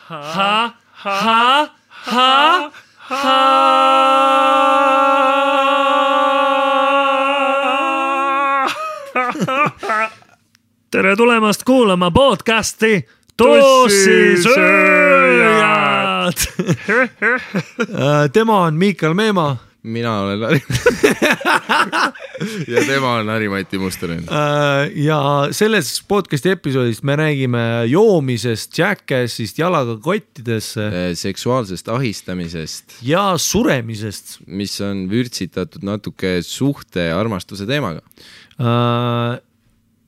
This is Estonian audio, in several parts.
Tere tulemast kuulama podcasti Tossisööjad. Tema on Miikal Meemaa. Mina olen Lari. Ja tema on Harri-Mati Mustonen. Ja selles podcasti episoodist me räägime joomisest, jackassist, jalaga kottidesse. Seksuaalsest ahistamisest. Ja suremisest. Mis on vürtsitatud natuke suhte ja armastuse teemaga.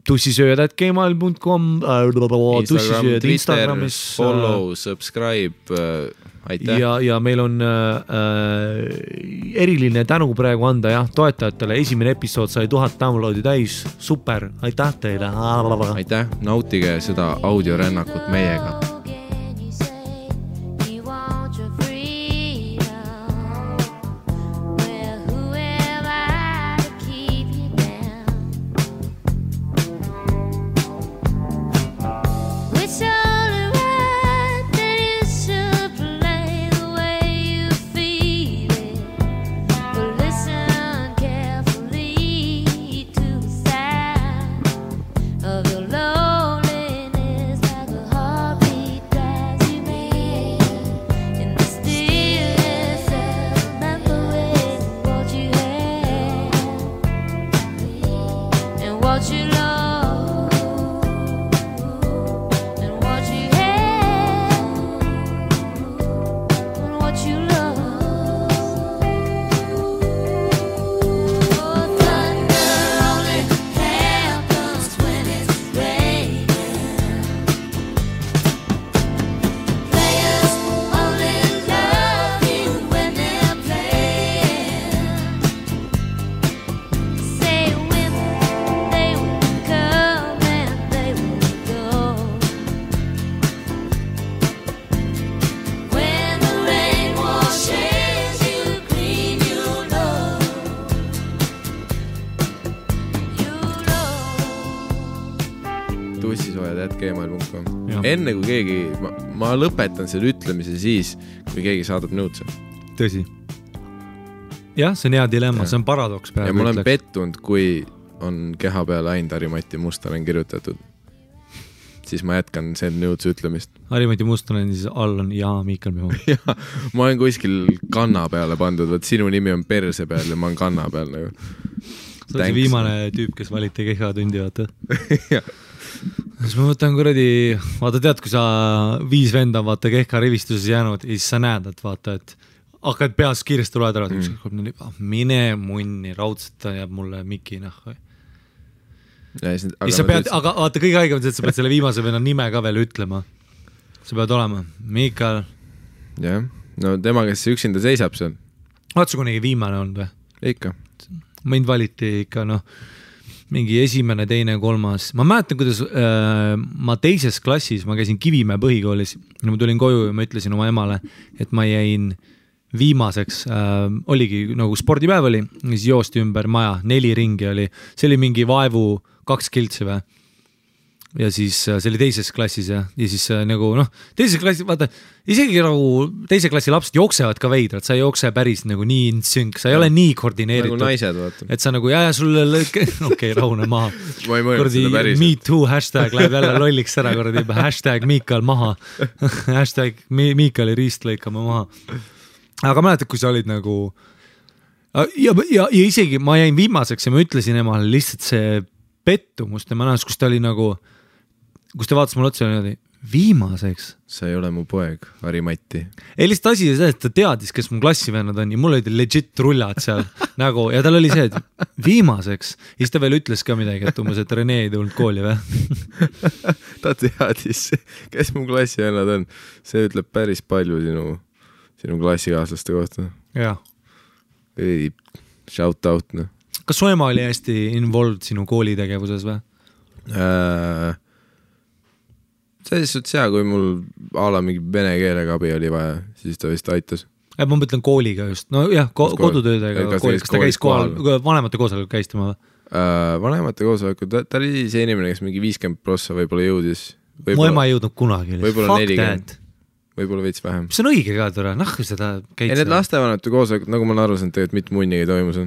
Tussisööjad@gmail.com Instagram, Twitter, follow, subscribe, aitäh. Ja meil on eriline tänu praegu anda toetajatele. Esimene episood sai 1000 downloadi täis. Super, aitäh teile. Aitäh, nautige seda audiorännakut meiega. Enne kui keegi, ma lõpetan selle ütlemise siis, kui keegi saadab nõudse. Tõsi. Jah, see on hea dilemma, see on paradoks. Ja ma olen pettunud, kui on keha peale ainult Harri-Mati Mustonen kirjutatud. Siis ma jätkan selle nõudse ütlemist. Harri-Mati Mustonen siis all on Miikal Meemaa. Ja, ma olen kuskil kanna peale pandud, võt sinu nimi on perse peal ja ma olen kanna peal. Nagu. See on see viimane tüüp, kes valiti keha tundi, vaata. Jah. Siis ma võtan kuradi, vaata tead, kui sa 5 venda vaata kehka rivistuses jäänud ja siis sa näed, et vaata, et hakkad peas kiiresti loed ära, mine munni, raudselt ta jääb mulle miki nahku. Aga vaata kõige haigem, et sa pead selle viimase venna nime ka veel ütlema. Sa pead olema Miikal. Jah, no tema, kes üksinda seisab seal. Vaata su kunagi viimane on või? Ikka. Mind valiti ikka, mingi esimene, teine, kolmas. Ma mäletan, kuidas ma teises klassis, ma käisin Kivimäe põhikoolis ja ma tulin koju ja ma ütlesin oma emale, et ma jäin viimaseks. Oligi nagu spordipäev oli, siis joosti ümber maja, 4 ringi oli. See oli mingi vaevu 2 kiltsi või. Ja siis see oli teises klassis ja siis nagu teises klassis, vaata, isegi nagu teise klassi lapsed jooksevad ka veidrad, sa ei jookse päris nagu nii insynk, sa ei ole nii koordineeritud. Nagu naised, vaata. Et sa nagu, sulle okei, rahune maha. Ma ei mõelnud seda päris. Me too hashtag läheb jälle lolliks ära, hashtag Miikal maha. Hashtag Miikali riist lõikame maha. Aga mäletad, kui sa olid nagu ja isegi ma jäin viimaseks ja ma ütlesin emale lihtsalt see pettumust ja ma näes, kus ta oli nagu kus te vaatas mulle otsa ja viimaseks. Sa ei ole mu poeg, Harri-Mati. Ei lihtsalt asi see, et ta teadis, kes mu klassivennad on ja mul olid legit rullad seal nagu, ja tal oli see, et viimaseks. Ja siis ta veel ütles ka midagi, et umbes, et Rene ei tulnud kooli või? Ta teadis, kes mu klassivennad on. See ütleb päris palju sinu klassikaaslaste kohta. Jah. Shout out. Kas su ema oli hästi involved sinu koolitegevuses või? Selles suhtes hea, kui mul ala mingi vene keelega abi oli vaja, siis ta vist aitas. Ma mõtlen kooliga just. No jah, kodutöödega koolis. Kas ta käis kohal, vanemate koosolekul käis tema või? Vanemate koosolekul, ta oli see inimene, kes mingi 50% võib-olla jõudis. Mu ema ei jõudnud kunagi. Võib-olla 40. võib-olla veits vähem. See on õige ka tore, seda käid. Ei, need lastevanemate koosolekud, nagu ma olen aru saanud, tegelikult mitte munnigi toimus.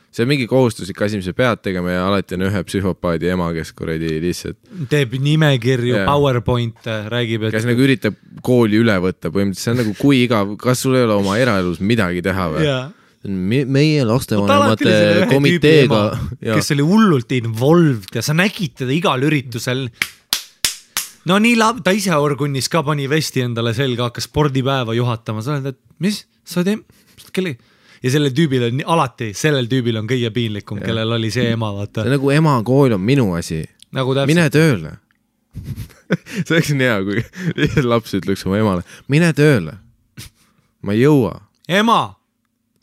See on mingi kohustuslik asi, mis sa pead tegema ja alati on ühe psühhopaadi ema, kes kuradi lihtsalt teeb nimekirju, PowerPoint, räägib, et kes nagu üritab kooli üle võtta põhimõtteliselt, see on nagu kui igav, kas sul ei ole oma eraelus midagi teha või? Meie lastevanemate komiteega kes oli hullult involved ja sa nägid teda igal üritusel. No nii ta ise orgunnis ka pani vesti endale selga, hakkas spordipäeva juhatama, sa oled, et mis? Sa kellega? Ja sellel tüübil on kõige piinlikum, kellel oli see ema, vaata. See nagu ema kool on minu asi. Nagu mine tööle. See oleks nii hea, kui laps ütleks oma emale. Mine tööle. Ma ei jõua. Ema!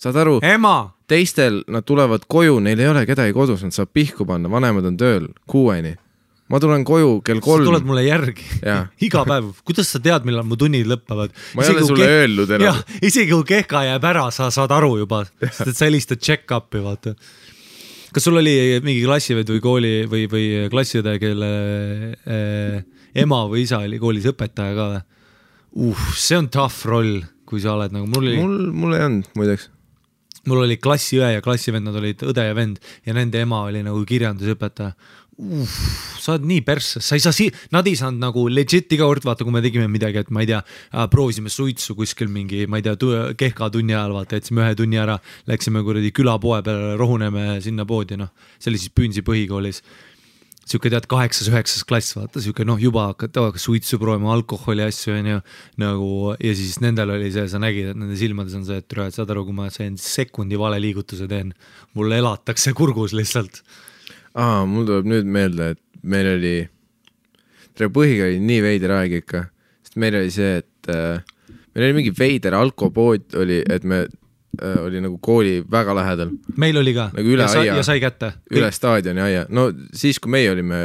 Saad aru? Ema! Teistel nad tulevad koju, neil ei ole kedagi kodus, nad saab pihku panna, vanemad on tööl 6-ni. Ma tulen koju kell 3. Sa tuled mulle järgi. Iga päev. Kuidas sa tead, millal mu tunnid lõppevad? Ma ei ole sulle öelnud enam. Isegi kui kehka jääb ära, sa saad aru juba. Sest et sa helistad check-up'i, vaata. Kas sul oli mingi klassived või kooli või klassiõde, kelle ema või isa oli koolis õpetaja ka või? See on tough roll, kui sa oled nagu... Mul ei olnud, muideks. Mul oli klassiõe ja klassivend, nad olid õde ja vend ja nende ema oli nagu kirjandusõpetaja. Sa oled nii persse, nad ei saanud nagu legit iga kord, vaata, kui me tegime midagi, et ma ei tea, proovisime suitsu kuskil mingi, ma ei tea, kehka tunni ajal, vaata, jätsime 1 tunni ära, läksime kuradi külapoe peale, rohuneme sinna poodi, see oli siis Püünsi põhikoolis. Siuke tead 8-9 klass, vaata, siuke juba hakkas suitsu proovima, alkoholi asju nagu, ja siis nendel oli see, sa nägid, et nende silmades on see, et saad aru, kui ma sekundi vale liigutuse teen, mulle elatakse kurgus lihtsalt. Mul tuleb nüüd meelde, et meil oli põhikool oli nii veider aeg ikka, sest meil oli see, et meil oli mingi veider alkopood oli, et me oli nagu kooli väga lähedal. Meil oli ka nagu üle aia, ja sai kätte. Üle staadioni aia. No siis, kui meie olime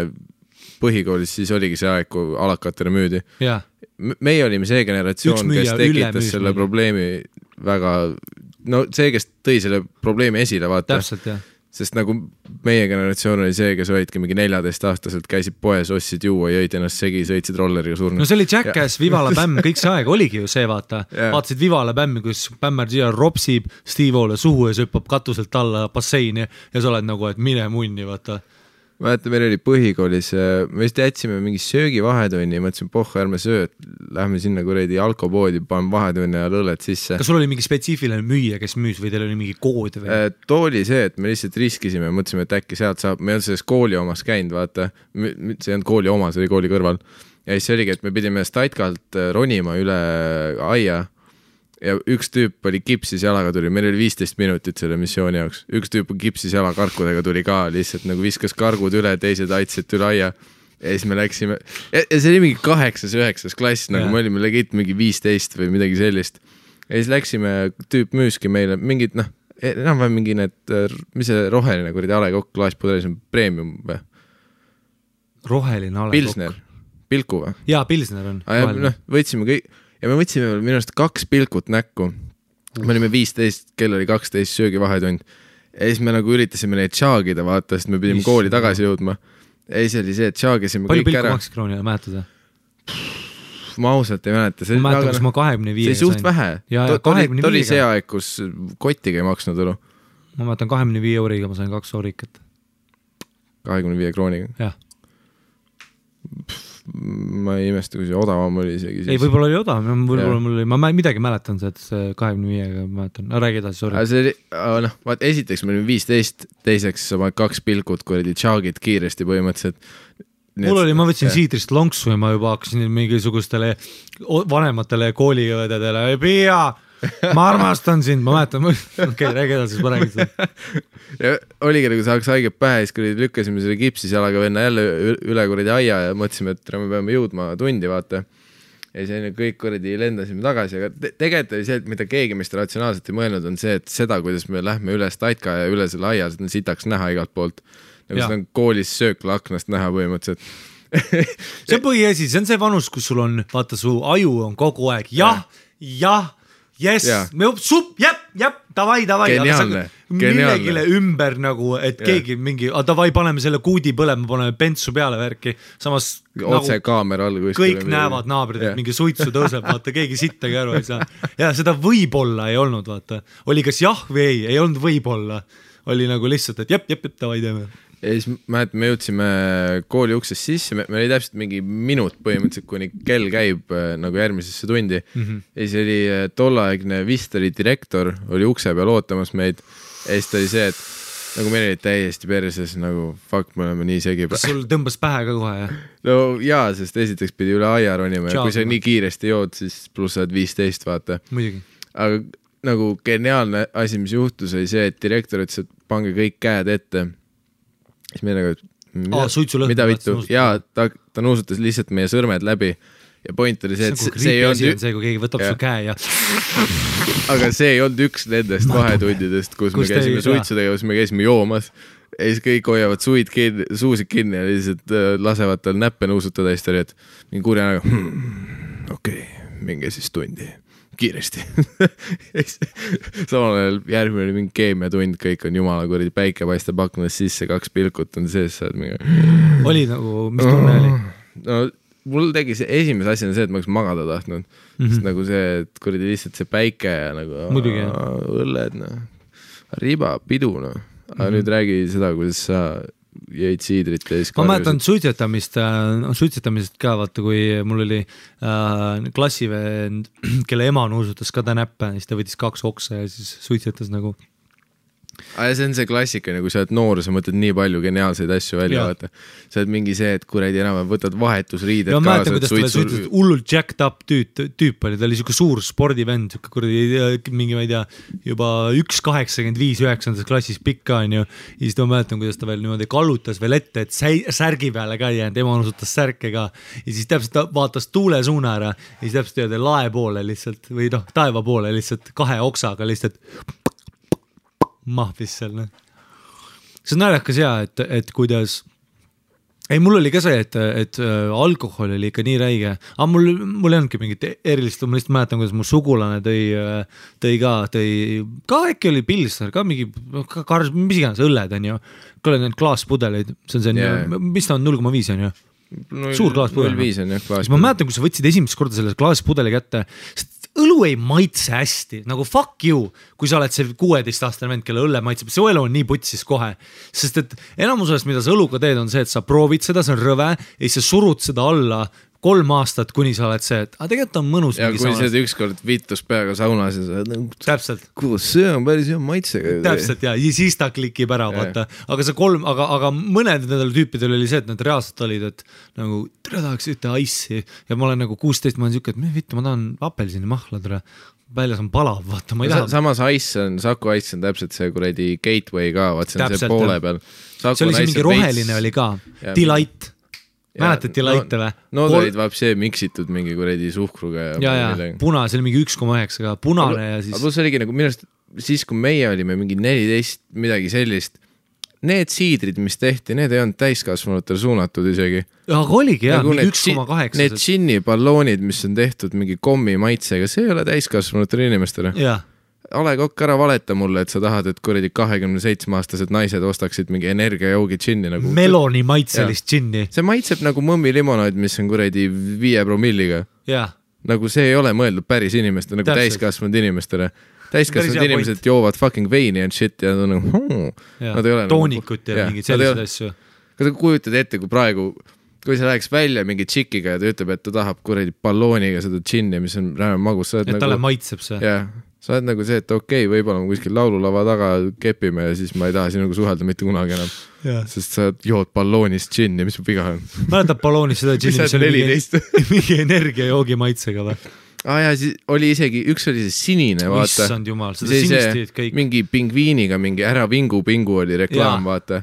põhikoolis, siis oligi see aeg, kui alakatele müüdi. Meie olime see generatsioon, kes tekitas selle probleemi väga, see, kes tõi selle probleemi esile, vaata. Täpselt, jah. Sest nagu meie generatsioon oli see, kes olidki mingi 14-aastaselt, käisid poes, ostsid juua, jõid ennast segi, sõitsid rolleriga surnud. No see oli Jackass, Vivala Bämm, kõik see aeg oligi ju see, vaata. Vaatasid Vivala Bämmi, kus Bämmar siia ropsib Steve-ole suhu ja söppab katuselt alla basseini ja sa oled nagu, et mine munni, vaata. Vaata, meil oli põhikoolis, me vist jätsime mingi söögi vahetunni ja mõtlesin, ärme söö, et lähme sinna kuredi alkopoodi, paneme vahetunni ja lõlled sisse. Kas sul oli mingi spetsiifiline müüja, kes müüs või teil oli mingi kood või? Too oli see, et me lihtsalt riskisime, mõtlesime, et äkki sealt saab, me ei olnud selles kooli omas käinud, vaata, see ei olnud kooli oma, see oli kooli kõrval. Ja siis oligi, et me pidime Staitkalt ronima üle aia ja üks tüüp oli kipsis jalaga tuli, meil oli 15 minutit selle missiooni jaoks. Üks tüüp kipsis jala karkudega tuli ka, lihtsalt nagu viskas kargud üle, teised aitsid üle aia. Ja siis me läksime, ja see oli mingi 8-9 klass, nagu me olime legit mingi 15 või midagi sellist. Ja siis läksime, tüüp müüski meile mingid, enam või mingi need, mis see roheline kuradi alekokk klaaspudelis on premium või? Roheline alekokk. Pilsner, Pilku või? Jaa, Pilsner on. Võtsime kõik. Ja me võtsime minu arust 2 pilkut näkku. Me olime 15, kell oli 12 söögi vahetund. Ja siis me nagu üritasime neid tšaagida, vaata, sest me pidime kooli tagasi jõudma. Ja siis oli see, et tšaagisime kõik ära. Palju pilku maksis kroonile, mäletada? Ma ausalt ei mäleta. Ma mäletan, kus ma 25 see suht vähe. Ta oli see aeg, kus kotiga ei maksnud olu. Ma mäletan 25 euriga, ma sain 2 eurikat. 25 krooniga? Jah. Ma ei imesta, kui see odavam oli isegi siis. Ei, võib-olla oli odavam, ma midagi mäletan see, et see 25-ga mäletan. Räägi edasi, sorry. See oli, vaat esiteks me olime 15, teiseks sa paned 2 pilkut, kui olid tšaagid kiiresti põhimõtteliselt. Mul oli, ma võtsin siidrist lonksu ja ma juba hakkasin mingisugustele vanematele kooliõdedele, Pia, ma armastan sind, ma mäletan, räägi edasi, siis ma räägin seda. Ja oligi nagu saaks haiget pähe, siis kui lükkasime selle kipsis jalaga venna jälle üle kuradi aia ja mõtlesime, et me peame jõudma tundi, vaata. Ja siis kõik kuradi lendasime tagasi, aga tegelikult oli see, et mida keegi meist ratsionaalselt ei mõelnud, on see, et seda, kuidas me lähme üle Staitka ja üle selle aia, seda sitaks näha igalt poolt. Nagu seda on koolis söökla aknast näha põhimõtteliselt. See on põhiasi, see on see vanus, kus sul on, vaata, su aju on kogu aeg, jah, Yes, davai, millegile ümber nagu, et keegi mingi, davai, paneme selle kuudi põlema, paneme pentsu peale värki, samas otse nagu, kaamera all kõik näevad naabrid, et mingi suitsu tõuseb, vaata, keegi sittagi aru ei saa. Ja seda võib-olla ei olnud, vaata. Oli kas jah või ei olnud võib-olla. Oli nagu lihtsalt, et davai teeme. Ja siis me jõudsime kooli uksest sisse, me oli täpselt mingi minut põhimõtteliselt, kuni kell käib nagu järgmisesse tundi. Ja siis oli tollaegne vist oli direktor, oli ukse peal ootamas meid. Ja siis ta oli see, et nagu meil oli täiesti perses, nagu fuck, me oleme nii segi. Kas sul tõmbas pähe ka kohe, jah? No jaa, sest esiteks pidi üle aia ronima ja kui sa nii kiiresti jood, siis pluss saad 15, vaata. Muidugi. Aga nagu geniaalne asi, mis juhtus, oli see, et direktor ütles, et pange kõik käed ette. Siis me nagu, mida vittu? Jaa, ta nuusutas lihtsalt meie sõrmed läbi ja point oli see, et see ei olnud... See, kui keegi võtab su käe ja... Aga see ei olnud üks nendest vahetundidest, kus me käisime suitsu tegemas, me käisime joomas ja siis kõik hoiavad suusid kinni ja lihtsalt lasevad tal näppe nuusutada ja siis ta oli, et mingi kurja nagu okei, minge siis tundi kiiresti. Samal ajal järgmine oli mingi keemiatund, kõik on jumala kuradi päike paistab aknas sisse, 2 pilkut on sees, saad mingi... Oli nagu, mis tunne oli? No mul tegi see esimese asjana see, et ma oleks magada tahtnud. Sest nagu see, et kuradi lihtsalt see päike ja nagu õlled, riba, pidu, Aga nüüd räägi seda, kuidas sa jäid siidrit ja siis... Ma mäletan suitsetamisest ka, vaata, kui mul oli klassivend, kelle ema nuusutas ka ta näppe, siis ta võttis 2 oksa ja siis suitsetas nagu... Ja see on see klassika, kui sa oled noor, sa mõtled nii palju geniaalseid asju välja, vaata. Sa oled mingi see, et kuradi enam võtad vahetusriided kaasa. Ma mäletan, kuidas ta suitsetas hullult jacked up tüüp oli, ta oli siuke suur spordivend, kuradi mingi, ma ei tea, juba 1,85 9. klassis pikka on ju, ja siis ma mäletan, kuidas ta veel niimoodi kallutas veel ette, et särgi peale ka ei jäänud, ema nusutas särke ka, ja siis täpselt ta vaatas tuule suuna ära, ja siis täpselt lae poole lihtsalt, või taeva poole lihtsalt 2 oksaga lihtsalt mahvis seal. See on naljakas et kuidas ei, mul oli ka see, et alkohol oli ikka nii räige, aga mul ei olnudki mingit erilist, ma lihtsalt mäletan, kuidas mu sugulane tõi ka äkki oli pilsner, ka mingi mis iganes õlled on ju, kõle need klaaspudeleid, see on see, mis ta on 0,5 on ju? Suur klaaspudel. 0,5 on jah klaaspudel. Ma mäletan, kui sa võtsid esimest korda selle klaaspudeli kätte, õlu ei maitse hästi, nagu fuck you, kui sa oled see 16-aastane vend, kelle õlle maitseb, see õlu on nii putsis kohe, sest et enamusest, mida sa õluga teed, on see, et sa proovid seda, see on rõve, ja siis sa surud seda alla 3 aastat, kuni sa oled see, et tegelikult on mõnus. Ja kui sa ükskord viitus peaga saunas ja sa oled, täpselt. Kuidas see on päris hea maitsega. Täpselt ja siis ta klikib ära, vaata. Aga see aga mõned nendel tüüpidel oli see, et nad reaalselt olid, et nagu tere tahaks ühte ice'i ja ma olen nagu 16, ma olen siuke, et vittu, ma tahan apelsini mahla tere. Väljas on palav, vaata, ma ei taha. Samas Saku ice on täpselt see kuradi gateway ka, vaat see on see poole peal. See oli see mingi roheline oli ka, Delight. Mäletad Delight või? No ta olid vapsee miksitud mingi kuredi suhkruga ja puna, see oli mingi 1,9 ka punane ja siis... Aga plus oligi nagu minust, siis kui meie olime mingi 14 midagi sellist, need siidrid, mis tehti, need ei olnud täiskasvanutele suunatud isegi. Aga oligi jah, mingi 1,8. Need džinni balloonid, mis on tehtud mingi kommi maitsega, see ei ole täiskasvanutele inimestele. Jah. Ale Kokk, ära valeta mulle, et sa tahad, et kuradi 27-aastased naised ostaksid mingi energiajoogi džinni nagu... Meloni maitselist džinni. See maitseb nagu mõmmi limonaid, mis on kuradi 5 promilliga. Jah. Nagu see ei ole mõeldud päris inimestele, nagu täiskasvanud inimestele. Täiskasvanud inimesed joovad fucking veini and shit ja nad on nagu... Toonikut ja mingid sellised asju. Kas sa kujutad ette, kui praegu... Kui sa läheks välja mingi tšikiga ja ta ütleb, et ta tahab kuradi ballooniga seda džinni, mis on räme magus. Et talle maitseb see. Jah. Sa oled nagu see, et okei, võib-olla ma kuskil laululava taga kepime ja siis ma ei taha sinuga suhelda mitte kunagi enam. Sest sa jood balloonist džinni, mis viga on? Mäletab balloonist seda džinni, mis oli mingi energiajoogi maitsega või? Ja siis oli isegi, üks oli see sinine, vaata. Issand jumal, seda sinistid kõik. Mingi pingviiniga, mingi ära vingu oli reklaam, vaata.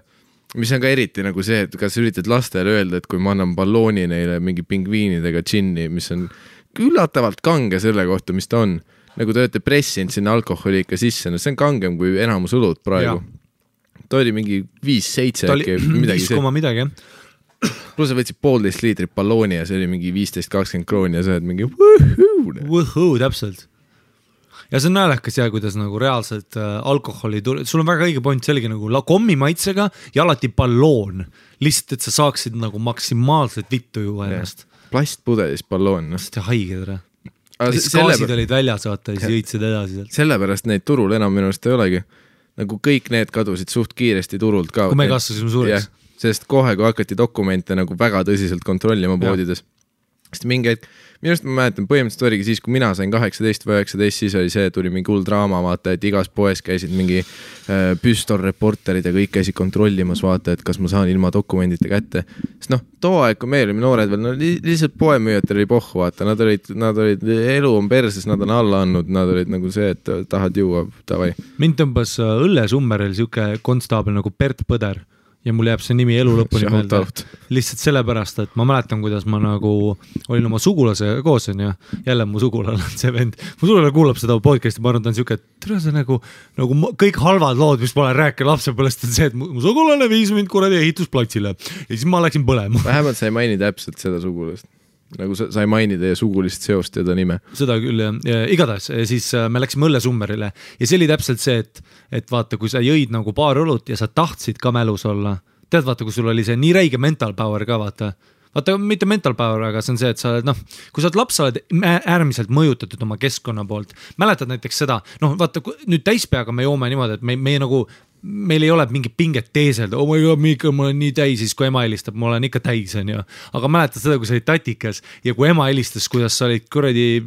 Mis on ka eriti nagu see, et kas üritad lastele öelda, et kui ma annan ballooni neile mingi pingviinidega džinni, mis on üllatavalt kange selle kohta, mis ta on. Nagu te olete pressinud sinna alkoholi ikka sisse, no see on kangem kui enamus õlut praegu. Ta oli mingi 5-7 äkki, midagi see. 5, midagi, jah. Plus sa võtsid 1,5 liitrit ballooni ja see oli mingi 15-20 krooni ja sa oled mingi võhuu, täpselt. ja see on näälekas ja kuidas nagu reaalselt alkoholi sul on väga õige point, see oligi nagu kommi maitsega ja alati balloon, lihtsalt, et sa saaksid nagu maksimaalselt vittu juua ennast. Plastpudelis balloon. Seda haige tere. Gaasid olid väljas, vaata, ja siis jõitsid edasi sealt. Sellepärast neid turul enam minu arust ei olegi. Nagu kõik need kadusid suht kiiresti turult ka. Kui me kasvasime suureks. Sest kohe, kui hakati dokumente nagu väga tõsiselt kontrollima poodides. Sest mingi hetk, minu arust ma mäletan, põhimõtteliselt oligi siis, kui mina sain 18 või 19, siis oli see, tuli mingi hull draama, vaata, et igas poes käisid mingi püstolreporterid ja kõik käisid kontrollimas, vaata, et kas ma saan ilma dokumendite kätte. Sest noh, too aeg, kui meil olime noored veel, no lihtsalt poemüüjatel oli pohhu, vaata, nad olid, elu on perses, nad on alla andnud, nad olid nagu see, et tahad juua, davai. Mind tõmbas Õllesummeril siuke konstaabel nagu Bert Põder. Ja mul jääb see nimi elu lõpuni meelde. Lihtsalt sellepärast, et ma mäletan, kuidas ma nagu olin oma sugulase koos, ja jälle mu sugulane on see vend. Mu sugulane kuulab seda podcasti, ma arvan, ta on siuke, et tere see nagu kõik halvad lood, mis ma olen rääkinud lapsepõlest, on see, et mu sugulane viis mind kuradi ehitusplatsile ja siis ma läksin põlema. Vähemalt sa ei maini täpselt seda sugulast. Nagu sa ei maini teie sugulist seost ja ta nime. Seda küll, ja igatahes, siis me läksime Õllesummerile ja see oli täpselt see, et vaata, kui sa jõid nagu paar õlut ja sa tahtsid ka mälus olla, tead vaata, kui sul oli see nii räige mental power ka, vaata, mitte mental power, aga see on see, et sa oled, kui sa oled laps, sa oled äärmiselt mõjutatud oma keskkonna poolt. Mäletad näiteks seda, vaata, nüüd täispeaga me joome niimoodi, et meil ei ole mingi pinget teeselda, oh my god, Miika, ma olen nii täis, siis kui ema helistab, ma olen ikka täis, on ju. Aga mäletad seda, kui sa olid tatikas ja kui ema helistas, kuidas sa olid kuradi,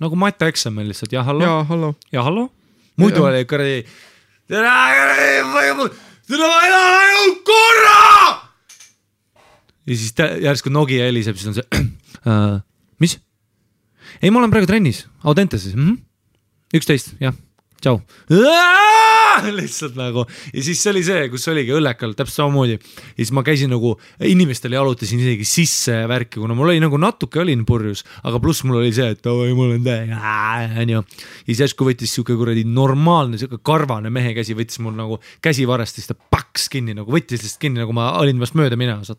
nagu mata eksamil lihtsalt, ja hallo. Ja hallo. Muidu oli kuradi, tere vaja korra! Ja siis järsku Nokia heliseb, siis on see, mis? Ei, ma olen praegu trennis, Audenteses. 11, jah, tšau. Lihtsalt nagu ja siis see oli see, kus oligi õllekal täpselt samamoodi ja siis ma käisin nagu inimestele jalutasin isegi sisse värki, kuna mul oli nagu natuke olin purjus, aga pluss mul oli see, et mul on ja siis järsku võttis siuke kuradi normaalne siuke karvane mehe käsi, võttis mul nagu käsivarest ja siis ta paks kinni, nagu võttis lihtsalt kinni, nagu ma olin vast mööda minemas,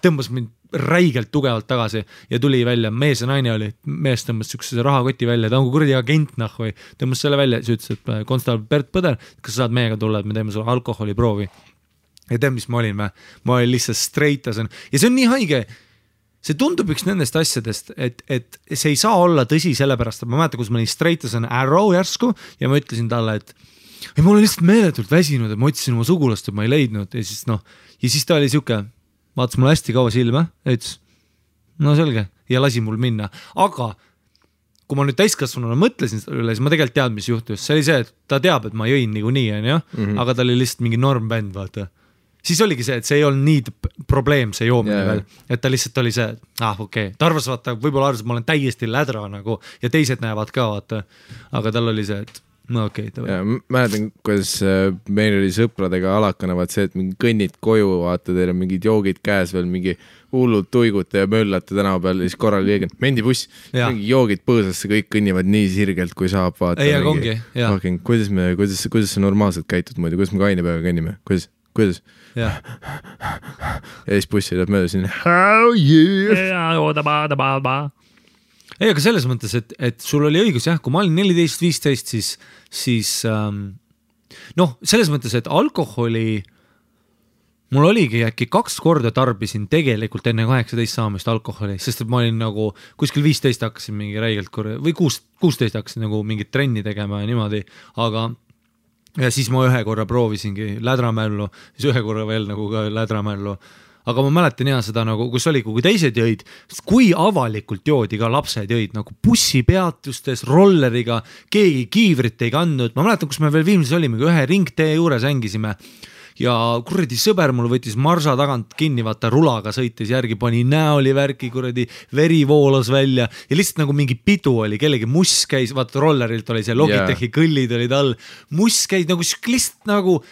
tõmbas mind räigelt tugevalt tagasi ja tuli välja, mees ja naine oli, mees tõmbas siukse rahakoti välja, ta on kuradi agent või tõmbas selle välja, siis ütles, et konstaabel Bert Põder, kas sa saad meiega tulla, et me teeme sulle alkoholiproovi ja tead, mis ma olin lihtsalt streitas ja see on nii haige, see tundub üks nendest asjadest, et see ei saa olla tõsi sellepärast, et ma mäletan, kus ma olin streitasen Arrow järsku ja ma ütlesin talle, et ei, ma olen lihtsalt meeletult väsinud, et ma otsisin oma sugulast, et ma ei leidnud ja siis ta oli siuke vaatas mul hästi kaua silma, ütles, no selge, ja lasi mul minna. Aga kui ma nüüd täiskasvanuna mõtlesin üle, siis ma tegelikult tead, mis juhtus. See oli see, et ta teab, et ma jõin nii, aga ta oli lihtsalt mingi normbänd, vaata. Siis oligi see, et see ei olnud nii probleem, see joomine veel. Et ta lihtsalt oli see, et okei. Ta arvas, vaata, võib-olla arvas, et ma olen täiesti lädra nagu, ja teised näevad ka, vaata. Aga tal oli see, et no okei. Ja mäletan, kuidas meil oli sõpradega alakana, vaat see, et mingi kõnnid koju, vaata, teil on mingid joogid käes veel, mingi hullud tuigute ja möllate tänava peal, siis korral keegi, mendibuss, mingi joogid põõsasse, kõik kõnnivad nii sirgelt, kui saab, vaata. Ei, aga ongi, jah. Kuidas sa normaalselt käitud muidu, kuidas me kaine peaga kõnnime, kuidas? Ja siis bussi läheb mööda siin. How yeah! Ei, aga selles mõttes, et sul oli õigus, jah, kui ma olin 14-15, siis selles mõttes, et alkoholi mul oligi äkki 2 korda tarbisin tegelikult enne 18 saamist alkoholi, sest et ma olin nagu kuskil 15 hakkasin mingi räigelt või 16 hakkasin nagu mingit trenni tegema ja niimoodi, aga ja siis ma ühe korra proovisingi lädramällu, siis ühe korra veel nagu ka lädramällu. Aga ma mäletan seda nagu, kus oli, kui teised jõid, kui avalikult joodi ka lapsed jõid, nagu bussipeatustes, rolleriga, keegi kiivrit ei kandnud. Ma mäletan, kus me veel viimses olime, kui ühe ringtee juures ängisime ja kuradi sõber mul võttis marsa tagant kinni, vaata rulaga sõitis järgi, pani näoli värki, kuradi veri voolas välja ja lihtsalt nagu mingi pidu oli, kellegi muss käis, vaata rollerilt oli see Logitechi kõllid olid all, muss käis nagu lihtsalt nagu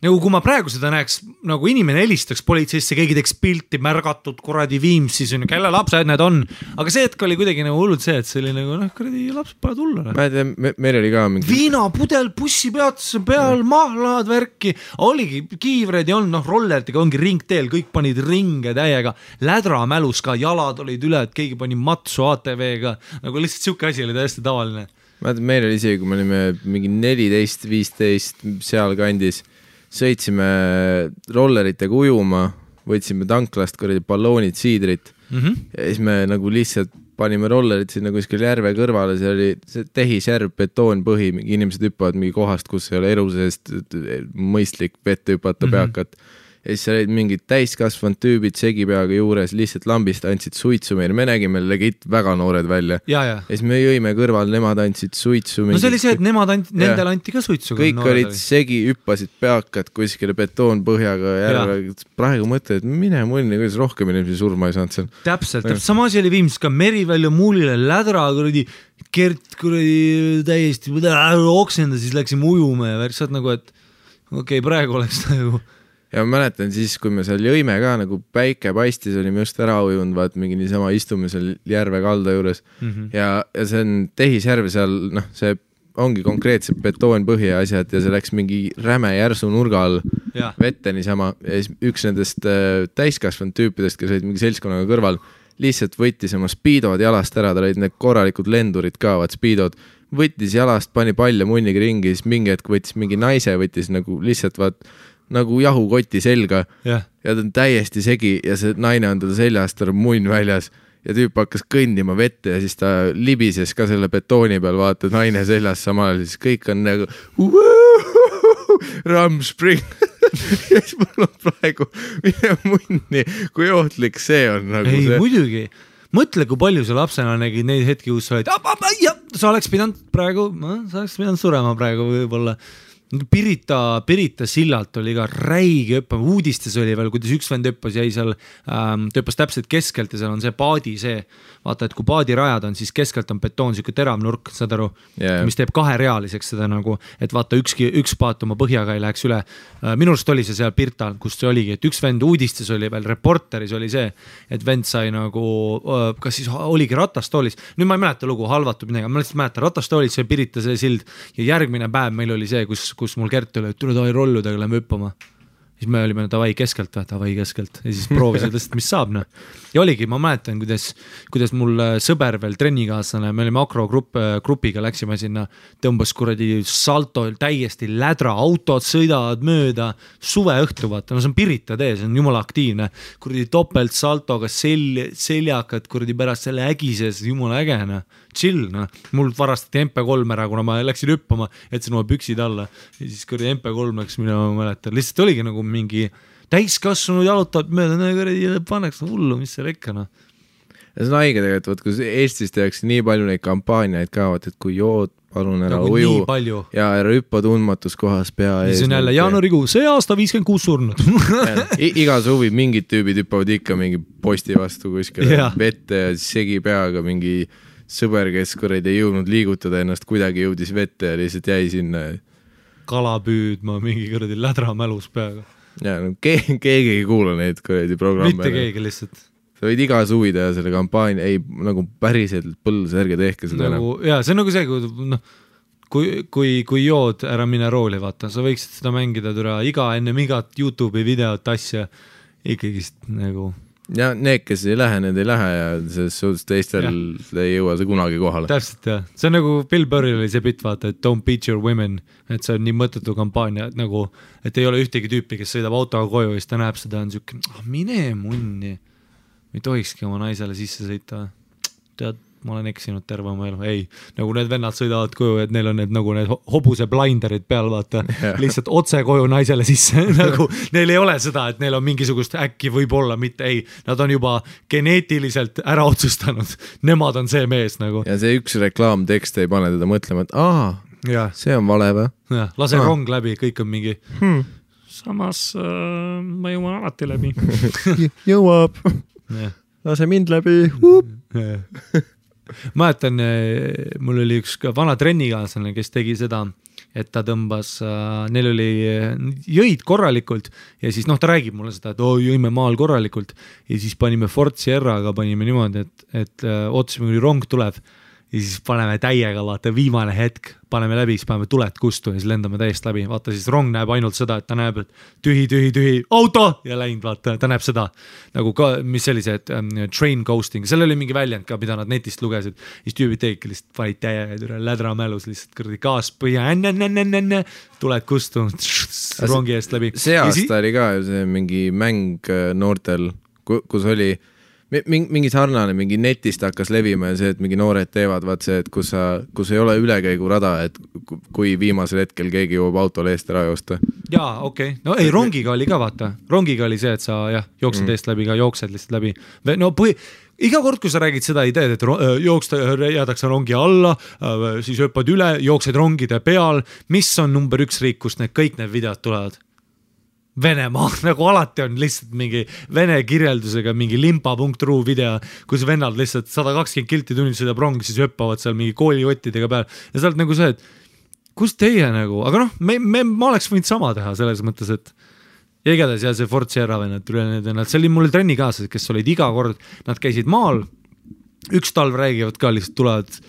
kui ma praegu seda näeks, nagu inimene helistaks politseisse, keegi teeks pilti märgatud kuradi Viimsis, kelle lapsed need on. Aga see hetk oli kuidagi nagu hullud see, et see oli nagu, kuradi lapsed pole tulla. Ma ei tea, meil oli ka mingi... Viinapudel, bussipeatuse peal, mahlad, värki. Oligi kiivreid ja on, rollertiga ongi ringteel, kõik panid ringe täiega. Lädra mälus ka, jalad olid üle, et keegi pani matsu ATV-ga. Nagu lihtsalt siuke asi oli täiesti tavaline. meil oli isegi, kui me olime mingi 14-15 seal kandis, sõitsime rolleritega ujuma, võtsime tanklast balloonid, siidrit ja siis me nagu lihtsalt panime rollerid sinna kuskil järve kõrvale, see oli see tehisjärv, betoonpõhi, mingi inimesed hüppavad mingi kohast, kus ei ole elu seest mõistlik vette hüpata peakat. Ja siis olid mingid täiskasvanud tüübid segipeaga juures, lihtsalt lambist andsid suitsu meile. Me nägime legit väga noored välja. Ja siis me jõime kõrval, nemad andsid suitsu. No see oli see, et nendel anti ka suitsu. Kõik olid segi, hüppasid peakad kuskile betoonpõhjaga järve. Praegu mõtled, et mine munni, kuidas rohkem inimesi surma ei saanud seal. Täpselt. Sama asi oli viimselt ka Merivälja muulile lädra, Kert täiesti oksenda, siis läksime ujuma ja saad nagu, et okei, praegu oleks nagu ja ma mäletan siis, kui me seal jõime ka, nagu päike paistis, olime just ära ujunud, vaat mingi niisama istume seal järve kalda juures ja see on tehisjärv seal, see ongi konkreetselt betoonpõhi ja asjad ja see läks mingi räme järsu nurga all vette niisama ja siis üks nendest täiskasvanud tüüpidest, kes olid mingi seltskonnaga kõrval, lihtsalt võttis oma speedod jalast ära, ta olid need korralikud lendurid ka, vaat speedod, võttis jalast, pani palja munniga ringi, siis mingi hetk võttis mingi naise, võttis nagu lihtsalt vaat nagu jahukoti selga ja ta on täiesti segi ja see naine on teda seljast, ta on munn väljas ja tüüp hakkas kõndima vette ja siis ta libises ka selle betooni peal, vaata naine seljas samal, siis kõik on nagu Ramspring ja siis mul on praegu mine munni, kui ohtlik see on nagu ei, see. Muidugi, mõtle, kui palju sa lapsena nägid neid hetki, kus sa olid sa oleks pidanud praegu, sa oleks pidanud surema praegu võib-olla Pirita sillalt oli ka räige hüppama, uudistes oli veel, kuidas üks vend hüppas, jäi seal, ta hüppas täpselt keskelt ja seal on see paadi see, vaata, et kui paadirajad on, siis keskelt on betoon, siuke terav nurk, saad aru, mis teeb kaherealiseks seda nagu, et vaata üks paat oma põhjaga ei läheks üle. Minu arust oli see seal Pirtal, kus see oligi, et üks vend uudistes oli veel, reporteris oli see, et vend sai nagu, kas siis oligi ratastoolis, nüüd ma ei mäleta lugu, halvatud midagi, ma lihtsalt mäletan, ratastoolis sai Pirita see sild ja järgmine päev meil oli see, kus mul Kert oli, et tule tavai rolludega, lähme hüppama. Siis me olime tavai keskelt ja siis proovisid lihtsalt, mis saab. Ja oligi, ma mäletan, kuidas mul sõber veel trennikaaslane, me olime akrogrupiga, läksime sinna, tõmbas kuradi salto, täiesti lädra, autod sõidavad mööda, suve õhtu vaata, no see on Pirita tee, see on jumala aktiivne, kuradi topelt saltoga seljakad, kuradi pärast selle ägises, jumala ägena, chill, mul varastati MP3 ära, kuna ma läksin hüppama, jätsin oma püksid alla ja siis kuradi MP3 läks, mina mäletan, lihtsalt oligi nagu mingi täiskasvanud jalutab mööda, paneks hullu, mis seal ikka, Ja see on haige tegelikult, kui Eestis tehakse nii palju neid kampaaniaid ka, et kui jood, palun ära nagu uju ja ära hüppa tundmatus kohas pea ees. See on jälle jaanuarikuu, see aasta 56 surnud. Iga suvi mingid tüübid hüppavad ikka mingi posti vastu kuskil vette ja segi peaga mingi sõber, kes kuradi ei jõudnud liigutada ennast, kuidagi jõudis vette ja lihtsalt jäi sinna. Kala püüdma mingi kuradi lädra mälus peaga. Ja, no, keegi ei kuula neid kuradi programme. Mitte keegi lihtsalt. Sa võid iga suvi teha selle kampaania, ei nagu päriselt põlls, ärge tehke seda nagu, enam. Jaa, see on nagu see, kui jood ära mine rooli, vaata, sa võiksid seda mängida türa enne igat YouTube'i videot asja ikkagist nagu... Ja need, kes ei lähe, need ei lähe ja selles suhtes teistel ei jõua see kunagi kohale. Täpselt, jah. See on nagu Bill Burril oli see bitt, vaata, et don't beat your women, et see on nii mõttetu kampaania, et nagu, et ei ole ühtegi tüüpi, kes sõidab autoga koju ja siis ta näeb seda, on siuke, mine munni. Ei tohikski oma naisele sisse sõita. Tead, ma olen eksinud terve oma elu. Ei, nagu need vennad sõidavad koju, et neil on nagu need hobuse blinderid peal, vaata, lihtsalt otse koju naisele sisse. Nagu, neil ei ole seda, et neil on mingisugust äkki võib-olla, mitte ei. Nad on juba geneetiliselt ära otsustanud. Nemad on see mees nagu. Ja see üks reklaamtekst ei pane teda mõtlema, et see on vale või? Lase rong läbi, kõik on mingi... Samas ma jõuan alati läbi. Jõuab. Lase mind läbi. Mäletan, mul oli üks vana trennikaaslane, kes tegi seda, et ta tõmbas, neil oli jõid korralikult ja siis ta räägib mulle seda, et jõime maal korralikult ja siis panime Ford Sierraga, panime niimoodi, et ootasime, kui rong tuleb ja siis paneme täiega, vaata viimane hetk, paneme läbi, siis paneme tuled kustu ja siis lendame täiesti läbi, vaata siis rong näeb ainult seda, et ta näeb, et tühi, auto ja läinud, vaata, ta näeb seda nagu ka, mis sellised train ghosting, seal oli mingi väljend ka, mida nad netist lugesid, siis tüübid tegidki lihtsalt panid täiega lädra mälus lihtsalt kõrdi gaas põhja, tuled kustu, rongi eest läbi. See aasta oli ka see mingi mäng noortel, kus oli mingi sarnane, mingi netist hakkas levima ja see, et mingi noored teevad, vaat see, et kus ei ole ülekäigurada, et kui viimasel hetkel keegi jõuab autole eest ära joosta. Jaa, okei. No ei, rongiga oli ka, vaata. Rongiga oli see, et sa jooksed eest läbi, ka jooksed lihtsalt läbi. No iga kord, kui sa räägid seda ideed, et jäädakse rongi alla, siis hüppad üle, jooksed rongide peal, mis on number 1 riik, kust kõik need videod tulevad? Venemaa, nagu alati on lihtsalt mingi vene kirjeldusega mingi limpa.ru video, kus vennad lihtsalt 120 kilti tunnid sõidab rong, siis hüppavad seal mingi kooliottidega peal ja sa oled nagu see, et kus teie nagu, aga noh, ma oleks võinud sama teha selles mõttes, et ja igatahes ja see Ford Sierra vennad, see oli mul trenni kaasas, kes olid iga kord, nad käisid maal, üks talv räägivad ka lihtsalt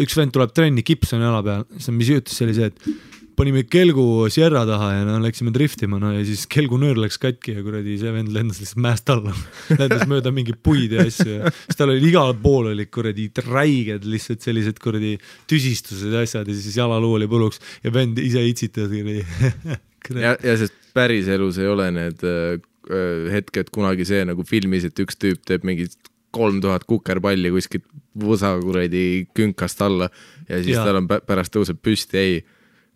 üks vend tuleb trenni, kips on jala peal, mis juhtus, see oli see, et panime kelgu Sierra taha ja läksime driftima ja siis kelgu nöör läks katki ja kuradi see vend lendas lihtsalt mäest alla. Lendas mööda mingi puid ja asju ja siis tal oli igal pool oli kuradi räiged lihtsalt sellised kuradi tüsistused ja asjad ja siis jalaluu oli põluks ja vend ise itsitas. ja sest päris elus ei ole need hetked kunagi see nagu filmis, et üks tüüp teeb mingi 3000 kukerpalli kuskilt võsa kuradi künkast alla ja siis tal on pärast tõuseb püsti, ei.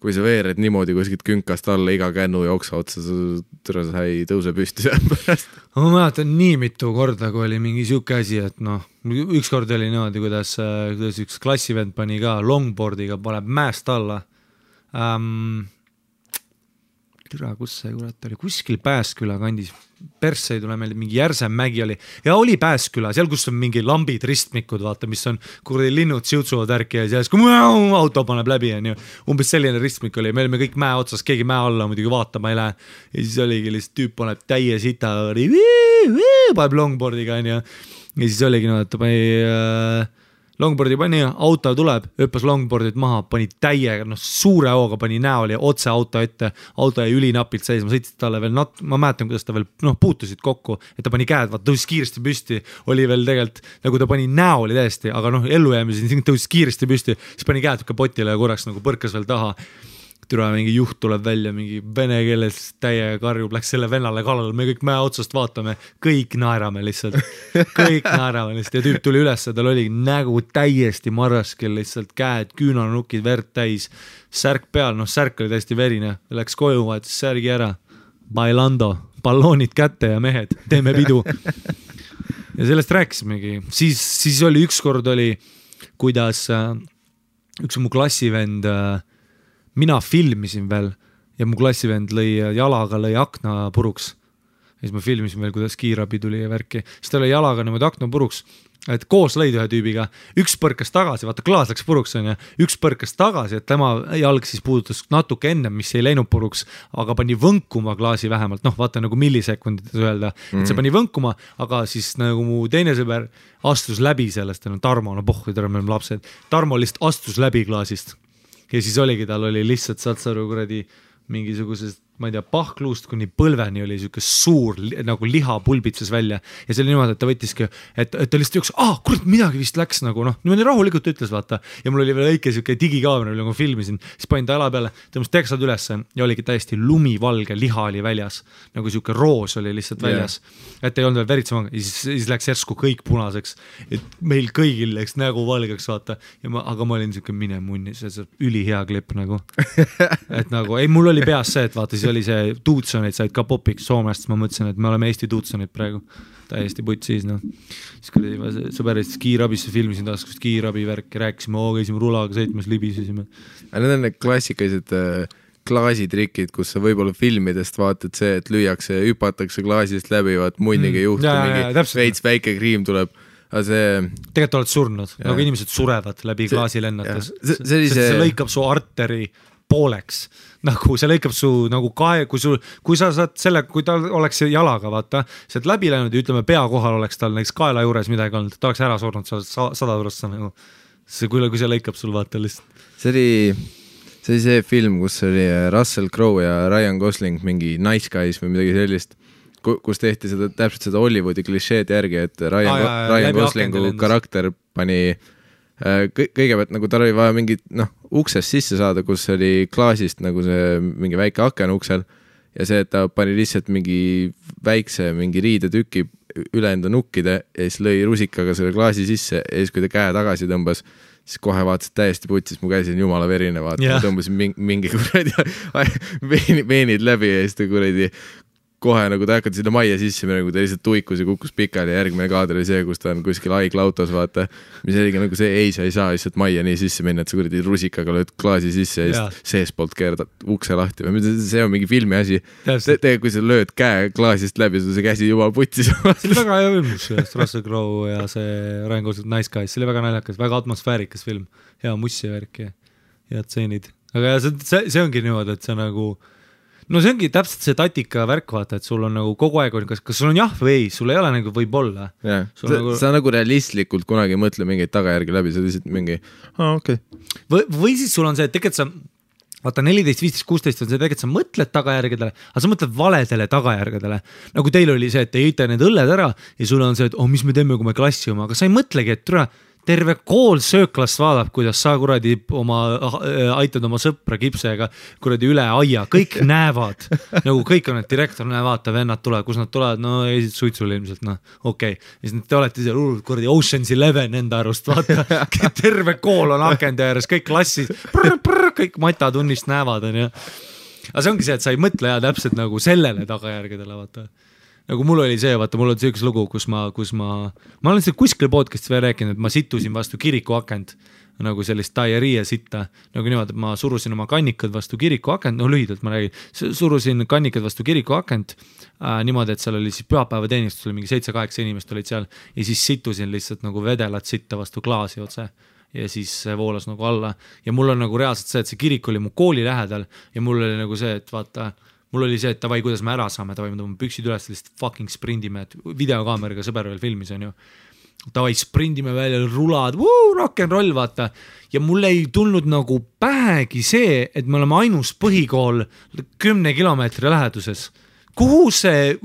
Kui sa veered niimoodi kuskilt künkast alla iga kännu jooksa otsa, sa ei tõuse püsti seal pärast. Ma mäletan nii mitu korda, kui oli mingi siuke asi, et üks kord oli niimoodi, kuidas üks klassivend pani ka longboardiga, paneb mäest alla. Türa, kus see kurat oli? Kuskil Pääsküla kandis. Persse ei tule meelde, mingi Järsem mägi oli. Ja oli Pääsküla, seal kus on mingi lambid, ristmikud, vaata, mis on kuradi linnud siutsuvad ärki ja siis kui auto paneb läbi. Umbes selline ristmik oli. Me olime kõik mäe otsas, keegi mäe alla muidugi vaatama ei lähe. Ja siis oligi lihtsalt tüüp paneb täie sita, paneb longboardiga ja siis oligi et ta pani longboardi pani, auto tuleb, hüppas longboardit maha, pani täiega, suure hooga pani näol ja otse auto ette, auto jäi ülinapilt seisma, sõitsid talle veel, ma mäletan, kuidas ta veel puutusid kokku, et ta pani käed, tõusis kiiresti püsti, oli veel tegelikult, nagu ta pani näoli täiesti, aga ellujäämises tõusis kiiresti püsti, siis pani käed kapotile ja korraks nagu põrkas veel taha. Türa mingi juht tuleb välja, mingi vene keeles täiega karjub, läks selle vennale kallale, me kõik mäe otsast vaatame, kõik naerame lihtsalt ja tüüp tuli üles, tal oli nägu täiesti marraskel, lihtsalt käed, küünanukid, verd täis, särk peal, särk oli täiesti verine, läks koju, vaatas särgi ära, bailando, balloonid kätte ja mehed, teeme pidu. Ja sellest rääkisimegi, siis oli ükskord oli, kuidas üks mu klassivend mina filmisin veel ja mu klassivend jalaga lõi akna puruks. Ja siis ma filmisin veel, kuidas kiirabi tuli ja värki. Siis ta lõi jalaga niimoodi akna puruks, et koos lõid ühe tüübiga. Üks põrkas tagasi, vaata klaas läks puruks on ja üks põrkas tagasi, et tema jalg siis puudutas natuke enne, mis ei läinud puruks, aga pani võnkuma klaasi vähemalt. Vaata nagu millisekundites öelda, et see pani võnkuma, aga siis nagu mu teine sõber astus läbi sellest, Tarmo, me oleme lapsed. Tarmo lihtsalt astus läbi klaasist. Ja siis oligi, tal oli lihtsalt satsaru kuradi mingisugusest, ma ei tea, pahkluust kuni põlveni oli siuke suur nagu liha pulbitses välja ja see oli niimoodi, et ta võttiski, et ta lihtsalt jooks, kurat, midagi vist läks nagu niimoodi rahulikult ütles, vaata. Ja mul oli veel õike siuke digikaamera, kui ma filmisin, siis panin ta jala peale, tõmbas teksad üles ja oligi täiesti lumivalge, liha oli väljas, nagu siuke roos oli lihtsalt väljas, et ei olnud veel veritsema, siis läks järsku kõik punaseks, et meil kõigil läks nägu valgeks, vaata, aga ma olin siuke mine munni, see ülihea klipp nagu, et nagu, ei, mul oli peas see, et vaata, siis oli see tuutsonid said ka popiks Soomest, ma mõtlesin, et me oleme Eesti tuutsonid praegu täiesti putt siis, siis kui sõberist kiirabisse filmisin taas, kus kiirabi värki rääkisime, käisime rulaga sõitmas, libisesime. Need on need klassikalised klaasitrikid, kus sa võib-olla filmidest vaatad see, et lüüakse, hüpatakse klaasist läbi, vaat munniga juhtu, mingi veits väike kriim tuleb. Tegelikult oled surnud, nagu inimesed surevad läbi klaasi lennates. See lõikab su arteri pooleks, nagu see lõikab su nagu kui sa saad selle, kui ta oleks jalaga, vaata, see läbi läinud ja ütleme pea kohal oleks tal näiteks kaela juures midagi olnud, ta oleks ära surnud 100 nagu kui see lõikab sul vaata lihtsalt. See oli see film, kus oli Russell Crowe ja Ryan Gosling mingi Nice Guys või midagi sellist, kus tehti täpselt seda Hollywoodi klišeed järgi, et Ryan Goslingu karakter pani kõigepealt nagu tal oli vaja mingit uksest sisse saada, kus oli klaasist nagu see mingi väike aken uksel ja see, et ta pani lihtsalt mingi väikse mingi riidetüki üle enda nukkide ja siis lõi rusikaga selle klaasi sisse ja siis kui ta käe tagasi tõmbas, siis kohe vaatasid täiesti putsis, mu käsi on jumala verine, vaata, ma tõmbasin mingi kuradi veenid läbi ja siis ta kuradi kohe nagu ta hakati sinna majja sisse, nagu ta lihtsalt tuikus ja kukkus pikali ja järgmine kaader oli see, kus ta on kuskil haiglautos, vaata, mis oligi nagu see, sa ei saa lihtsalt majja nii sisse minna, et sa kuradi rusikaga lööd klaasi sisse ja siis seespoolt keerad ukse lahti või see on mingi filmi asi. Kui sa lööd käe klaasist läbi, see käsi juba putsis. See oli väga hea film, Russell Crowe ja see Ryan Gosling Nice Guys, see oli väga naljakas, väga atmosfäärikas film, hea mussi värk ja head tseenid. Aga see ongi niimoodi, et see nagu no see ongi täpselt see tatika värk, vaata, et sul on nagu kogu aeg, kas sul on jah või ei, sul ei ole nagu võib-olla. Sa nagu realistlikult kunagi ei mõtle mingeid tagajärgi läbi, sa lihtsalt mingi, okei. Või siis sul on see, et tegelikult sa, vaata 14, 15, 16 on see, tegelikult sa mõtled tagajärgedele, aga sa mõtled valedele tagajärgedele. Nagu teil oli see, et te jõite need õlled ära ja sul on see, et mis me teeme, kui me klassi oma, aga sa ei mõtlegi, et terve kool sööklast vaadab, kuidas sa kuradi aitad oma sõpra kipsega kuradi üle aia, kõik näevad, nagu kõik on, et direktor vaata, vennad tulevad, kus nad tulevad, no esit suitsule ilmselt, okei. Ja siis te olete seal kuradi Ocean's 11 enda arust, vaata, terve kool on akende ääres, kõik klassid, kõik matatunnist näevad, on ju. Aga see ongi see, et sa ei mõtle täpselt nagu sellele tagajärgedele, vaata. Nagu mul oli see, vaata, mul oli üks lugu, kus ma olen seda kuskil podcast'is veel rääkinud, et ma situsin vastu kiriku akent, nagu sellist diarrhea sitta, nagu niimoodi, et ma surusin oma kannikad vastu kiriku akent, lühidalt ma räägin, surusin kannikad vastu kiriku akent, niimoodi, et seal oli siis pühapäevateenistus, oli mingi 7-8 inimest olid seal ja siis situsin lihtsalt nagu vedelat sitta vastu klaasi otse ja siis voolas nagu alla ja mul on nagu reaalselt see, et see kirik oli mu kooli lähedal ja mul oli nagu see, et vaata, mul oli see, et tavai, kuidas me ära saame, tavai, me tõmbame püksid üles, lihtsalt fucking sprindime, et videokaameriga sõber veel filmis on ju. Tavai, sprindime välja, rulad, rock'n'roll, vaata. Ja mul ei tulnud nagu pähegi see, et me oleme ainus põhikool 10 kilomeetri läheduses. Kuhu see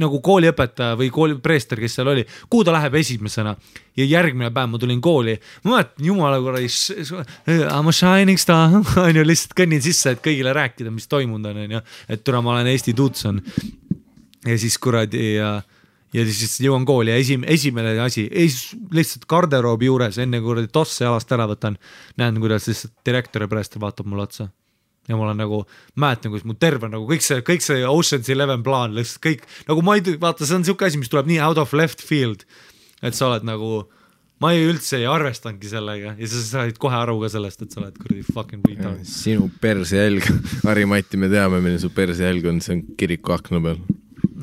nagu kooliõpetaja või koolipreester, kes seal oli, kuhu ta läheb esimesena ja järgmine päev ma tulin kooli, ma mõtlen jumala korras I'm a shining star, on ju, lihtsalt kõnnin sisse, et kõigile rääkida, mis toimunud on ju, et türa ma olen Eesti Tutson ja siis kuradi ja siis jõuan kooli ja esimene asi, lihtsalt garderoobi juures, enne kuradi tosse jalast ära võtan, näen, kuidas lihtsalt direktor ja preester vaatab mulle otsa. Ja ma olen nagu, mäletan, kus mu terve nagu kõik see Ocean's 11 plaan, lihtsalt kõik, nagu ma ei, vaata, see on siuke asi, mis tuleb nii out of left field, et sa oled nagu, ma üldse ei arvestanudki sellega ja sa said kohe aru ka sellest, et sa oled kuradi fucking võita. Sinu persejälg, Harri-Mati, me teame, milline su persejälg on, see on kiriku akna peal.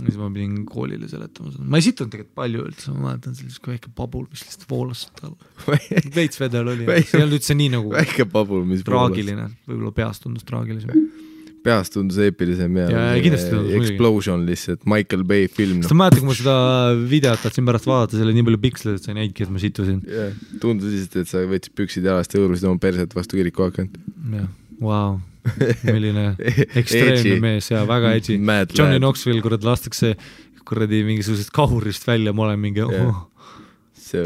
Siis ma pidin koolile seletama. Ma ei situnud tegelikult palju üldse, ma mäletan sellist väike pabul, mis lihtsalt voolas veits vedel oli. See ei olnud üldse nii nagu väike pabul, mis traagiline, võib-olla peast tundus traagilisem. Peast tundus eepilisem ja Explosion lihtsalt, Michael Bay film. Seda mäletan, kui ma seda videot tahtsin pärast vaadata, selle nii palju piksleid, et sa ei näidki, et ma situsin. Tundus lihtsalt, et sa võtsid püksid jalast ja õõrusid oma perset vastu kiriku akent. Jah, wow. Milline ekstreemne mees ja väga edgy. Johnny Knoxville, kuradi lastakse kuradi mingisugusest kahurist välja, ma olen mingi See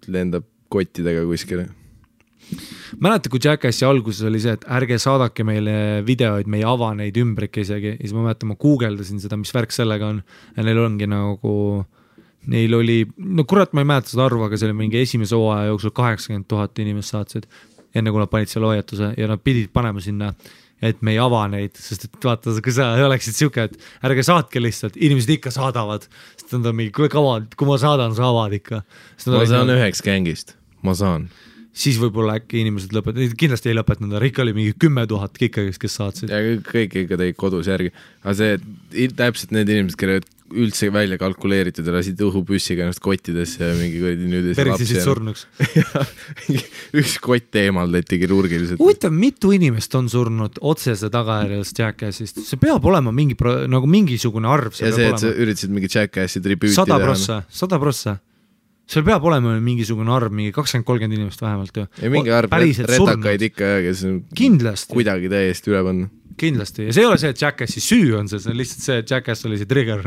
lendab kottidega kuskile. Mäletan, kui Jackassi alguses oli see, et ärge saadake meile videoid, me ei ava neid ümbrike isegi ja siis ma mäletan, ma guugeldasin seda, mis värk sellega on ja neil ongi nagu neil oli, no kurat, ma ei mäleta seda arvu, aga see oli mingi esimese hooaja jooksul 80 000 inimest saatsid enne kui nad panid selle hoiatuse ja nad pidid panema sinna, et me ei ava neid, sest et vaata, kui sa oleksid siuke, et ärge saatke lihtsalt, inimesed ikka saadavad, sest nad on mingi, kui ma saadan, sa avad ikka. Ma saan üheks gängist, ma saan. Siis võib-olla äkki inimesed lõpetavad, kindlasti ei lõpetanud, ikka oli mingi 10 000 kikkagist, kes saatsid. Ja kõik ikka teid kodus järgi, aga see täpselt need inimesed, kelle üldse välja kalkuleeritud ja lasid õhupüssiga ennast kottidesse ja mingi kuradi nüüd persisid surnuks. Üks kott eemaldati kirurgiliselt. Huvitav, mitu inimest on surnud otsese tagajärjest Jackassist? See peab olema nagu mingisugune arv. Ja see, et sa üritasid mingi Jackassi tribüüti 100%. seal peab olema mingisugune arv, mingi 20-30 inimest vähemalt ju. ja mingi arv retakaid ikka, kes kindlasti. Kuidagi täiesti üle panna. Kindlasti, ja see ei ole see, et Jackassi süü on see on lihtsalt see, et Jackass oli see trigger.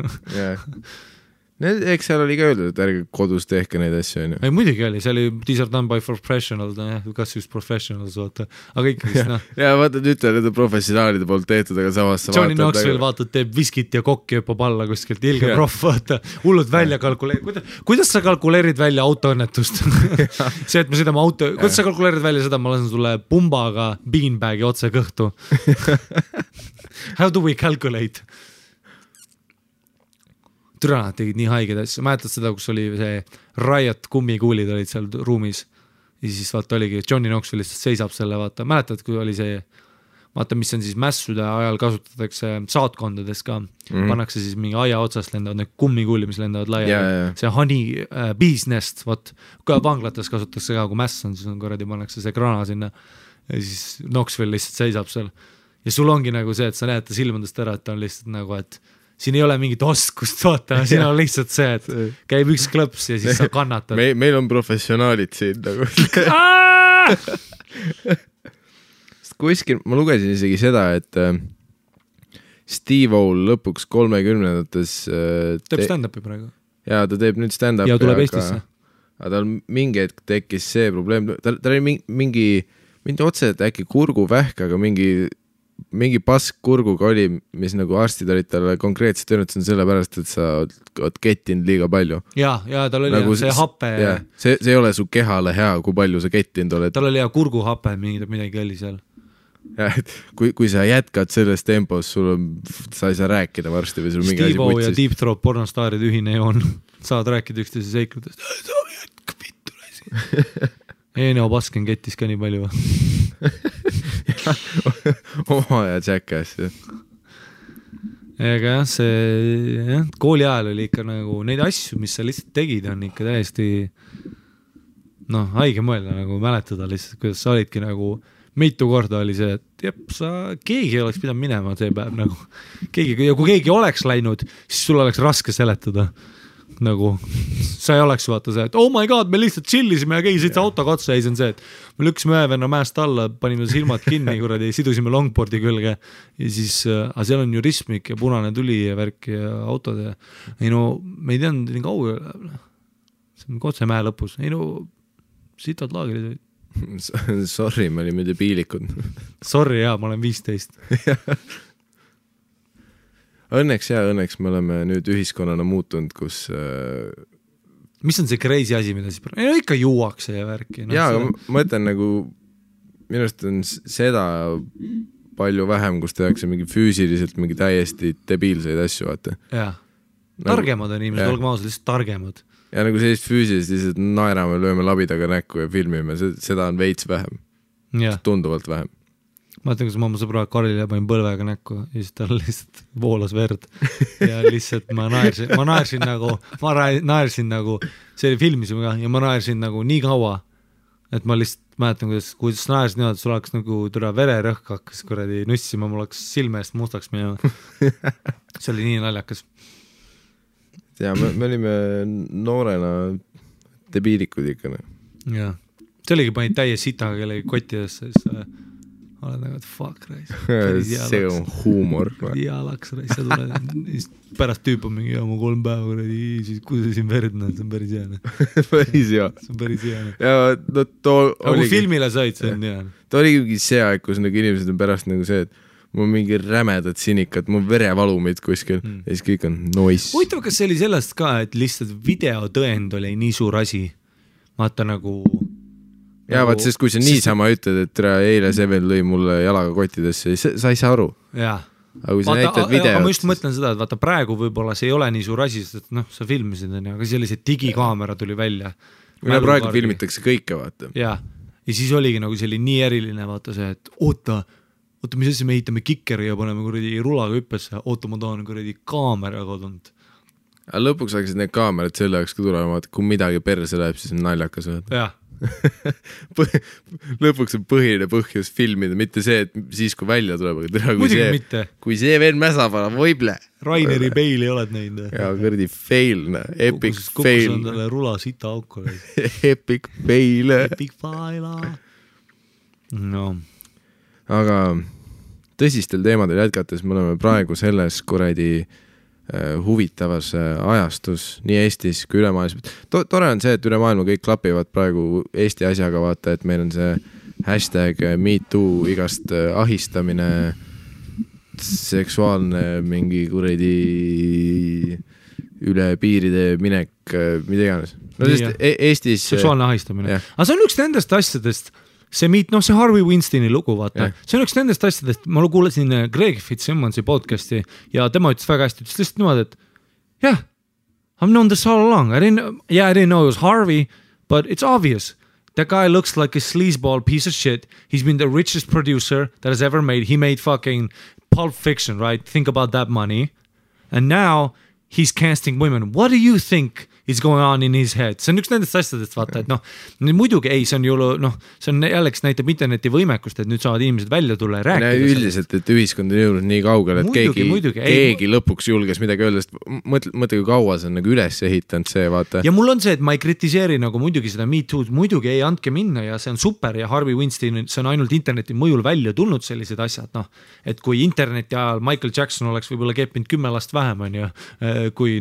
Eks seal oli ka öeldud, et ärge kodus tehke neid asju, on ju. Ei, muidugi oli, see oli these are done by professionals, kas just professionals, vaata, aga ikkagi ja vaata, nüüd on professionaalide poolt tehtud, aga samas Johnny Knoxville vaatad, teeb viskit ja kokki hüppab alla kuskilt, ilge proff, vaata, hullud välja kalkuleerid, kuidas sa kalkuleerid välja autoõnnetust? See, et me sõidame kuidas sa kalkuleerid välja seda, ma lasen sulle pumbaga beanbagi otse kõhtu. How do we calculate? Türa, nad tegid nii haiged asju, mäletad seda, kus oli see Riot kummikuulid olid seal ruumis ja siis vaata oligi, Johnny Knoxville lihtsalt seisab selle, vaata, mäletad, kui oli see, vaata, mis on siis mässude ajal kasutatakse saatkondades ka, pannakse siis mingi aia otsast lendavad need kummikuuli, mis lendavad laia, see honey bee's nest, vaat, kui vanglates kasutatakse ka, kui mäss on, siis on korradi, pannakse see grana sinna ja siis Knoxville lihtsalt seisab seal ja sul ongi nagu see, et sa näed ta silmadest ära, et ta on lihtsalt nagu, et siin ei ole mingit oskust, vaata, siin on lihtsalt see, et käib üks klõps ja siis sa kannatad. Meil on professionaalid siin nagu. Kuskil, ma lugesin isegi seda, et Steve-O lõpuks 30-ndates teeb stand-upi praegu. Ja ta teeb nüüd stand-upi. Ja tuleb Eestisse. Aga tal mingi hetk tekkis see probleem, tal oli mingi otse, et äkki kurguvähk, aga mingi pask kurguga oli, mis nagu arstid olid talle konkreetselt öelnud, see on sellepärast, et sa oled kettinud liiga palju. Ja tal oli nagu see happe. See ei ole su kehale hea, kui palju sa kettinud oled. Tal oli kurguhappe, midagi oli seal. Ja, et kui sa jätkad selles tempos, sa ei saa rääkida varsti või sul mingi asi Steve-O ja Deep Throat pornostaaride ühine joon. Saad rääkida üksteise seikludest. Sa jätka pittu lasi. Eno Basken kettis ka nii palju. Oma ja Jackass. Ega jah, see kooli ajal oli ikka nagu neid asju, mis sa lihtsalt tegid, on ikka täiesti haige mõelda nagu mäletada lihtsalt, kuidas sa olidki nagu mitu korda oli see, et keegi oleks pidanud minema see päev nagu ja kui keegi oleks läinud, siis sul oleks raske seletada nagu, sa ei oleks vaata see, et oh my god, me lihtsalt chillisime ja keegi sõitsa autoga otsa ja siis on see, et me lükkasime ühe venna mäest alla, panime silmad kinni kuradi, sidusime longboardi külge ja siis, aga seal on ju ristmik ja punane tuli ja värk ja autod ja ei no, me ei teadnud nii kaua, see on otse mäe lõpus, ei no, sitad laagrid olid. Sorry, me olime debiilikud. Sorry, ma olen 15. Õnneks me oleme nüüd ühiskonnana muutunud, kus mis on see crazy asi, mida siis ikka juuakse ja värki aga ma mõtlen nagu minu arust on seda palju vähem, kus tehakse mingi füüsiliselt mingi täiesti debiilseid asju, vaata targemad on inimesed, olgem ausad, lihtsalt targemad ja nagu sellist füüsiliselt lihtsalt naerame, lööme labidaga näkku ja filmime, seda on veits vähem tunduvalt vähem. Ma mõtlen, kus ma oma sõbra Karile panin põlvega näkku ja siis tal lihtsalt voolas verd ja lihtsalt ma naersin nagu see oli filmisime ka ja ma naersin nagu nii kaua, et ma lihtsalt mäletan, kuidas naersin niimoodi, et sul oleks nagu vererõhk hakkas kuradi nussima, mul oleks silme eest mustaks minema. See oli nii naljakas. Ja me olime noorena debiilikud ikka. Ja see oligi panid täie sitaga kellegi kottidesse, siis oled nagu, et fuck reis. See on huumor. Dialaks reis, sa tuled. Pärast tüüp on mingi mu 3 päeva, siis kui see siin verd näed, see on päris jääne. Päris hea. See on päris jääne. Ja kui filmile said, see on jääne. Ta oligi see aeg, kus nagu inimesed on pärast nagu see, et mul on mingi rämedad sinikad, mul verevalumid kuskil ja siis kõik on noise. Huvitav, kas see oli sellest ka, et lihtsalt videotõend oli nii suur asi? Vaata nagu ja vaat sest kui sa niisama ütled, et eile see veel lõi mulle jalaga kottidesse, sa ei saa aru. Jaa. Aga kui sa näitad videot... Ma just mõtlen seda, et vaata praegu võib-olla see ei ole nii suur asi, sest sa filmisid, aga sellised digikaamera tuli välja. Praegu filmitakse kõike, vaata. Ja siis oligi nagu see oli nii eriline, vaata see, et oota, mis asja me ehitame kikeri ja paneme kuradi rulaga hüppesse, oota, ma tahan kuradi kaamera kodunud. Aga lõpuks hakkasid need kaamerad selle jaoks ka tulema, et kui midagi perse läheb, siis on naljakas. Jah. lõpuks on põhiline põhjus filmida, mitte see, et siis kui välja tuleb, aga kui see veel mäsa paneb, võible. Raineri Bale'i oled näinud. Ja kõrdi fail, epic fail. Kukus on talle rula sita auku. Epic fail. Epic fail. No. Aga tõsistel teemadel jätkates me oleme praegu selles kuradi huvitavas ajastus nii Eestis kui üle maailma. Tore on see, et üle maailma kõik klapivad praegu Eesti asjaga, vaata, et meil on see hashtag MeToo, igast ahistamine, seksuaalne mingi kuradi üle piiride minek, mida iganes. No sest Eestis seksuaalne ahistamine. Aga see on üks nendest asjadest, see Harvey Weinsteini lugu, vaata. See on üks nendest asjadest, ma kuulasin Greg Fitzsimmonsi podcasti ja tema ütles väga hästi, ütles lihtsalt niimoodi, et yeah, I've known this all along. I didn't know it was Harvey, but it's obvious. That guy looks like a sleazeball piece of shit. He's been the richest producer that has ever made. He made fucking Pulp Fiction, right? Think about that money. And now he's casting women. What do you think is going on in his head? See on üks nendest asjadest, vaata, et muidugi ei, see on ju, see on jälleks näitab interneti võimekust, et nüüd saavad inimesed välja tulla ja rääkida. Üldiselt, et ühiskond on jõudnud nii kaugele, et keegi lõpuks julges midagi öelda, sest mõtle, kui kaua see on nagu üles ehitanud see, vaata. Ja mul on see, et ma ei kritiseeri nagu muidugi seda MeToo'd, muidugi ei andke minna ja see on super ja Harvey Weinstein, see on ainult interneti mõjul välja tulnud sellised asjad, et kui interneti ajal Michael Jackson oleks võib-olla keppinud 10 last vähem, on ju, kui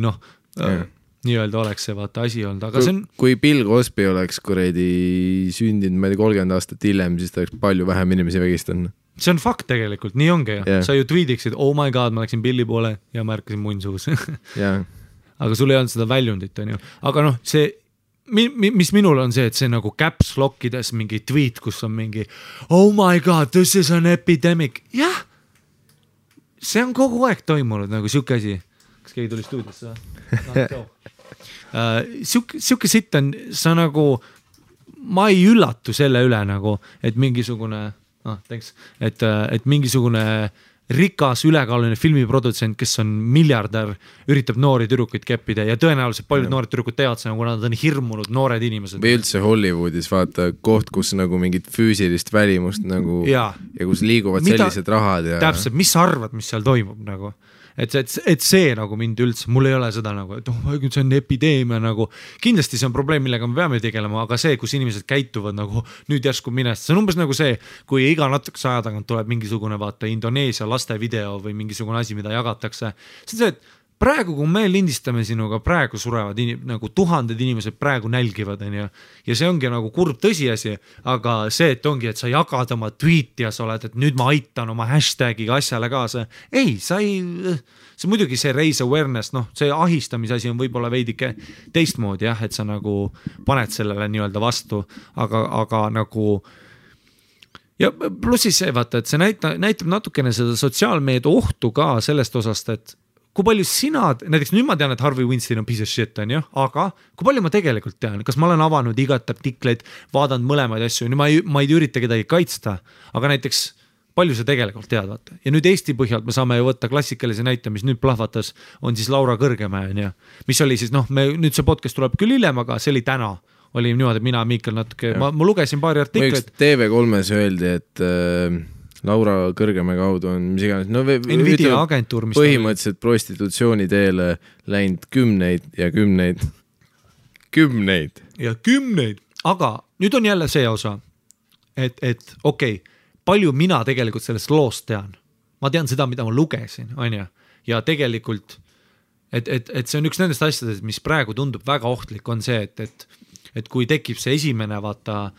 nii-öelda oleks see vaata asi olnud, aga see on... Kui Bill Cosby oleks kuredi sündinud, ma ei tea, 30 aastat hiljem, siis ta oleks palju vähem inimesi vägistanud. See on fakt tegelikult, nii ongi ja. Sa ju tweetiksid, oh my god, ma läksin Billi poole ja märkasin munnsuus. Aga sul ei olnud seda väljundit, on ju. Aga see, mis minul on see, et see nagu caps lockides mingi tweet, kus on mingi oh my god, this is an epidemic. Jah, see on kogu aeg toimunud nagu siuke asi. Kas keegi tuli stuudiosse? Siuke sitt on, sa nagu, ma ei üllatu selle üle nagu, et mingisugune, et mingisugune rikas ülekaaluline filmiprodutsent, kes on miljardär, üritab noori tüdrukuid keppida ja tõenäoliselt paljud noored tüdrukud teavad seda, kuna nad on hirmunud noored inimesed. Või üldse Hollywoodis vaata koht, kus nagu mingit füüsilist välimust nagu ja kus liiguvad sellised rahad ja... Täpselt, mis sa arvad, mis seal toimub nagu? Et see nagu mind üldse, mul ei ole seda nagu, et see on epideemia nagu, kindlasti see on probleem, millega me peame tegelema, aga see, kus inimesed käituvad nagu nüüd järsku minest, see on umbes nagu see, kui iga natukese aja tagant tuleb mingisugune vaata Indoneesia laste video või mingisugune asi, mida jagatakse. See on see, et praegu, kui me lindistame sinuga, praegu surevad nagu tuhanded inimesed praegu nälgivad, ja see ongi nagu kurb tõsiasi, aga see, et ongi, et sa jagad oma tweeti ja sa oled, et nüüd ma aitan oma hashtagiga asjale kaasa. Ei, sa ei, see muidugi see raise awareness, see ahistamise asi on võib-olla veidike teistmoodi jah, et sa nagu paned sellele nii-öelda vastu, aga nagu ja plussis see vaata, et see näitab natukene seda sotsiaalmeedia ohtu ka sellest osast, et kui palju sina, näiteks nüüd ma tean, et Harvey Weinstein on piece of shit, on ju, aga kui palju ma tegelikult tean, kas ma olen avanud igat artikleid, vaadanud mõlemaid asju, ma ei ürita kedagi kaitsta, aga näiteks palju sa tegelikult tead, vaata. Ja nüüd Eesti põhjalt me saame ju võtta klassikalise näite, mis nüüd plahvatas, on siis Laura Kõrgemäe, on ju, mis oli siis, nüüd see podcast tuleb küll hiljem, aga see oli täna, oli niimoodi, mina Miikal natuke, ma lugesin paari artikleid. TV3-s öeldi, et Laura Kõrgemäe kaudu on mis iganes, Nvidia agentuur, mis põhimõtteliselt prostitutsiooni teele läinud kümneid ja kümneid ja kümneid, aga nüüd on jälle see osa, et okei, palju mina tegelikult sellest loost tean, ma tean seda, mida ma lugesin, on ju, ja tegelikult et see on üks nendest asjadest, mis praegu tundub väga ohtlik, on see, et kui tekib see esimene, vaata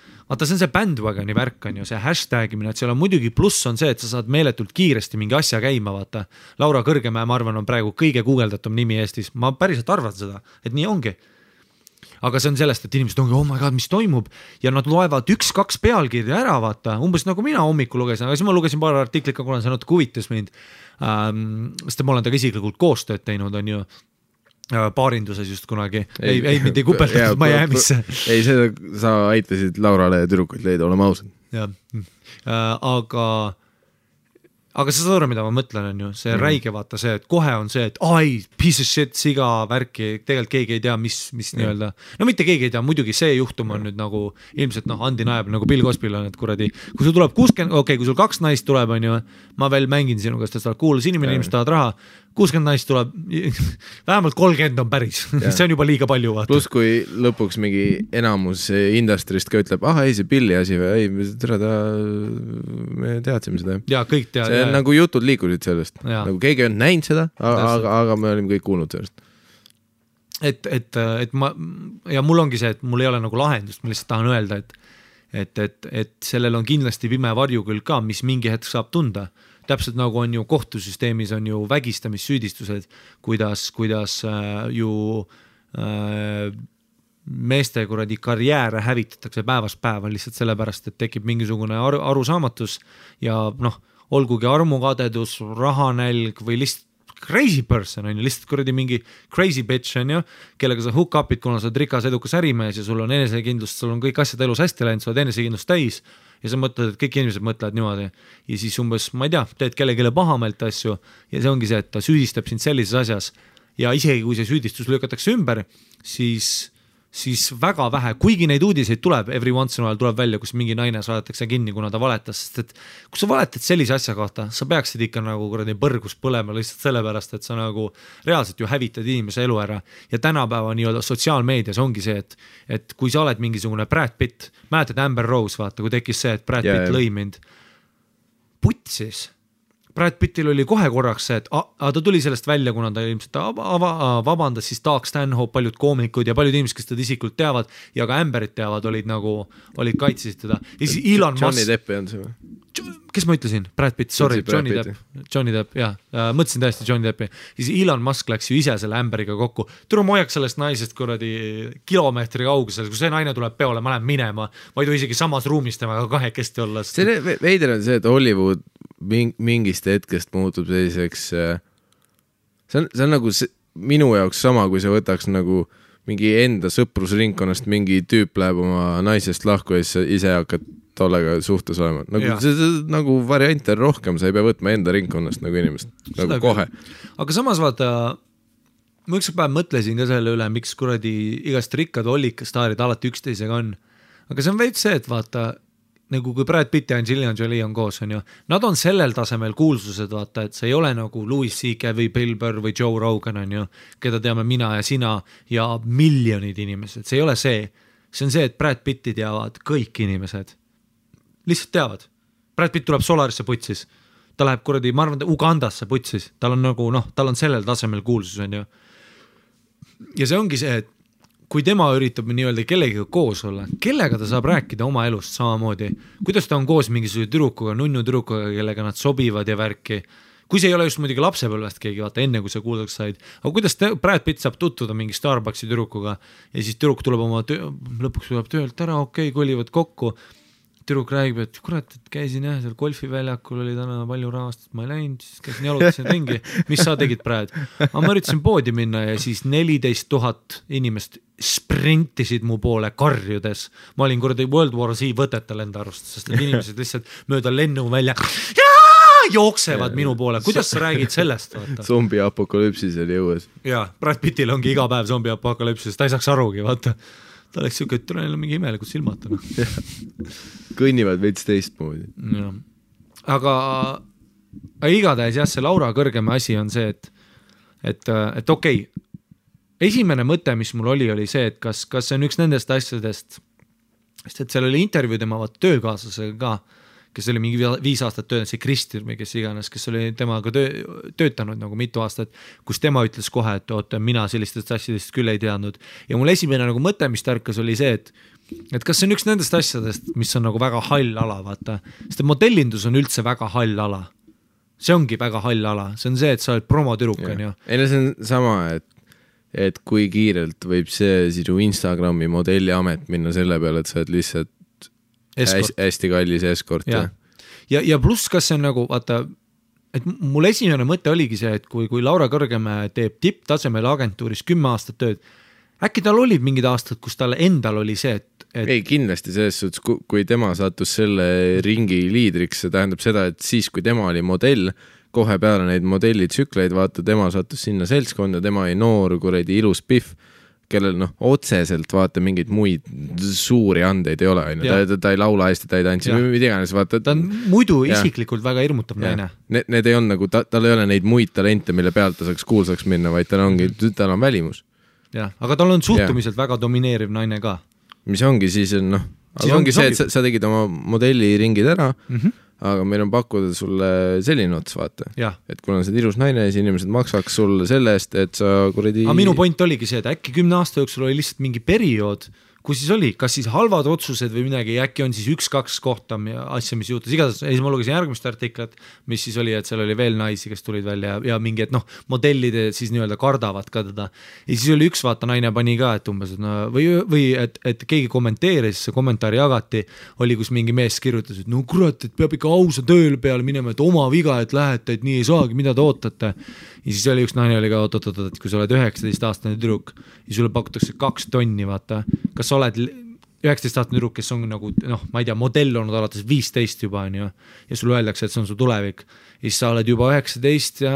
see on see bandwagoni värk, on ju, see hashtagimine, et seal on muidugi pluss on see, et sa saad meeletult kiiresti mingi asja käima, vaata. Laura Kõrgemäe, ma arvan, on praegu kõige guugeldatum nimi Eestis, ma päriselt arvan seda, et nii ongi. Aga see on sellest, et inimesed ongi, oh my god, mis toimub ja nad loevad 1-2 pealkirja ära, vaata, umbes nagu mina hommikul lugesin, aga siis ma lugesin paar artiklit, kuna see natuke huvitas mind, sest ma olen taga isiklikult koostööd teinud, on ju, paarinduses just kunagi, ei mitte kupeldatud Miami'sse. Ei, seda sa aitasid Laurale ja tüdrukuid leida, olema ausad. Ja, aga sa saad aru, mida ma mõtlen, on ju, see räige vaata see, et kohe on see, et ai, piece of shit, siga värki, tegelikult keegi ei tea, mis nii-öelda, no mitte keegi ei tea, muidugi see juhtum on nüüd nagu ilmselt undeniable nagu Bill Cosby'l on, et kuradi, kui sul tuleb 60, okei, kui sul 2 naist tuleb, on ju, ma veel mängin sinuga, sest sa oled kuulas inimene, inimesed tahavad raha, 60 naist tuleb, vähemalt 30 on päris, see on juba liiga palju vaata. Plus kui lõpuks mingi enamus industrist ka ütleb, ei see Billi asi või, ei, tere ta, me teadsime seda. Ja kõik tead. See on nagu jutud liikusid sellest, nagu keegi on näinud seda, aga me olime kõik kuulnud sellest. Et ma, ja mul ongi see, et mul ei ole nagu lahendust, ma lihtsalt tahan öelda, et sellel on kindlasti pime varju küll ka, mis mingi hetk saab tunda. Täpselt nagu on ju kohtusüsteemis on ju vägistamissüüdistused, kuidas ju meeste kuradi karjääre hävitatakse päevast päeva lihtsalt sellepärast, et tekib mingisugune arusaamatus ja olgugi armukadedus, rahanälg või lihtsalt crazy person on ju, lihtsalt kuradi mingi crazy bitch on ju, kellega sa hook up'id, kuna sa oled rikas edukas ärimees ja sul on enesekindlust, sul on kõik asjad elus hästi läinud, sa oled enesekindlust täis ja sa mõtled, et kõik inimesed mõtlevad niimoodi ja siis umbes, ma ei tea, teed kellelegi pahameelt asju ja see ongi see, et ta süüdistab sind sellises asjas ja isegi kui see süüdistus lükatakse ümber, siis väga vähe, kuigi neid uudiseid tuleb, every once in a while tuleb välja, kus mingi naine saadetakse kinni, kuna ta valetas, sest et kui sa valetad sellise asja kohta, sa peaksid ikka nagu kuradi põrgus põlema lihtsalt sellepärast, et sa nagu reaalselt ju hävitad inimese elu ära ja tänapäeva nii-öelda sotsiaalmeedias ongi see, et kui sa oled mingisugune Brad Pitt, mäletad Amber Rose, vaata, kui tekkis see, et Brad Pitt lõi mind putsis. Brad Pittil oli kohe korraks see, et ta tuli sellest välja, kuna ta ilmselt vabandas, siis Doug Stanhope, paljud koomikud ja paljud inimesed, kes teda isiklikult teavad ja ka Amberit teavad, olid kaitsesid teda. Johnny Depp on see või? Kes ma ütlesin? Brad Pitt, sorry, Johnny Depp, jah. Mõtlesin täiesti Johnny Deppi. Siis Elon Musk läks ju ise selle Amberiga kokku. Tule ma hoiaks sellest naisest kuradi kilomeetri kaugusel, kui see naine tuleb peole, ma lähen minema, ma ei tohi isegi samas ruumis temaga kahekesti olla. See veider on see, et Hollywood mingist hetkest muutub selliseks, see on nagu minu jaoks sama, kui sa võtaks nagu mingi enda sõprusringkonnast mingi tüüp läheb oma naisest lahku ja ise hakkad tollega suhtes olema. Nagu variante on rohkem, sa ei pea võtma enda ringkonnast nagu inimest, nagu kohe. Aga samas vaata, ma üks päev mõtlesin ka selle üle, miks kuradi igast rikkad ollikastaarid alati üksteisega on. Aga see on veits see, et vaata, nagu kui Brad Pitt ja Angelina Jolie on koos, on ju, nad on sellel tasemel kuulsused, vaata, et see ei ole nagu Louis C.K. või Bill Burr või Joe Rogan, on ju, keda teame mina ja sina ja miljonid inimesed, see ei ole see. See on see, et Brad Pitti teavad kõik inimesed. Lihtsalt teavad. Brad Pitt tuleb Solarisse putsis. Ta läheb kuradi, ma arvan, Ugandasse putsis. Tal on nagu, tal on sellel tasemel kuulsus, on ju. Ja see ongi see, et kui tema üritab nii-öelda kellegiga koos olla, kellega ta saab rääkida oma elust samamoodi, kuidas ta on koos mingisuguse tüdrukuga, nunnu tüdrukuga, kellega nad sobivad ja värki, kui see ei ole just muidugi lapsepõlvest keegi, vaata enne kui sa kuuldaks said, aga kuidas Brad Pitt saab tutvuda mingi Starbucksi tüdrukuga ja siis tüdruk tuleb lõpuks tuleb töölt ära, okei, kolivad kokku, tüdruk räägib, et kurat, et käisin jah, seal golfiväljakul oli täna palju rahast, ma ei läinud, siis käisin jalutasin ringi, mis sa tegid praegu? Aga ma üritasin poodi minna ja siis 14 000 inimest sprintisid mu poole karjudes. Ma olin kuradi World War Z võtetel enda arust, sest et inimesed lihtsalt mööda lennu välja jooksevad minu poole. Kuidas sa räägid sellest? Vaata? Zombi apokalüpsis oli jõues. Jaa, Brad Pittil ongi iga päev zombi apokalüpsis, ta ei saaks arugi, vaata. Ta oleks siuke, et tuleb mingi imelikud silmad. Kõnnivad veits teistmoodi. Aga igatahes jah, see Laura kõrgema asi on see, et okei, esimene mõte, mis mul oli see, et kas see on üks nendest asjadest, sest et seal oli intervjuu tema töökaaslasega ka, kes oli mingi 5 aastat töötanud, see Kristir või kes iganes, kes oli temaga töötanud nagu mitu aastat, kus tema ütles kohe, et oota, mina sellistest asjadest küll ei teadnud. Ja mul esimene nagu mõte, mis tärkas, oli see, et kas see on üks nendest asjadest, mis on nagu väga hall ala, vaata. Sest modellindus on üldse väga hall ala. See ongi väga hall ala. See on see, et sa oled promotüruk, on ju. Ei, see on sama, et kui kiirelt võib see sinu Instagrami modelliamet minna selle peale, et sa oled lihtsalt hästi kallis eskort. Ja pluss, kas see on nagu, vaata, et mul esimene mõte oligi see, et kui Laura Kõrgemäe teeb tipptasemel agentuuris 10 aastat tööd, äkki tal olid mingid aastad, kus tal endal oli see, et ei, kindlasti selles suhtes, kui tema sattus selle ringi liidriks, see tähendab seda, et siis, kui tema oli modell, kohe peale neid modellitsükleid, vaata, tema sattus sinna seltskonda, tema oli noor, kuradi ilus pihv, kellel otseselt vaata mingeid muid suuri andeid ei ole, ta ei laula hästi, ta ei tantsi, mida iganes, vaata. Ta on muidu isiklikult väga hirmutav naine. Need ei on nagu, tal ei ole neid muid talente, mille pealt ta saaks kuulsaks minna, vaid tal on välimus. Ja, aga tal on suhtumiselt väga domineeriv naine ka. Mis ongi siis, aga ongi see, et sa tegid oma modelliringid ära, aga meil on pakkuda sulle selline ots, vaata. Et kuna on see ilus naine, siis inimesed maksaks sulle selle eest, et sa kuradi... Aga minu point oligi see, et äkki 10 aasta jooksul oli lihtsalt mingi periood, kus siis oli, kas siis halvad otsused või midagi, äkki on siis 1-2 kohta asja, mis juhtus. Igatahes, siis ma lugesin järgmist artiklat, mis siis oli, et seal oli veel naisi, kes tulid välja ja mingi, et modellide siis nii-öelda kardavad ka teda. Ja siis oli üks vaata naine pani ka, et umbes, või et keegi kommenteeris, see kommentaari jagati, oli, kus mingi mees kirjutas, et no kurat, et peab ikka ausa tööle peale minema, et oma viga, et lähete, et nii ei saagi, mida te ootate. Ja siis oli üks naine oli ka, et kui sa oled 19-aastane tüdruk ja sulle pakutakse 2 tonni, vaata, kas sa oled 19-aastane tüdruk, kes on nagu, ma ei tea, modell olnud alates 15 juba, on ju, ja sulle öeldakse, et see on su tulevik. Ja siis sa oled juba 19 ja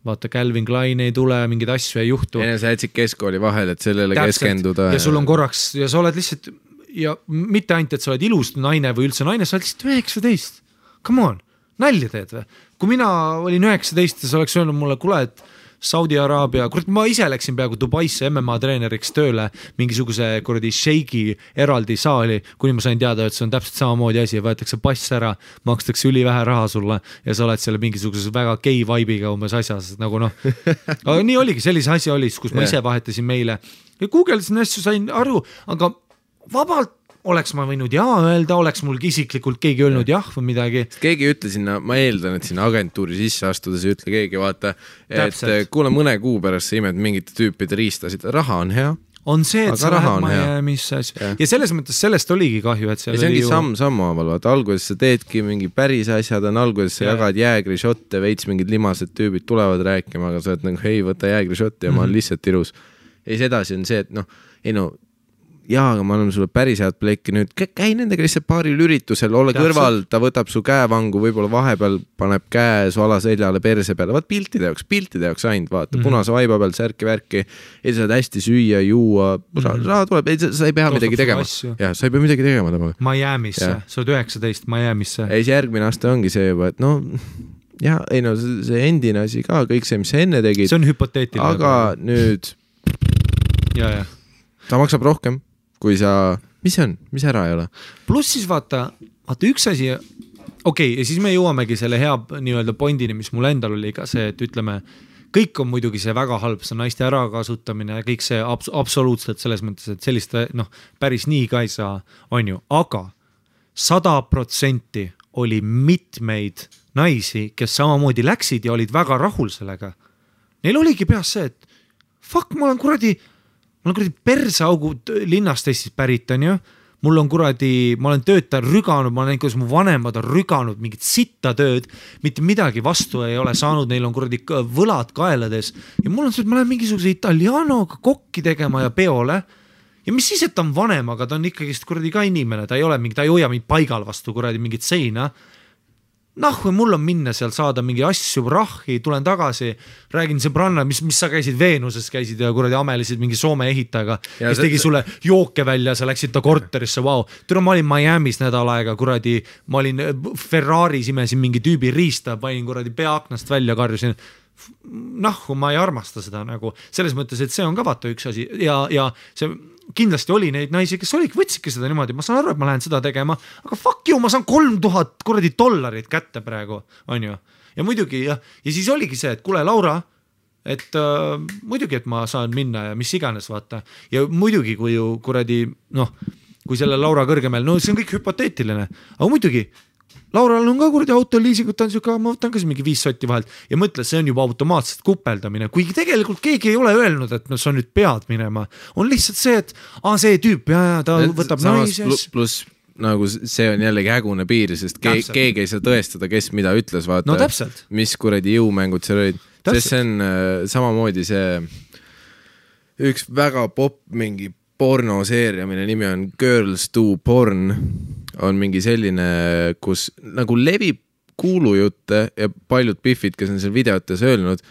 vaata, Calvin Klein ei tule, mingeid asju ei juhtu. Ja sa jätsid keskkooli vahel, et sellele keskenduda. Ja sul on korraks, ja sa oled lihtsalt, ja mitte ainult, et sa oled ilus naine või üldse naine, sa oled lihtsalt 19. Come on, nalja teed või? Kui mina olin 19 ja sa oleks öelnud mulle, kuule, et Saudi Araabia, kurat, ma ise läksin peaaegu Dubaisse MMA treeneriks tööle mingisuguse kuradi sheiki eraldi saali, kuni ma sain teada, et see on täpselt samamoodi asi, võetakse pass ära, makstakse ülivähe raha sulle ja sa oled selle mingisuguses väga gay vibe'iga umbes asjas, nagu aga nii oligi, sellise asja oli, kus ma ise vahetasin meile ja Googlesin asju, sain aru, aga vabalt oleks ma võinud öelda, oleks mul isiklikult keegi öelnud jah või midagi. Keegi ütle sinna, ma eeldan, et sinna agentuuri sisse astudes ütle keegi, vaata, et kuule mõne kuu pärast sa imed mingite tüüpide riistasid, raha on hea. On see, et sa lähed Miami'sse ja selles mõttes sellest oligi kahju, et seal ja see ongi samm haaval, vaata, alguses sa teedki mingi päris asjad, alguses sa jagad jäägrišotte, veits mingid limased tüübid tulevad rääkima, aga sa oled nagu, hei, võta jäägrišotti ja ma olen lihtsalt ilus. Ja siis edasi on see, et aga ma annan sulle päris head plekki nüüd, käi nendega lihtsalt paaril üritusel, ole kõrval, ta võtab su käevangu, võib-olla vahepeal paneb käe su alaseljale perse peale, vaat piltide jaoks ainult, vaata, punase vaiba peal särki-värki, ei saad hästi süüa, juua, raha tuleb, sa ei pea midagi tegema. Ja, sa ei pea midagi tegema temaga. Miami'sse, sa oled 19 Miami'sse. Ja siis järgmine aasta ongi see juba, et see endine asi ka, kõik see, mis sa enne tegid. See on hüpoteetiline. Aga nüüd ta maksab rohkem kui sa, mis see on, mis ära ei ole? Pluss siis vaata üks asi, okei, ja siis me jõuamegi selle hea nii-öelda pointini, mis mul endal oli ka see, et ütleme, kõik on muidugi see väga halb, see naiste ärakasutamine ja kõik see absoluutselt selles mõttes, et sellist päris nii ka ei saa, on ju, aga 100% oli mitmeid naisi, kes samamoodi läksid ja olid väga rahul sellega. Neil oligi peas see, et fuck, ma olen kuradi perseaugud linnast Eestis pärit, on ju. Ma olen töötajal rüganud, ma olen näinud, kuidas mu vanemad on rüganud mingit sitta tööd, mitte midagi vastu ei ole saanud, neil on kuradi võlad kaelades. Ja mul on see, et ma lähen mingisuguse italianoga kokki tegema ja peole. Ja mis siis, et ta on vanem, aga ta on ikkagi kuradi ka inimene, ta ei hoia mind paigal vastu kuradi mingit seina. Mul on minna seal saada mingi asju, rahhi, tulen tagasi, räägin sõbranna, mis sa käisid Veenuses, käisid ja kuradi amelisid mingi Soome ehitajaga, kes tegi sulle jooke välja, sa läksid ta korterisse, vau. Türa, ma olin Miami's nädal aega, kuradi, ma olin Ferraris, imesin mingi tüübi riista, panin kuradi peaaknast välja, karjusin. Ma ei armasta seda nagu, selles mõttes, et see on ka vaata üks asi ja see kindlasti oli neid naisi, kes võtsidki seda niimoodi, ma saan aru, et ma lähen seda tegema, aga fuck you, ma saan $3000 kuradi dollarit kätte praegu, on ju. Ja muidugi, ja siis oligi see, et kuule, Laura, et muidugi, et ma saan minna ja mis iganes, vaata. Ja muidugi, kui ju kuradi, kui selle Laura kõrgemel, see on kõik hüpoteetiline, aga muidugi, Laural on ka kuradi autoliisigut, ma võtan ka mingi 5 sotti vahelt ja mõtle, see on juba automaatselt kupeldamine, kuigi tegelikult keegi ei ole öelnud, et sa nüüd pead minema. On lihtsalt see, et see tüüp, ta võtab naises. Plus nagu see on jällegi hägune piir, sest keegi ei saa tõestada, kes mida ütles, vaata, mis kuradi jõumängud seal olid. Sest see on samamoodi see üks väga popp mingi pornoseeria, mille nimi on Girls Do Porn, on mingi selline, kus nagu levib kuulujutte ja paljud piffid, kes on seal videotes öelnud,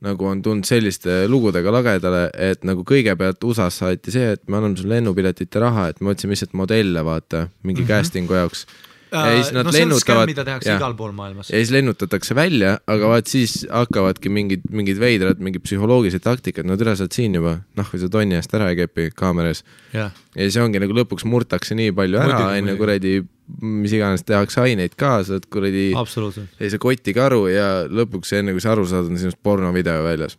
nagu on tulnud selliste lugudega lagedale, et nagu kõigepealt USA-s saati see, et me anname sulle lennupiletite raha, et me otsime lihtsalt modelle, vaata, mingi castingu jaoks. Ja siis nad lennutavad, mida tehakse igal pool maailmas. Ja siis lennutatakse välja, aga vaat siis hakkavadki mingid veidrad, mingid psühholoogilised taktikad, nad üle saad siin juba, või sa tonni eest ära ei kepi kaameras. Ja siis ongi nagu lõpuks murtakse nii palju ära, enne kuradi, mis iganes tehakse aineid ka, saad kuradi sellise kotikaru ja lõpuks enne kui sa aru saad, on sinust pornovideo väljas.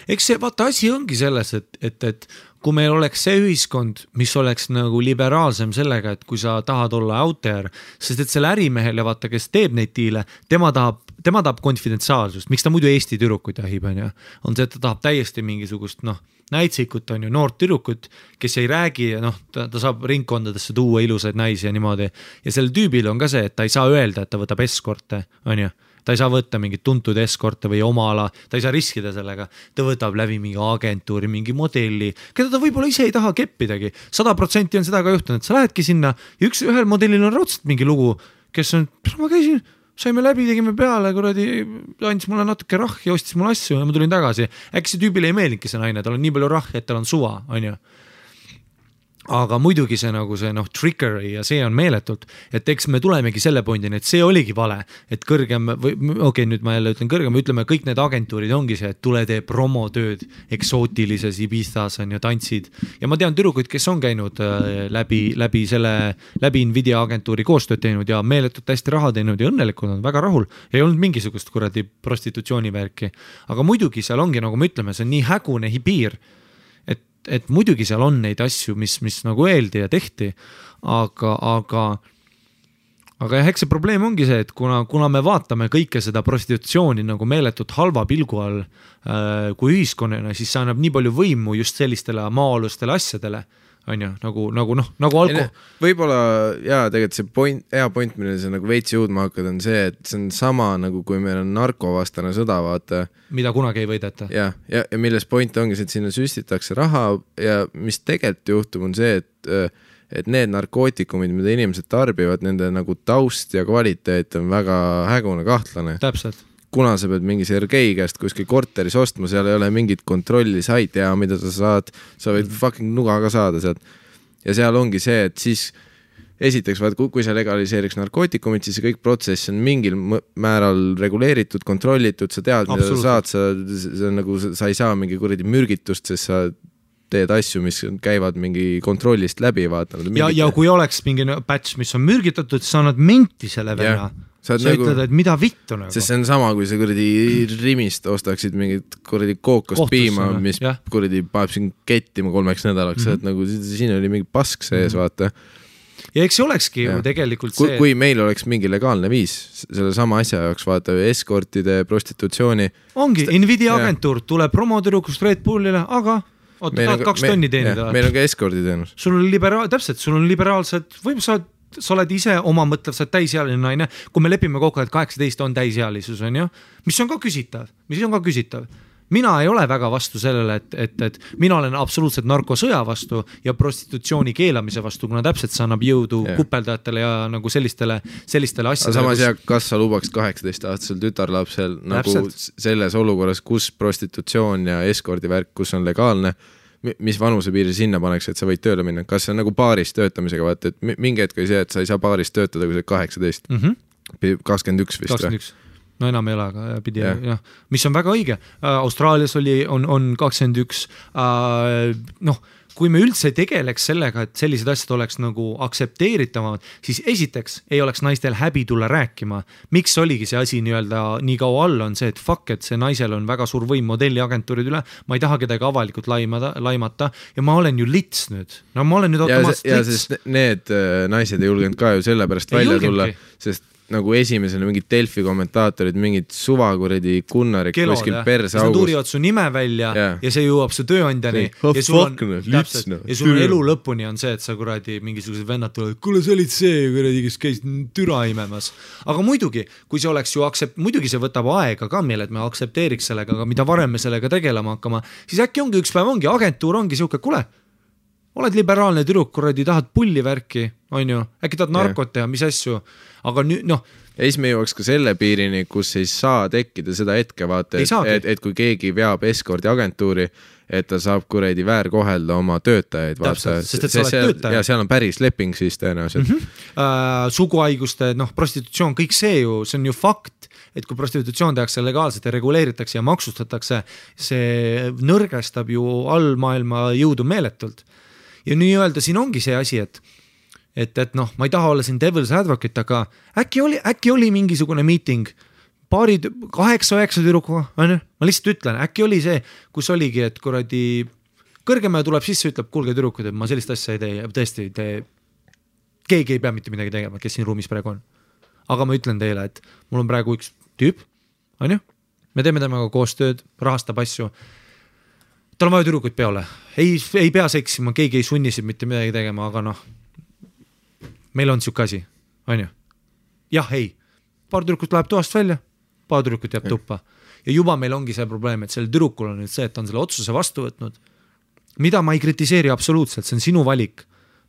Eks see, vaata, asi ongi selles, et kui meil oleks see ühiskond, mis oleks nagu liberaalsem sellega, et kui sa tahad olla out there, sest et selle ärimehele, vaata, kes teeb neid diile, tema tahab konfidentsiaalsust, miks ta muidu Eesti tüdrukuid jahib, on see, et ta tahab täiesti mingisugust, näitsikut on ju, noort tüdrukut, kes ei räägi, ta saab ringkondadesse tuua ilusaid naisi ja niimoodi. Ja selle tüübil on ka see, et ta ei saa öelda, et ta võtab eskorte, on ju. Ta ei saa võtta mingit tuntud eskorte või oma ala, ta ei saa riskida sellega, ta võtab läbi mingi agentuuri, mingi modelli, keda ta võib-olla ise ei taha keppidagi. 100% on seda ka juhtunud, sa lähedki sinna ja ühel modellil on raudselt mingi lugu, kes on, ma käisin, saime läbi, tegime peale, kuradi, andis mulle natuke rahhi, ostis mulle asju ja ma tulin tagasi. Äkki see tüübile ei meeldingi see naine, tal on nii palju rahhi, et tal on suva, on ju. Aga muidugi see nagu see trickery ja see on meeletult, et eks me tulemegi selle pointini, et see oligi vale, et kõrgem, nüüd ma jälle ütlen kõrgem, ütleme kõik need agentuurid ongi see, et tule tee promotööd eksootilises Ibizas on ju tantsid ja ma tean tüdrukuid, kes on käinud läbi Nvidia agentuuri koostööd teinud ja meeletult hästi raha teinud ja õnnelikud on väga rahul, ei olnud mingisugust kuradi prostitutsioonivärki, aga muidugi seal ongi, nagu me ütleme, see on nii hägune piir, et muidugi seal on neid asju, mis nagu öeldi ja tehti, aga jah, eks see probleem ongi see, et kuna me vaatame kõike seda prostitutsiooni nagu meeletult halva pilgu all kui ühiskonnana, siis see annab nii palju võimu just sellistele maa-alustele asjadele, on ju, nagu alko. Võib-olla, tegelikult see hea point, mille sa nagu veits jõudma hakkad, on see, et see on sama nagu kui meil on narkovastane sõda, vaata. Mida kunagi ei võideta. Ja milles point ongi see, et sinna süstitakse raha ja mis tegelikult juhtub on see, et need narkootikumid, mida inimesed tarbivad, nende nagu taust ja kvaliteet on väga hägune kahtlane. Täpselt. Kuna sa pead mingi Sergei käest kuskil korteris ostma, seal ei ole mingit kontrolli, sa ei tea, mida sa võid fucking nuga ka saada sealt. Ja seal ongi see, et siis esiteks, kui sa legaliseeriks narkootikumid, siis see kõik protsess on mingil määral reguleeritud, kontrollitud, sa tead, mida sa saad, sa ei saa mingi kuradi mürgitust, sest sa teed asju, mis käivad mingi kontrollist läbi, vaatanud. Ja kui oleks mingi patch, mis on mürgitatud, sa annad menti selle venna. Sa ütled, et mida vittu nagu. Sest see on sama, kui sa kuradi rimist ostaksid mingit kuradi kookost piima, mis kuradi paneb siin kettima 3 nädalaks, et nagu siin oli mingi pask sees, vaata. Ja eks see olekski ju tegelikult see... Kui meil oleks mingi legaalne viis selle sama asja jaoks, vaata, eskortide, prostitutsiooni... Ongi, Nvidia agentuur tuleb promotürukust Red Bullile, aga... tahad 2 tonni teenida. Meil on ka eskorditeenus. Sul on liberaalsed, võib-olla sa oled ise oma mõtlev, sa oled täisealine naine, kui me lepime kokku, et 18 on täisealisus, on ju, mis on ka küsitav. Mina ei ole väga vastu sellele, et mina olen absoluutselt narkosõja vastu ja prostitutsiooni keelamise vastu, kuna täpselt see annab jõudu kupeldajatele ja nagu sellistele asjadele. Samas kas sa lubaks 18-aastasel tütarlapsel nagu selles olukorras, kus prostitutsioon ja eskordivärk, kus on legaalne, mis vanusepiiri sinna paneks, et sa võid tööle minna? Kas see on nagu baaris töötamisega, vaata, et mingi hetk oli see, et sa ei saa baaris töötada, kui sa 18, 21 vist 21. No enam ei ole, aga pidi, mis on väga õige. Austraalias on 21, kui me üldse tegeleks sellega, et sellised asjad oleks nagu aksepteeritavad, siis esiteks ei oleks naistel häbi tulla rääkima. Miks oligi see asi nii kaua all on see, et fuck, et see naisel on väga suur võim modelliagentuurid üle, ma ei taha kedagi avalikult laimata ja ma olen ju lits nüüd. No ma olen nüüd automaatselt lits. Ja sest need naised ei julgenud ka ju sellepärast välja tulla, sest nagu esimesena mingid Delfi kommentaatorid, mingid suvakuredi kunnarid kuskil perse augus. Nad uurivad su nime välja ja see jõuab su tööandjani ja sul on elu lõpuni on see, et sa kuradi mingisugused vennad tulevad, kuule sa olid see kuradi, kes käis türa imemas. Aga muidugi, kui see oleks ju muidugi see võtab aega ka meil, et me aktsepteeriks sellega, aga mida varem me sellega tegelema hakkama, siis äkki ongi üks päev ongi, agentuur ongi siuke, kuule, oled liberaalne tüdruk, kuradi, tahad pulli värki, on ju, äkki tahad narkot teha, mis asju, aga nüüd, noh. Ja siis me jõuaks ka selle piirini, kus ei saa tekkida seda hetke, vaata, et kui keegi veab eskordi agentuuri, et ta saab kuradi väärkohelda oma töötajaid, vaata. Sest et sa oled töötaja. Ja seal on päris leping siis tõenäoliselt. Suguhaiguste, prostitutsioon, kõik see ju, see on ju fakt, et kui prostitutsioon tehakse legaalselt ja reguleeritakse ja maksustatakse, see nõrgestab ju all maailma jõudu meeletult. Ja nii öelda, siin ongi see asi, et noh, ma ei taha olla siin devil's advocate, aga äkki oli mingisugune meeting 8-9 tüdrukuga, ma lihtsalt ütlen, äkki oli see, kus oligi, et kuradi kõrgema tuleb sisse, ütleb, kuulge tüdrukud, et ma sellist asja ei tee ja tõesti, keegi ei pea mitte midagi tegema, kes siin ruumis praegu on. Aga ma ütlen teile, et mul on praegu üks tüüp, on ju, me teeme temaga koostööd, rahastab asju, tal on vaja tüdrukuid peole, ei pea seksima, keegi ei sunnisid mitte midagi tegema, aga noh, meil on siuke asi, on ju? Jah, ei, paar tüdrukut läheb toast välja, paar tüdrukut jääb tuppa ja juba meil ongi see probleem, et sellel tüdrukul on nüüd see, et ta on selle otsuse vastu võtnud, mida ma ei kritiseeri absoluutselt, see on sinu valik.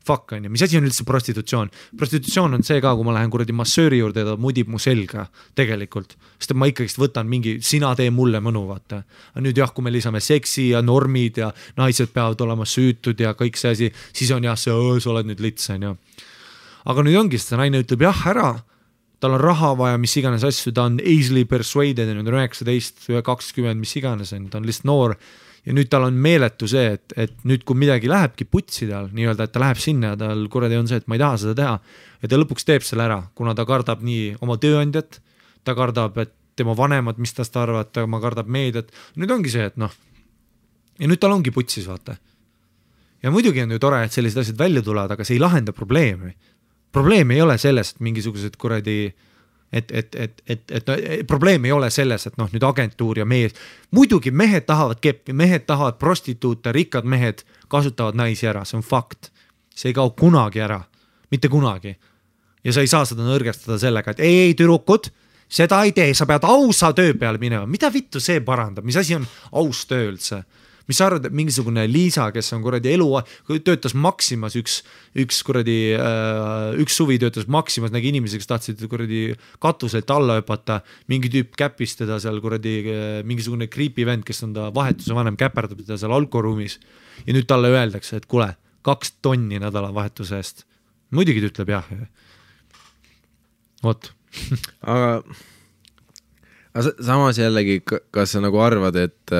Fuck on ju, mis asi on üldse prostitutsioon? Prostitutsioon on see ka, kui ma lähen kuradi massööri juurde ja ta mudib mu selga tegelikult, sest ma ikkagi võtan mingi, sina tee mulle mõnu, vaata. Nüüd jah, kui me lisame seksi ja normid ja naised peavad olema süütud ja kõik see asi, siis on jah, sa oled nüüd lits, on ju. Aga nüüd ongi, sest naine ütleb jah ära, tal on raha vaja, mis iganes asju, ta on easily persuaded, nüüd on 19, 20, mis iganes, ta on lihtsalt noor. Ja nüüd tal on meeletu see, et nüüd kui midagi lähebki putsi tal, nii-öelda, et ta läheb sinna ja tal kuradi on see, et ma ei taha seda teha ja ta lõpuks teeb selle ära, kuna ta kardab nii oma tööandjat, ta kardab, et tema vanemad, mis tast arvad, ta kardab meediat, nüüd ongi see, et noh ja nüüd tal ongi putsis, vaata ja muidugi on ju tore, et sellised asjad välja tulevad, aga see ei lahenda probleemi ei ole selles, et mingisugused kuradi probleem ei ole selles, et noh, nüüd agentuur ja mees, muidugi mehed tahavad keppi, mehed tahavad prostituute, rikkad mehed kasutavad naisi ära, see on fakt, see ei kao kunagi ära, mitte kunagi ja sa ei saa seda nõrgestada sellega, et ei tüdrukud, seda ei tee, sa pead ausa töö peale minema, mida vittu see parandab, mis asi on aus töö üldse? Mis sa arvad, et mingisugune Liisa, kes on kuradi töötas Maximas, üks suvi töötas Maximas, nägi inimesi, kes tahtsid kuradi katuselt alla hüpata, mingi tüüp käpis teda seal kuradi mingisugune creepy vend, kes on ta vahetuse vanem, käperdab teda seal alkoruumis ja nüüd talle öeldakse, et kuule, 2 tonni nädalavahetuse eest. Muidugi ta ütleb jah. Vot. aga samas jällegi, kas sa nagu arvad, et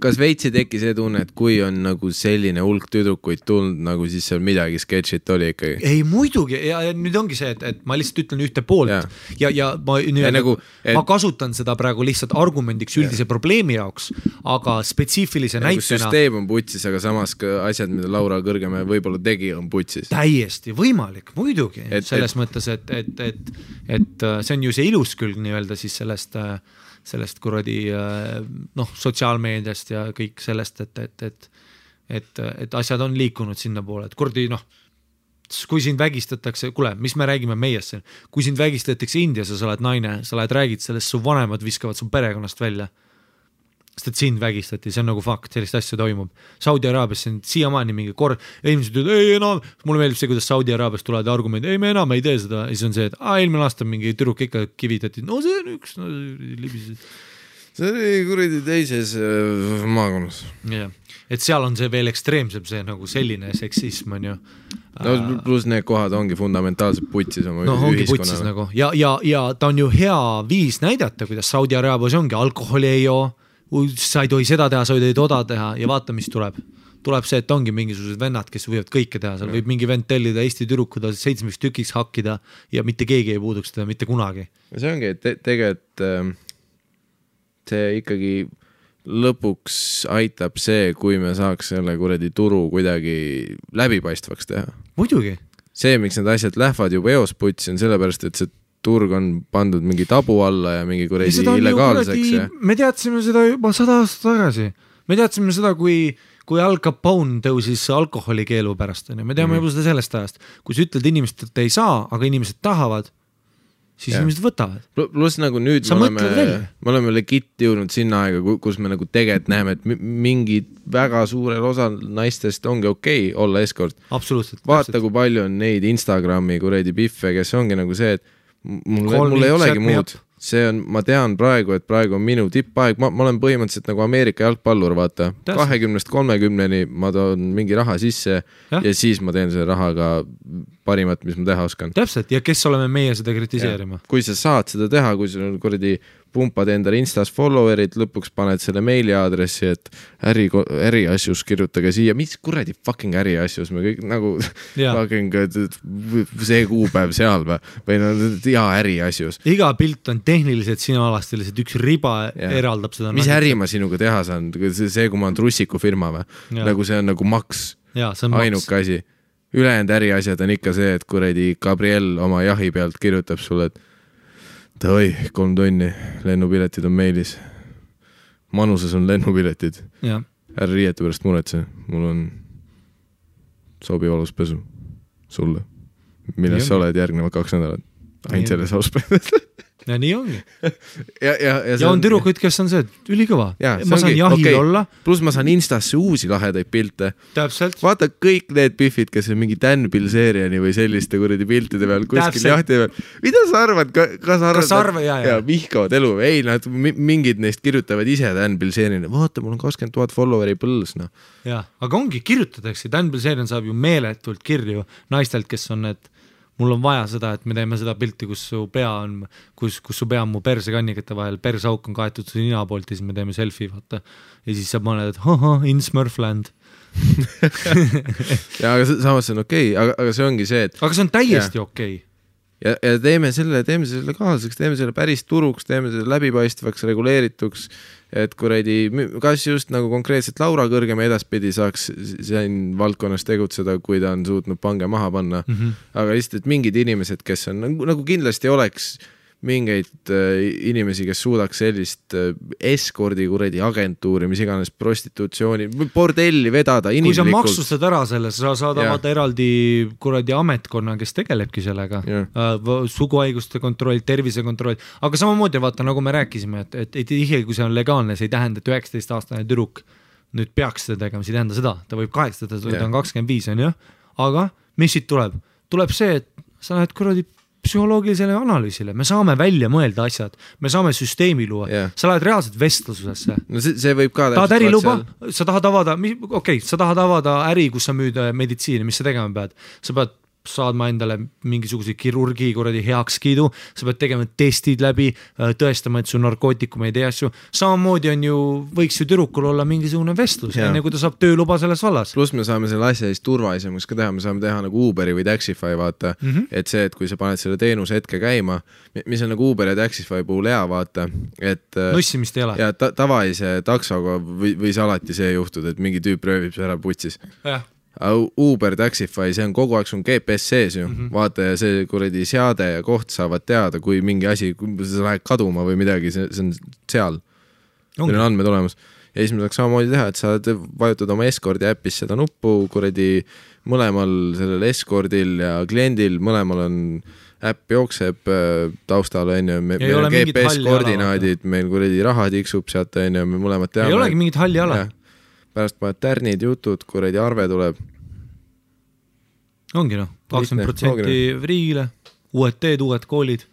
kas veitsi teki see tunne, et kui on nagu selline hulk tüdrukuid tulnud, nagu siis seal midagi sketšit oli ikkagi? Ei, muidugi, ja nüüd ongi see, et ma lihtsalt ütlen ühte poolt ja ma kasutan seda praegu lihtsalt argumendiks üldise probleemi jaoks, aga spetsiifilise näitena süsteem on putsis, aga samas ka asjad, mida Laura Kõrgemäe võib-olla tegi, on putsis. Täiesti võimalik, muidugi, selles mõttes, et see on ju see ilus külg nii-öelda siis sellest kuradi sotsiaalmeediast ja kõik sellest, et asjad on liikunud sinna poole, et kuradi kui sind vägistatakse, kuule, mis me räägime meiest siin, kui sind vägistatakse Indias ja sa oled naine, sa räägid sellest, su vanemad viskavad su perekonnast välja, sest et sind vägistati, see on nagu fakt, sellist asja toimub. Saudi Araabias on siiamaani mingi inimesed ütlevad, ei enam, mulle meeldib see, kuidas Saudi Araabias tulevad argumendid, ei me enam ei tee seda, ja siis on see, et eelmine aasta mingi tüdruk ikka kivitati, no see on üks, libised. See oli kuradi teises maakonnas. Ja, et seal on see veel ekstreemsem, see nagu selline seksism on ju. No pluss need kohad ongi fundamentaalselt putsis oma ühiskonnale. Nagu. Ja ta on ju hea viis näidata, kuidas Saudi Araabias ongi, alkoholi ei joo, sa ei tohi seda teha, sa ei tohi toda teha ja vaata, mis tuleb. Tuleb see, et ongi mingisugused vennad, kes võivad kõike teha, seal võib mingi vend tellida Eesti tüdrukuda 7 tükiks hakkida ja mitte keegi ei puuduks teda mitte kunagi. See ongi, et tegelikult see ikkagi lõpuks aitab see, kui me saaks selle kuradi turu kuidagi läbipaistvaks teha. Muidugi. see, miks need asjad lähevad juba eos putsi, on sellepärast, et see turg on pandud mingi tabu alla ja mingi kuradi illegaalseks. Me teadsime seda juba 100 aastat tagasi. Me teadsime seda, kui Al Capone tõusis alkoholikeelu pärast. Me teame juba seda sellest ajast. Kui sa ütled inimesed, et ei saa, aga inimesed tahavad, siis inimesed võtavad. Plus nagu nüüd me oleme legit jõudnud sinna aega, kus me nagu tegelikult näeme, et mingid väga suurel osal naistest ongi okei olla eskort. Absoluutselt. Vaata, kui palju on neid Instagrami kuradi biffe, kes ongi nagu see, et mul ei olegi muud. See on, ma tean praegu, et praegu on minu tippaeg. Ma olen põhimõtteliselt nagu Ameerika jalgpallur, vaata. 20-30-ni ma toon mingi raha sisse ja siis ma teen selle rahaga parimat, mis ma teha oskan. Täpselt, ja kes oleme meie seda kritiseerima? Kui sa saad seda teha, kui sul on kuradi pumpad endale Instas followerid, lõpuks paned selle meiliaadressi, et äriasjus kirjutage siia, mis kuradi fucking äriasjus, me kõik nagu fucking see kuupäev seal või no äriasjus. Iga pilt on tehniliselt sinualastiliselt, üks riba eraldab seda. Mis äri ma sinuga teha saan? See, kui ma on trussiku firma või? Nagu see on nagu maks, ainuke asi. Ülejäänud äriasjad on ikka see, et kuradi Gabriel oma jahi pealt kirjutab sulle, et oi, 3 tonni, lennupiletid on meilis. Manuses on lennupiletid. Ära riiete pärast muretse, mul on sobiv aluspesu sulle. Milles sa oled järgnevad 2 nädalat? Ainult selles aluspesu. Ja nii ongi. Ja on türukuid, kes on see, et ülikõva. Ma saan jahil olla. Plus ma saan Instasse uusi lahedaid pilte. Täpselt. Vaata kõik need biffid, kes on mingi Dan Bilzeriani või selliste kuradi piltide peal kuskil jahti peal. Mida sa arvad? Kas arvad? Ja vihkavad elu. Ei, nad mingid neist kirjutavad ise Dan Bilzeriani. Vaata, mul on 20 000 followeri põls. No. Ja, aga ongi, kirjutatakse. Dan Bilzerian saab ju meeletult kirju naistelt, kes on need mul on vaja seda, et me teeme seda pilti, kus su pea on mu persekannikete vahel, persauk on kaetud su nina poolt ja siis me teeme selfie, vaata. Ja siis sa paned, et in Smurfland. Ja, aga samas see on okei, aga see ongi see, et... Aga see on täiesti okei. Ja teeme selle legaalseks, teeme selle päris turuks, teeme selle läbipaistvaks, reguleerituks, et kuradi, kas just nagu konkreetselt Laura Kõrgem edaspidi saaks siin valdkonnas tegutseda, kui ta on suutnud pange maha panna. Aga lihtsalt, et mingid inimesed, kes on nagu kindlasti oleks mingeid inimesi, kes suudaks sellist eskordi kuradi agentuuri, mis iganes prostitutsiooni, bordelli vedada inimlikult. Kui sa maksustad ära selle, sa saadavad eraldi kuradi ametkonna, kes tegelebki sellega. Suguhaiguste kontroll, tervisekontroll. Aga samamoodi vaata, nagu me rääkisime, et tihti, kui see on legaalne, see ei tähenda, et 19-aastane tüdruk nüüd peaks seda tegema, see ei tähenda seda. Ta võib 18, ta on 25, on jah. Aga mis siit tuleb? Tuleb see, et sa lähed kuradi psühholoogilisele analüüsile, me saame välja mõelda asjad, me saame süsteemi luua, sa lähed reaalselt vestlusesse. No see võib ka tahad äriluba, sa tahad avada äri, kus sa müüd meditsiini, mis sa tegema pead, sa pead saadma endale mingisuguse kirurgi kuradi heakskiidu, sa pead tegema testid läbi, tõestama, et su narkootikum ei tee asju. Samamoodi on ju, võiks ju tüdrukul olla mingisugune vestlus, enne kui ta saab tööluba selles vallas. Plus me saame selle asja siis turvalisemaks ka teha, me saame teha nagu Uberi või Taxify, vaata, et see, et kui sa paned selle teenuse hetke käima, mis on nagu Uber ja Taxify puhul hea, vaata, et nussimist ei ole. Ja tavalise taksoga võis alati see juhtud, et mingi tüüp röövib see ära putsis. Jah. Uber, Taxify, see on kogu aeg sun GPS sees ju, vaata ja see kuradi seade ja koht saavad teada, kui mingi asi, kui sa lähed kaduma või midagi, see on seal. Meil on andmed olemas. Ja siis me saaks samamoodi teha, et sa vajutad oma eskordi äppis seda nuppu, kuradi mõlemal sellel eskordil ja kliendil, mõlemal on äpp jookseb taustal, meil on GPS-koordinaadid, meil kuradi raha tiksub sealt, me mõlemad teame. Ei olegi mingit halli ala. Pärast paned tärnid, jutud, kuradi arve tuleb. Ongi 20% riigile, uued teed, uued koolid.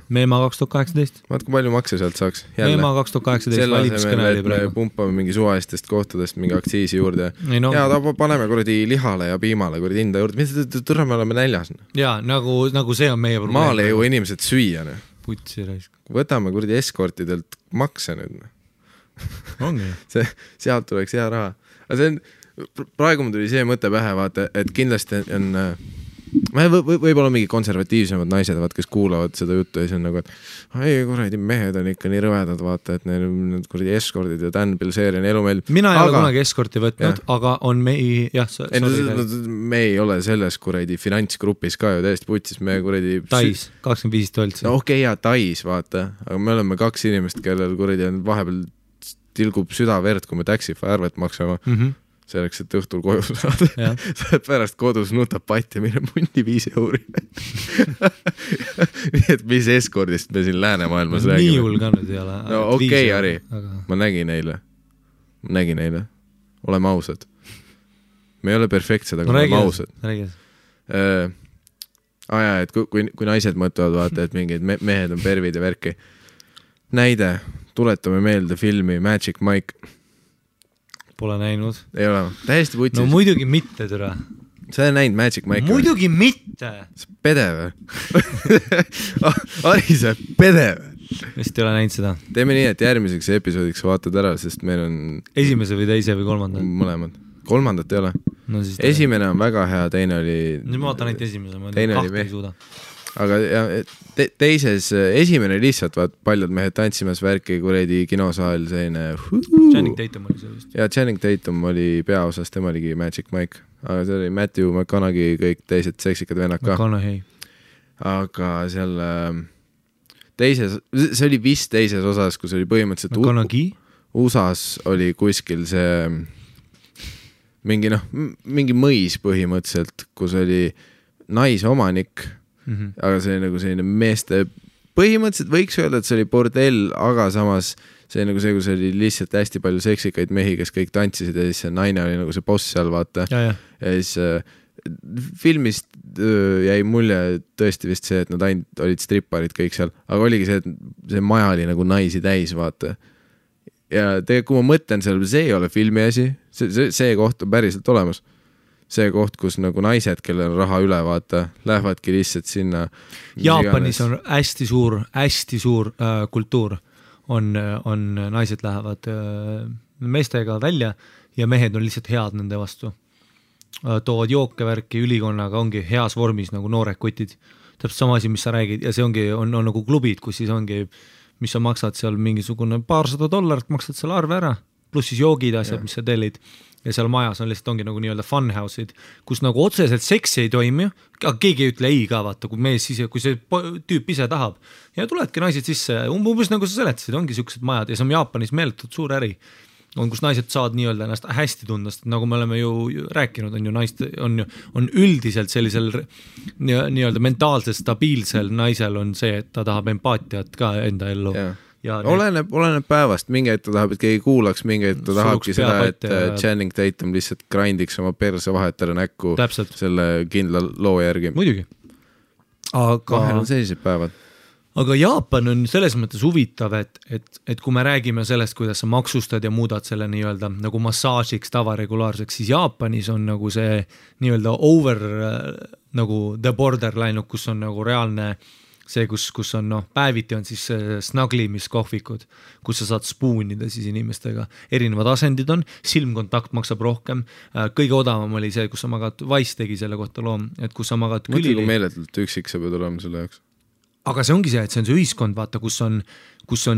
Meema 2018. Vaat kui palju makse sealt saaks. Meema 2018 valimiskõneli praegu. Pumpame mingi suvalistest kohtadest mingi aktsiisi juurde. Ja paneme kuradi lihale ja piimale kuradi hinda juurde. Mis tõrra me oleme näljas? Ja, nagu see on meie probleem. Maale ju inimesed süüa. Putsi raisk. Võtame kuradi eskortidelt makse nüüd. Sealt tuleks hea raha. Aga see on, praegu mul tuli see mõte pähe, vaata, et kindlasti on võib-olla mingi konservatiivsemad naised, vaat, kes kuulavad seda juttu ja siis on nagu, et ei, kuradi mehed on ikka nii rõvedad, vaata, et neil on kuradi eskordid ja Dan Bilzerian elu meil. Mina ei ole kunagi eskorti võtnud, aga on me ei ole selles kuradi finantsgrupis ka ju täiesti putsis, me kuradi Tais, 25 toltsi. No okei, ja Tais, vaata, aga me oleme 2 inimest, kellel kuradi on vahepeal tilgub südaverd, kui me Taxify arvet maksame. Selleks, et õhtul koju saada. Sa pärast kodus nutab patti, mille mundi 5 euri. Nii et mis eskordist me siin läänemaailmas räägime. Nii hull ka nüüd ei ole. No okei, Ari, ma nägin eile. Oleme ausad. Me ei ole perfektsed, aga oleme ausad. Et kui naised mõtlevad, vaata, et mingid mehed on pervid ja värki. Näide, tuletame meelde filmi Magic Mike. Pole näinud. Ei ole, täiesti putsis. No muidugi mitte, türa. Sa ei näinud Magic Mike'i? Muidugi mitte. Sa pede või? Ari, sa pede või? Vist ei ole näinud seda. Teeme nii, et järgmiseks episoodiks vaatad ära, sest meil on... Esimese või teise või kolmanda? Mõlemad. Kolmandat ei ole. No, esimene on väga hea, teine oli... Nüüd ma vaatan ainult esimese, ma kahte ei suuda. Aga teises, esimene lihtsalt vaat paljud mehed tantsimas värki kuredi kinosaal selline Channing Tatum oli see vist. Ja Channing Tatum oli peaosas, tema oligi Magic Mike, aga see oli Matthew McConaughey, kõik teised seksikad vennad ka. Aga seal teises, see oli vist teises osas, kus oli põhimõtteliselt USAs oli kuskil see mingi mõis põhimõtteliselt, kus oli naisomanik. Aga see nagu selline meeste põhimõtteliselt võiks öelda, et see oli bordell, aga samas see nagu see, kus oli lihtsalt hästi palju seksikaid mehi, kes kõik tantsisid ja siis see naine oli nagu see boss seal, vaata. Ja siis filmist jäi mulje tõesti vist see, et nad ainult olid stripparid kõik seal, aga oligi see, et see maja oli nagu naisi täis, vaata. Ja kui ma mõtlen seal, see ei ole filmi asi, see koht on päriselt olemas. See koht, kus nagu naised, kellel on raha üle, vaata, lähevadki lihtsalt sinna. Jaapanis on hästi suur kultuur. On naised lähevad meestega välja ja mehed on lihtsalt head nende vastu. Toovad jookevärki ülikonnaga, ongi heas vormis nagu noored kutid. Täpselt sama asi, mis sa räägid ja see on nagu klubid, kus siis ongi, mis sa maksad seal mingisugune $200, maksad selle arve ära, pluss siis joogid asjad, mis sa tellid. Ja seal majas on lihtsalt ongi nagu nii-öelda funhouse'id, kus nagu otseselt seksi ei toimi, aga keegi ei ütle ei ka, vaata, kui see tüüp ise tahab. Ja tuledki naised sisse, umbes nagu sa seletasid, ongi siuksed majad ja see on Jaapanis meeletult suur äri. On, kus naised saavad nii-öelda ennast hästi tunda, sest nagu me oleme ju rääkinud, on ju naist, on üldiselt sellisel nii-öelda mentaalselt stabiilsel naisel on see, et ta tahab empaatiat ka enda ellu. Oleneb päevast, mingi hetk ta tahab, et keegi kuulaks, mingi hetk ta tahabki seda, et Channing Tatum lihtsalt grindiks oma perse vahetara näkku selle kindla loo järgi. Muidugi. Vahel on sellised päevad. Aga Jaapan on selles mõttes huvitav, et kui me räägime sellest, kuidas sa maksustad ja muudad selle nii-öelda nagu massaažiks tavaregulaarseks, siis Jaapanis on nagu see nii-öelda over nagu the borderline, kus on nagu reaalne see, kus on päeviti on siis snaglimiskohvikud, kus sa saad spoonida siis inimestega. Erinevad asendid on, silmkontakt maksab rohkem. Kõige odavam oli see, kus sa magad, Wise tegi selle kohta loom, et kus sa magad külili. Mõtli, kui meeletult üksik sa pead olema selle jaoks. Aga see ongi see, et see on see ühiskond, vaata, kus on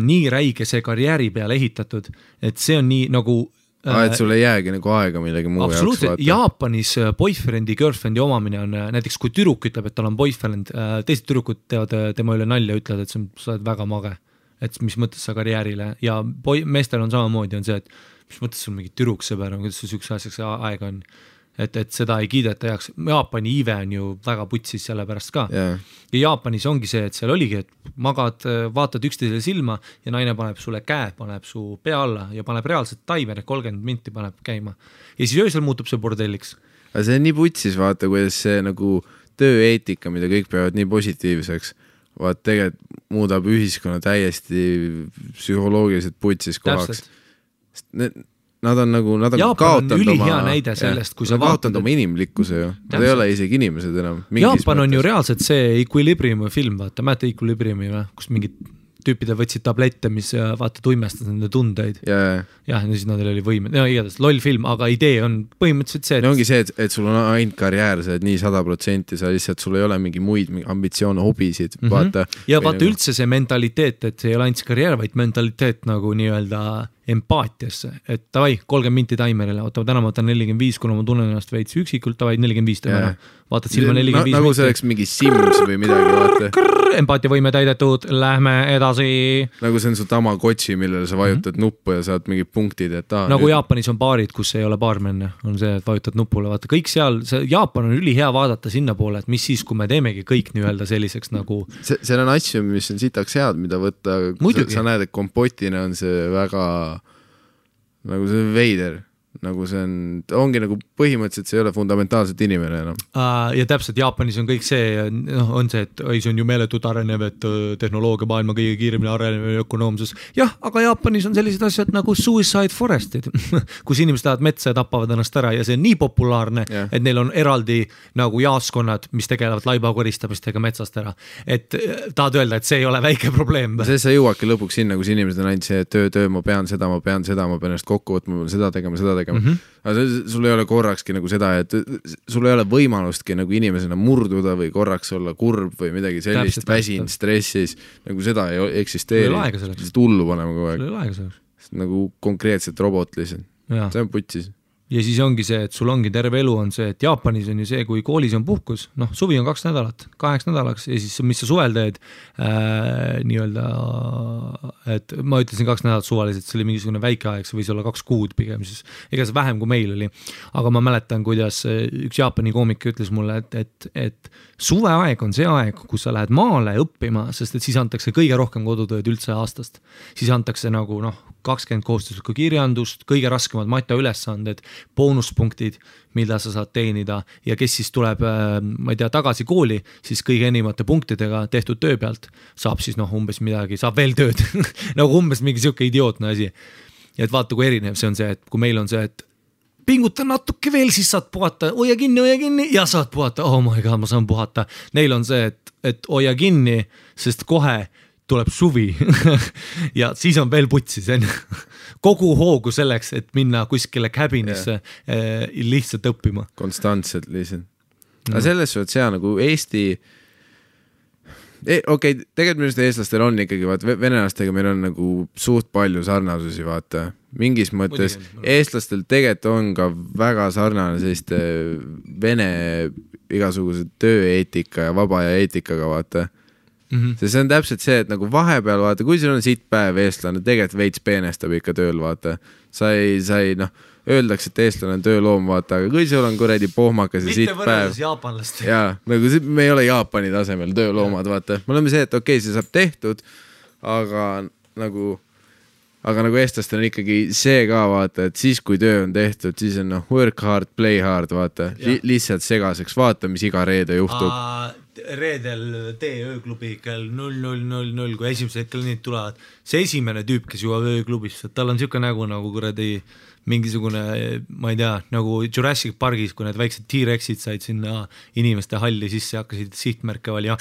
nii räige see karjääri peale ehitatud, et see on nii nagu et sul ei jäägi nagu aega millegi muu jaoks vaata. Jaapanis boyfriend'i, girlfriend'i omamine on näiteks, kui tüdruk ütleb, et tal on boyfriend, teised tüdrukud teevad tema üle nalja, ütlevad, et sa oled väga mage, et mis mõttes sa karjäärile ja meestel on samamoodi on see, et mis mõttes sul mingi türuksõber on, kuidas sul sükse asjaks aega on, et seda ei kiideta heaks. Jaapani iive on ju väga putsis selle pärast ka. Ja Jaapanis ongi see, et seal oligi, et magad, vaatad üksteisele silma ja naine paneb sulle käe, paneb su pea alla ja paneb reaalselt taimer, 30 minti paneb käima. Ja siis öösel muutub see bordelliks. Aga see on nii putsis, vaata, kuidas see nagu tööeetika, mida kõik peavad nii positiivseks, vaat tegelikult muudab ühiskonna täiesti psühholoogiliselt putsis kohaks. Nad on kaotanud oma inimlikkuse ju. Nad ei ole isegi inimesed enam. Jaapan on ju reaalselt see Equilibriumi film, vaata, mäeta Equilibriumi või, kus mingid tüüpidel võtsid tablette, mis vaata tuimestas nende tundeid. ja siis nendel oli võime, igatahes loll film, aga idee on põhimõtteliselt see, et ongi see, et sul on ainult karjäär, sa oled nii 100%, sa lihtsalt, sul ei ole mingi muid ambitsioone, hobisid, vaata. Ja vaata nagu... üldse see mentaliteet, et see ei ole ainult karjäär, vaid mentaliteet nagu nii-öelda empaatiasse, et davai, 30 minti taimerile, täna ma võtan 45, kuna ma tunnen ennast veits üksikult, davai 45 teeme ära. Vaatad silma 45 nagu see oleks mingi Sims või midagi, vaata. Empaatia võime täidetud, lähme edasi. Nagu see on su Tamagotchi, millele sa vajutad nuppu ja saad mingid punktid, et nagu nüüd... Jaapanis on baarid, kus ei ole baarmenne, on see, et vajutad nupule, vaata kõik seal, Jaapan on ülihea vaadata sinna poole, et mis siis, kui me teemegi kõik nii-öelda selliseks nagu seal on asju, mis on sitaks head, mida võtta, sa näed, et kompotina on see väga nagu see veider, nagu see ongi nagu põhimõtteliselt see ei ole fundamentaalselt inimene enam. Ja täpselt Jaapanis on kõik see, on see, et see on ju meeletult arenev, et tehnoloogia maailma kõige kiiremini arenev ökonoomsus. Jah, aga Jaapanis on sellised asjad nagu suicide forestid, kus inimesed lähevad metsa ja tapavad ennast ära ja see on nii populaarne, et neil on eraldi nagu jaaskonnad, mis tegelevad laibakoristamistega metsast ära. Et tahad öelda, et see ei ole väike probleem. See sa jõuadki lõpuks sinna, kus inimesed on ainult see töö, ma pean seda, ma pean ennast kokku võtma, ma pean seda tegema. Aga sul ei ole korrakski nagu seda, et sul ei ole võimalustki nagu inimesena murduda või korraks olla kurb või midagi sellist, väsin, stressis, nagu seda ei eksisteeri. Tullu panema kogu aeg. Nagu konkreetselt robot lihtsalt. See on putsis. Ja siis ongi see, et sul ongi terve elu on see, et Jaapanis on ju see, kui koolis on puhkus, suvi on 2 nädalat, 8 nädalaks ja siis mis sa suvel teed nii-öelda, et ma ütlesin 2 nädalat suvaliselt, see oli mingisugune väike aeg, see võis olla 2 kuud pigem, siis ega see vähem kui meil oli, aga ma mäletan, kuidas üks Jaapani koomik ütles mulle, et suveaeg on see aeg, kus sa lähed maale õppima, sest et siis antakse kõige rohkem kodutööd üldse aastast, siis antakse nagu 20 kohustuslikku kirjandust, kõige raskemad mataülesanded, boonuspunktid, mida sa saad teenida ja kes siis tuleb, ma ei tea, tagasi kooli, siis kõige enimate punktidega tehtud töö pealt saab siis umbes midagi, saab veel tööd, nagu umbes mingi siuke idiootne asi. Ja et vaata, kui erinev see on see, et kui meil on see, et pinguta natuke veel, siis saad puhata, hoia kinni ja saad puhata, oh my god, ma saan puhata. Neil on see, et hoia kinni, sest kohe tuleb suvi ja siis on veel putsis kogu hoogu selleks, et minna kuskile cabinisse lihtsalt õppima. Konstantselt lihtsalt. Aga selles suhtes see nagu Eesti okei, tegelikult minu eestlastel on ikkagi, venelastega meil on nagu suht palju sarnasusi, vaata. Mingis mõttes eestlastel tegelikult on ka väga sarnane selliste vene igasuguse tööeetika ja vaba ja eetikaga, vaata. See on täpselt see, et nagu vahepeal vaata, kui sul on siit päev eestlane, tegelikult veits peenestab ikka tööl, vaata. Sa ei öeldakse, et eestlane on tööloom, vaata, aga kui sul on kuredi pohmakas ja siit päev. Mitte võrreldes jaapanlast. Jaa, nagu me ei ole Jaapani tasemel tööloomad, vaata. Me oleme see, et okei, see saab tehtud, aga nagu eestlastel on ikkagi see ka, vaata, et siis kui töö on tehtud, siis on work hard, play hard, vaata. Lihtsalt segaseks, vaata, mis iga reede juhtub. Reedel tee ööklubi kell 00:00, kui esimesed kliendid tulevad. See esimene tüüp, kes jõuab ööklubisse, tal on siuke nägu nagu kuradi mingisugune, ma ei tea, nagu Jurassic Pargis, kui need väiksed T-Rexid said sinna inimeste halli sisse, hakkasid sihtmärke valima,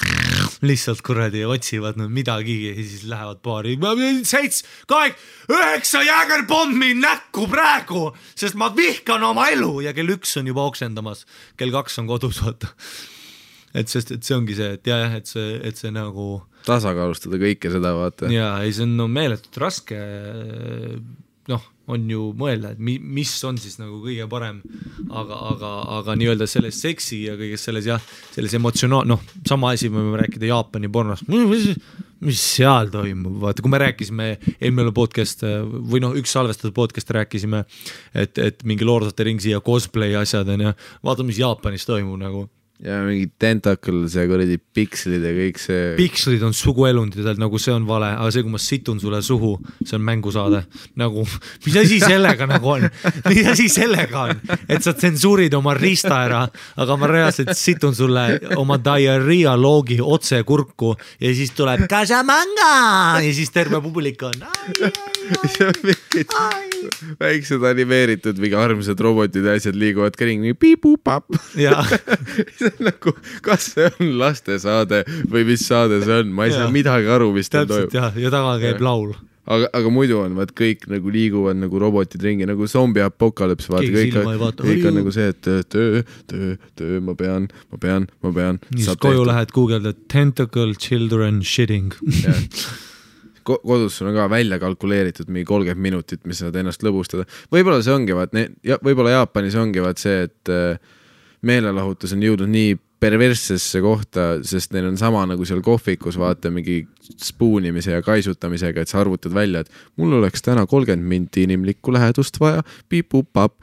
lihtsalt kuradi otsivad midagi ja siis lähevad baari. 7, 8, 9 jäägerpommi näkku praegu, sest ma vihkan oma elu ja kell 1 on juba oksendamas, kell 2 on kodus, vaata. Et see ongi see, et see nagu tasakaalustada kõike seda, vaata. Ja see on meeletult raske, on ju mõelda, et mis on siis nagu kõige parem, aga nii-öelda selles seksi ja kõiges selles emotsionaal, sama asi me võime rääkida Jaapani pornost, mis seal toimub, vaata, kui me rääkisime eelmine podcast või üks salvestatud podcast rääkisime, et mingi Lord of the Ringsi ja cosplay asjad on ja vaata, mis Jaapanis toimub nagu. Ja mingi tentacles ja kuradi pikslid ja kõik see. Pikslid on suguelundid, nagu see on vale, aga see, kui ma situn sulle suhu, see on mängusaade. Nagu, mis asi sellega nagu on? Mis asi sellega on? Et sa tsensuurid oma rista ära, aga ma reaalselt situn sulle oma diarrhea loogi otse kurku ja siis tuleb Casamanga ja siis terve publik on väiksed animeeritud mingi armsad robotid ja asjad liiguvad ka ringi piip-pup-pap. See on nagu, kas see on lastesaade või mis saade see on, ma ei saa midagi aru, mis ta toimub. Täpselt ja taga käib laul. Aga muidu on, vaat kõik nagu liiguvad nagu robotid ringi, nagu zombi apokalüps, vaata, kõik on nagu see, et töö, ma pean. Siis koju lähed Google'da tentacle children shitting. Kodus sul on ka välja kalkuleeritud mingi 30 minutit, mis saad ennast lõbustada. Võib-olla see ongi, võib-olla Jaapanis ongi see, et meelelahutus on jõudnud nii perverssesse kohta, sest neil on sama nagu seal kohvikus, vaata mingi spuunimise ja kaisutamisega, et sa arvutad välja, et mul oleks täna 30 minti inimlikku lähedust vaja, piip-pup-pap,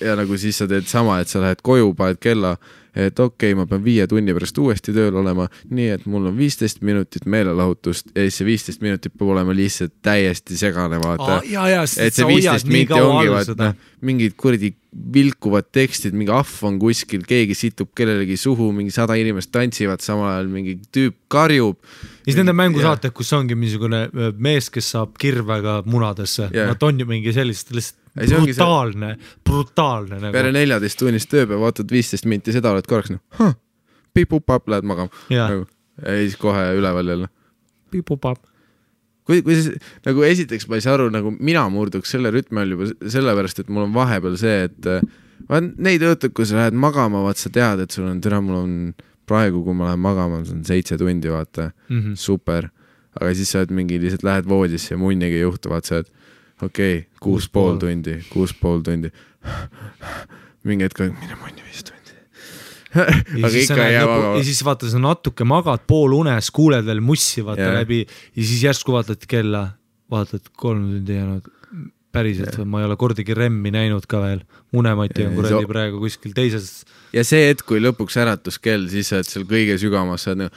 ja nagu siis sa teed sama, et sa lähed koju, paned kella, et okei, ma pean 5 tunni pärast uuesti tööl olema, nii et mul on 15 minutit meelelahutust ja siis see 15 minutit peab olema lihtsalt täiesti segane, vaata. Et see 15 minti ongi, vaata, mingid kuradi vilkuvad tekstid, mingi ahv on kuskil, keegi situb kellelegi suhu, mingi 100 inimest tantsivad samal ajal, mingi tüüp karjub. Ja siis nende mängusaated, kus ongi mingisugune mees, kes saab kirvega munadesse. Nad on ju mingi sellist brutaalne nagu. Peale 14 tunnist tööpäev, vaatad 15 minti, seda oled korraks piip-pup-pap, lähed magama. Ja siis kohe üleval jälle. Piip-pup-pap. Kui nagu esiteks ma ei saa aru, nagu mina murduks selle rütmi all juba sellepärast, et mul on vahepeal see, et neid õhtud, kui sa lähed magama, vaat sa tead, et sul on mul on praegu, kui ma lähen magama, see on 7 tundi, vaata, super. Aga siis sa lihtsalt lähed voodisse ja munnigi ei juhtu, vaat sa, et okei, 6,5 tundi. Mingi hetk, mine munni 5 tundi. Aga ikka ei jää magama. Ja siis vaata, sa natuke magad pool unes, kuuled veel mussi vaata läbi ja siis järsku vaatad kella, vaatad 3 tundi jäänud. Päriselt, ma ei ole kordagi remmi näinud ka veel. Unemati on kuradi praegu kuskil teises. Ja see hetk, kui lõpuks äratus-kell, siis sa oled seal kõige sügamas, sa oled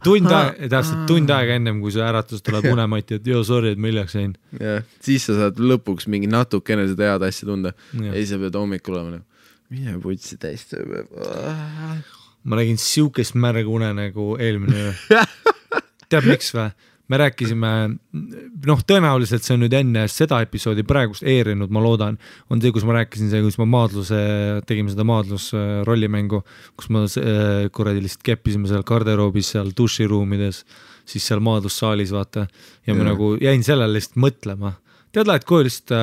tund aega ennem, kui see äratus tuleb unemati, et sorry, et ma hiljaks jäin. Siis sa saad lõpuks mingi natukene seda head asja tunda ja siis sa pead hommikul olema mine putsi täis tööpäev. Ma nägin siukest märg une nagu eelmine teab miks või? Me rääkisime, tõenäoliselt see on nüüd enne seda episoodi praegust eerinud, ma loodan, on see, kus ma rääkisin see, kus ma tegime seda maadlus rollimängu, kus ma kuradi lihtsalt keppisime seal garderoobis, seal duširuumides, siis seal maadlussaalis vaata ja ma nagu jäin sellele lihtsalt mõtlema. Tead, lähed koju lihtsalt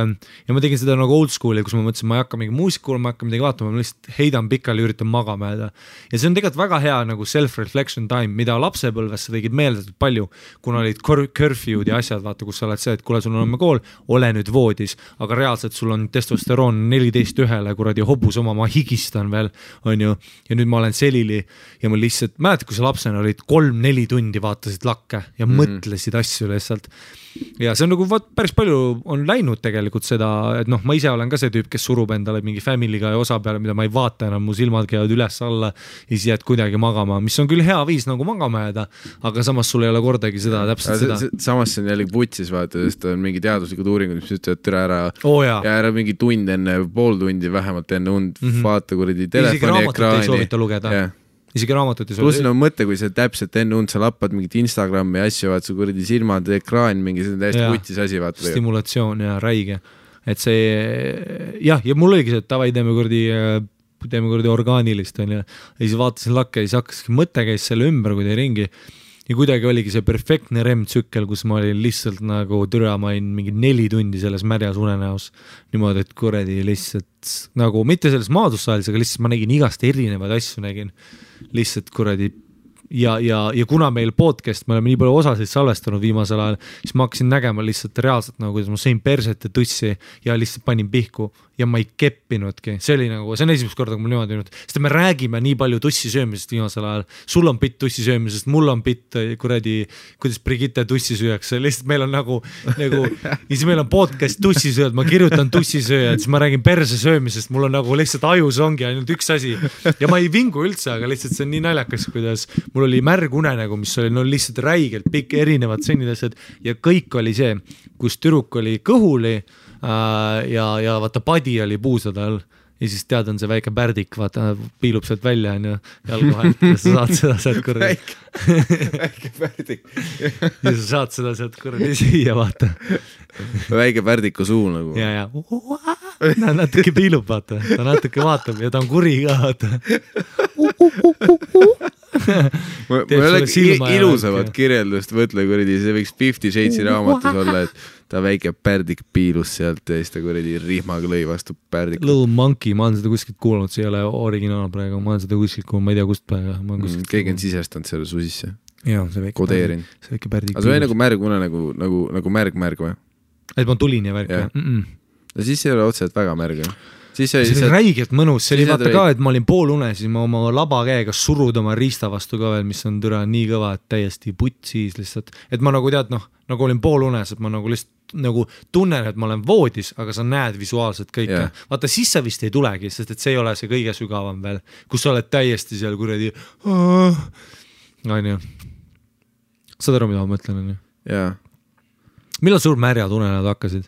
ja ma tegin seda nagu old school'i, kus ma mõtlesin, ma ei hakka mingi muusikuul, ma hakka midagi vaatama, ma lihtsalt heidan pikali, üritan magama jääda. Ja see on tegelikult väga hea nagu self-reflection time, mida lapsepõlves sa tegid meeldatud palju, kuna olid curfew'd ja asjad, vaata, kus sa oled see, et kuule, sul on homme kool, ole nüüd voodis, aga reaalselt sul on testosteroon 14-1, kuradi hobus oma, ma higistan veel, on ju, ja nüüd ma olen selili ja ma lihtsalt, mäletad, kui sa lapsena olid 3-4 tundi vaatasid lakke ja mõtlesid asju lihtsalt. Ja see on nagu päris palju on läinud tegelikult seda, et ma ise olen ka see tüüp, kes surub endale mingi family'ga ja osa peale, mida ma ei vaata enam, mu silmad käivad üles alla ja siis jääd kuidagi magama, mis on küll hea viis nagu magama jääda, aga samas sul ei ole kordagi seda täpselt seda. Samas see on jälle vutsis vaata, sest on mingi teaduslikud uuringud, mis ütlevad türa ära ja ära mingi tund enne, pool tundi vähemalt enne und vaata kuradi telefoni ekraani. Ei soovita lugeda. Isegi raamatut ei pluss on mõte, kui sa täpselt enne und sa lappad mingit Instagrami asju, vaat su kuradi silmad, ekraan, mingi see on täiesti vutis asi, vaata. Stimulatsioon ja räige. Et see, ja mul oligi see, et tavai teeme kuradi orgaanilist on ja siis vaatasin lakke ja siis hakkaski mõte käis selle ümber, kui teie ringi ja kuidagi oligi see perfektne REM-tsükkel, kus ma olin lihtsalt nagu türa, ma olin mingi 4 tundi selles märjas unenäos niimoodi, et kuradi lihtsalt nagu mitte selles maadussaalis, aga lihtsalt ma nägin igast erinevaid asju nägin lihtsalt kuradi ja kuna meil podcast, me oleme nii palju osasid salvestanud viimasel ajal, siis ma hakkasin nägema lihtsalt reaalselt nagu, kuidas ma sõin perset ja tussi ja lihtsalt panin pihku ja ma ei keppinudki. See on esimest korda, kui mul niimoodi nüüd, sest me räägime nii palju tussi söömisest viimasel ajal. Sul on pitt tussi söömisest, mul on pitt kuradi, kuidas Brigitte tussi süüakse. Lihtsalt meil on nagu ja siis meil on podcast tussi sööd, ma kirjutan tussi sööjad, siis ma räägin perse söömisest, mul on nagu lihtsalt ajus ongi ainult üks asi ja ma ei vingu üldse, aga lihtsalt see on nii naljakas, kuidas mul oli märg une nagu, mis oli lihtsalt räigelt pikk erinevad sennidased ja kõik oli see, kus tüdruk oli kõhuli ja vaata padi oli puusade all ja siis tead, on see väike pärdik, vaata, piilub sealt välja, on ju, jalgu vahelt ja sa saad seda sealt kuradi. Väike pärdik. Ja sa saad seda sealt kuradi süüa, vaata. Väike pärdiku suu nagu. Ja. Ta natuke piilub, vaata. Ta natuke vaatab ja ta on kuri ka, vaata. Ma ei ole ilusamat kirjeldust mõtle kuradi, see võiks 50 Shades'i raamatus olla, et ta väike pärdik piilus sealt ja siis ta kuradi rihmaga lõi vastu pärdik. Little Monkey, ma olen seda kuskilt kuulnud, see ei ole originaal praegu, ma olen seda kuskilt kuulnud, ma ei tea kust praegu. Keegi on sisestanud selle su sisse. Jaa, see väike kodeerin. See väike pärdik piilus. Aga see oli nagu märgune, nagu märg või? Et ma tulin ja värk. Ja siis ei ole otseselt väga märg. See oli räigelt mõnus, see oli vaata ka, et ma olin poolune, siis ma oma laba käega surud oma riista vastu ka veel, mis on türa nii kõva, et täiesti putsis lihtsalt, et ma nagu tead, nagu olin poolunes, et ma nagu lihtsalt nagu tunnen, et ma olen voodis, aga sa näed visuaalselt kõike. Vaata, siis sa vist ei tulegi, sest et see ei ole see kõige sügavam veel, kus sa oled täiesti seal kuradi saad aru, mida ma mõtlen, on ju? Jaa. Millal sul märjad unenäod hakkasid?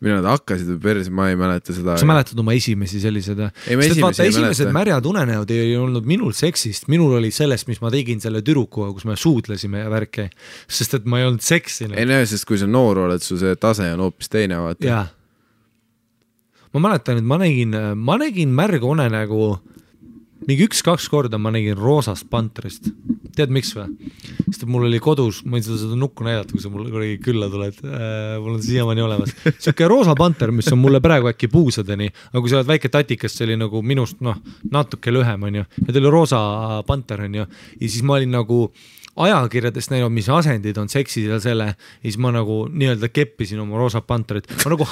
Millal nad hakkasid või perse, ma ei mäleta seda. Sa mäletad oma esimesi sellised? Esimesed märjad unenäod ei olnud minul seksist, minul oli sellest, mis ma tegin selle türukuga, kus me suudlesime ja värke, sest et ma ei olnud seksinud. Ei näe, sest kui sa noor oled, su see tase on hoopis teine, vaata. Jaa. Ma mäletan, et ma nägin märga unenägu mingi 1-2 korda ma nägin roosast pantrist. Tead miks või? Sest mul oli kodus, ma ei seda nukku näidata, kui sa mulle külla tuled, mul on siiamaani olemas. Siuke roosa panter, mis on mulle praegu äkki puusadeni, aga kui sa oled väike tatikast, see oli nagu minust natuke lühem, on ju. Ja ta oli roosa panter, on ju. Ja siis ma olin nagu ajakirjadest näinud, mis asendid on seksid ja selle, ja siis ma nagu nii-öelda keppisin oma roosa panterit. Ma nagu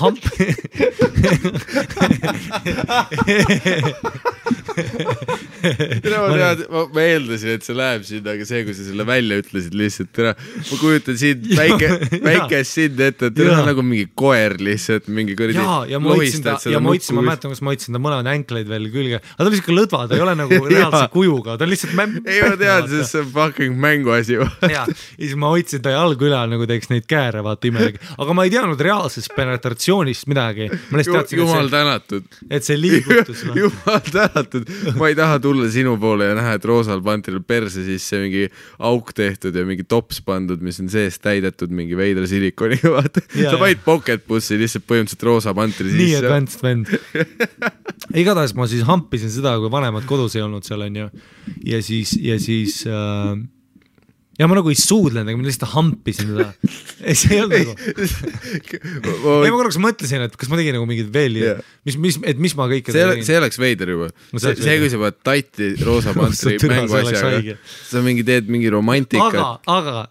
ma eeldasin, et see läheb sinna, aga see, kui sa selle välja ütlesid lihtsalt, ma kujutan sind väikest sind ette, et teil on nagu mingi koer lihtsalt, mingi kordi lohistad seda nukku. Ma mäletan, kus ma hoidsin ta mõlemad änkleid veel külge, aga ta on lihtsalt lõdva, ta ei ole nagu reaalse kujuga, ta on lihtsalt ei, ma tean, sest see on fucking mänguasi. Ja siis ma hoidsin ta jalgu üle, nagu teeks neid kääre, vaata imelegi, aga ma ei teadnud reaalsest penetratsioonist midagi. Jumal tänatud. Et see liigutus. Jumal tänatud. Ma ei taha tulla sinu poole ja näha, et roosal pantril perse siis see mingi auk tehtud ja mingi tops pandud, mis on sees täidetud mingi veidra silikoniga, vaata. Sa vaid pocket bussi lihtsalt põhimõtteliselt roosa pantri sisse. Nii advanced vend. Igatahes ma siis hampisin seda, kui vanemad kodus ei olnud seal, on ju. Ja siis ja ma nagu ei suudlenud, aga ma lihtsalt hampisin seda. Ei, see ei olnud nagu. Ei, ma korraks mõtlesin, et kas ma tegin nagu mingid veel, mis ma kõike tegin. See oleks veider juba. See, kui sa pead tatti roosa pantri mänguasjaga. Sa teed mingi romantika. Aga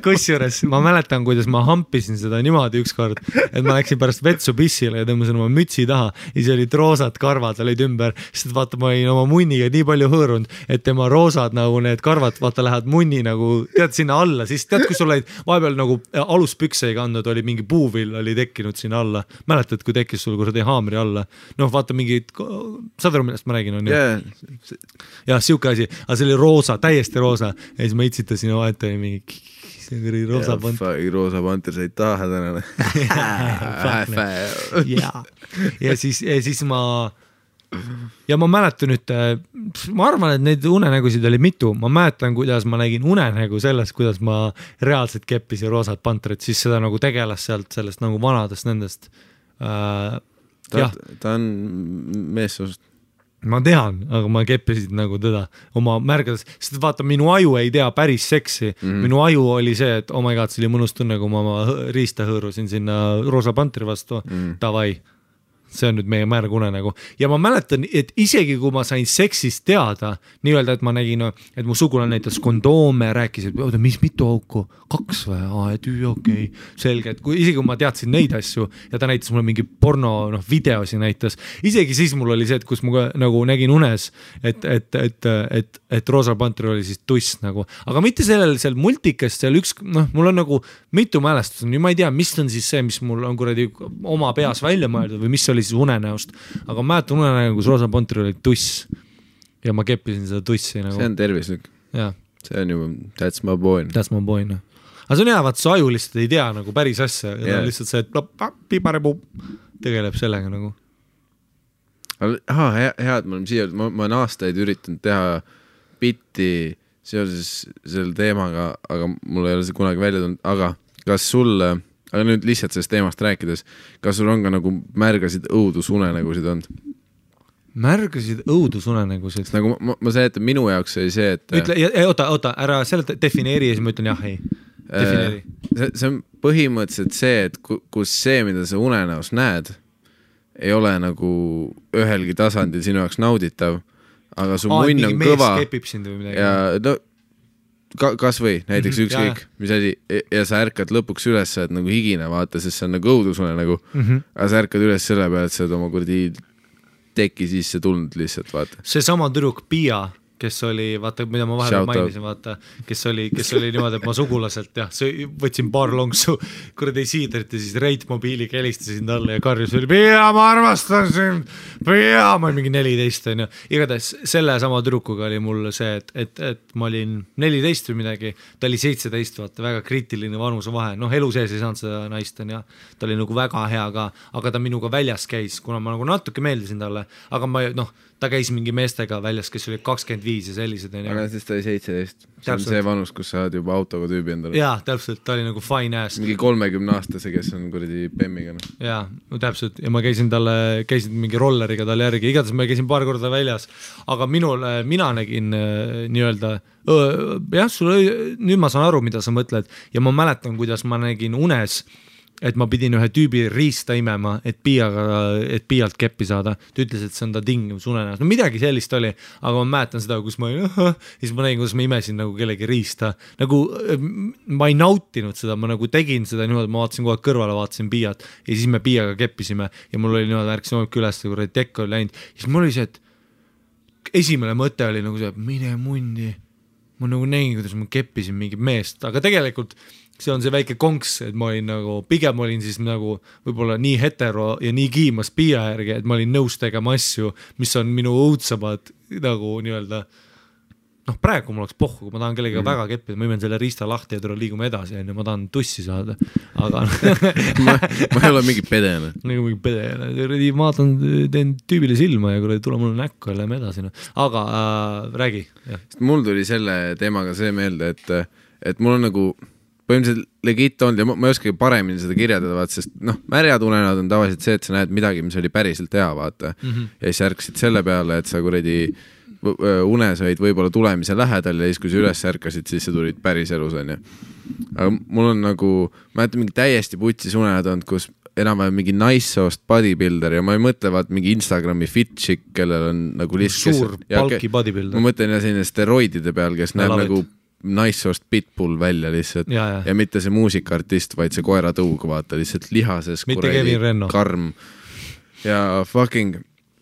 kusjuures ma mäletan, kuidas ma hampisin seda niimoodi ükskord, et ma läksin pärast vetsu pissile ja tõmbasin oma mütsi taha ja siis olid roosad karvad olid ümber, sest vaata, ma olin oma munniga nii palju hõõrunud, et tema roosad nagu need karvad, vaata, lähevad munni nagu, tead, sinna alla, siis tead, kui sul olid vahepeal nagu aluspükse ei kandnud, oli mingi puuvill oli tekkinud sinna alla. Mäletad, kui tekkis sul kuradi haamri alla? Noh, vaata mingi, saad aru, millest ma räägin, on ju? Ja, siuke asi, aga see oli roosa, täiesti roosa ja siis ma itsitasin ja vahet oli mingi see oli roosa panter. Roosa panter sai taha tänane. Ja siis ja ma mäletan nüüd, ma arvan, et neid unenägusid oli mitu, ma mäletan, kuidas ma nägin unenägu sellest, kuidas ma reaalselt keppisin roosat panterit, siis seda nagu tegelas sealt sellest nagu vanadest nendest. Ta on meessoost. Ma tean, aga ma keppisin nagu teda oma märgades, sest vaata, minu aju ei tea päris seksi, minu aju oli see, et oh my god, see oli mõnus tunne, kui ma oma riista hõõrusin sinna roosa panteri vastu, davai. See on nüüd meie märg unenägu. Ja ma mäletan, et isegi kui ma sain seksist teada, nii-öelda, et ma nägin, et mu sugulane näitas kondoome, rääkis, et mis mitu auku? 2 või? Okei. Selge, et isegi kui ma teadsin neid asju ja ta näitas mulle mingi porno videosi näitas, isegi siis mul oli see, et kus ma nagu nägin unes, et roosa pantri oli siis tuss nagu. Aga mitte seal multikast, seal üks, mul on nagu mitu mälestust, ma ei tea, mis on siis see, mis mul on kuradi oma peas välja mõeldud või mis oli siis unenäost, aga ma mäletan unenägu, kus roosa pantri oli tuss ja ma keppisin seda tussi nagu. See on tervislik. Ja. See on juba, that's my boy. That's my boy, no. Aga see on hea, vaat su aju lihtsalt ei tea nagu päris asja ja lihtsalt see, et piparepuu tegeleb sellega nagu. hea, et me oleme siia, ma olen aastaid üritanud teha bitti seoses selle teemaga, aga mul ei ole see kunagi välja tulnud, aga kas sul, aga nüüd lihtsalt sellest teemast rääkides, kas sul on ka nagu märgasid õudusunenägusid olnud? Märgasid õudusunenägusid? Nagu ma seletan, minu jaoks oli see, et ütle, oota, ära seleta, defineeri ja siis ma ütlen jah, ei. Defineeri. See on põhimõtteliselt see, et kus see, mida sa unenäos näed, ei ole nagu ühelgi tasandil sinu jaoks nauditav, aga su munn on kõva ja no kas või näiteks ükskõik, mis asi ja sa ärkad lõpuks üles, sa oled nagu higine, vaata, sest see on nagu õudusune nagu, aga sa ärkad üles selle peale, et sa oled oma kurdi teki sisse tulnud lihtsalt, vaata. See sama tüdruk Pia, kes oli, vaata, mida ma vahepeal mainisin, vaata, kes oli niimoodi, et ma sugulaselt, jah, võtsin paar lonksu kuradi siidrit ja siis Reit mobiiliga helistasin talle ja karjus oli, Pia, ma armastan sind, Pia, ma olin mingi 14, on ju. Igatahes selle sama tüdrukuga oli mul see, et ma olin 14 või midagi, ta oli 17, vaata, väga kriitiline vanuse vahe, noh, elu sees ei saanud seda naist, on ja ta oli nagu väga hea ka, aga ta minuga väljas käis, kuna ma nagu natuke meeldisin talle, aga ma, noh, ta käis mingi meestega väljas, kes oli 25 ja sellised. Aga siis ta oli 17. See on see vanus, kus sa oled juba autoga tüübi endale. Jaa, täpselt, ta oli nagu fine ass. Mingi 30-aastase, kes on kuradi Bemmiga. Jaa, no täpselt. Ja ma käisin mingi rolleriga talle järgi. Igatahes ma käisin paar korda väljas. Aga mina nägin nii-öelda, jah, nüüd ma saan aru, mida sa mõtled. Ja ma mäletan, kuidas ma nägin unes, et ma pidin ühe tüübi riista imema, et Piialt keppi saada. Ta ütles, et see on ta tingimus unenäos. No midagi sellist oli, aga ma mäletan seda, kus ma olin, siis ma nägin, kuidas ma imesin nagu kellegi riista. Nagu ma ei nautinud seda, ma nagu tegin seda niimoodi, ma vaatasin kogu aeg kõrvale, vaatasin Piiat ja siis me Piiaga keppisime ja mul oli niimoodi, ärksin hommik üles, kui tekk oli läinud. Siis mul oli see, et esimene mõte oli nagu see, mine mundi. Ma nagu nägin, kuidas ma keppisin mingit meest, aga tegelikult see on see väike konks, et ma olin nagu, pigem olin siis nagu võib-olla nii hetero ja nii kiimas Piia järgi, et ma olin nõus tegema asju, mis on minu õudsamad nagu nii-öelda, noh praegu mul oleks pohku, kui ma tahan kellega väga keppida, ma imen selle riista lahti ja liigume edasi, ja ma tahan tussi saada, aga ma ei ole mingi pedene. Nagu mingi pedene, ma teen tüübile silma ja kui tule mulle näkku ja lähme edasi, aga räägi. Mul tuli selle teemaga see meelde, et mul on nagu põhimõtteliselt legit olnud ja ma ei oskagi paremini seda kirjeldada, vaata, sest noh, märjad unenäod on tavaliselt see, et sa näed midagi, mis oli päriselt hea, vaata. Ja siis ärkasid selle peale, et sa kuradi unes olid võib-olla tulemise lähedal ja siis, kui sa üles ärkasid, siis sa tulid päris elus, on ju. Aga mul on nagu, ma jätan mingi täiesti putsis unenäod olnud, kus enam-vähem mingi naissoost bodybuilder ja ma ei mõtle vaat mingi Instagrami fit chick, kellel on nagu lihtsalt suur palki bodybuilder. Ma mõtlen selline steroidide peal, kes näeb nagu naissoost pitbull välja lihtsalt ja mitte see muusikaartist, vaid see koeratõug, vaata, lihtsalt lihases karm ja fucking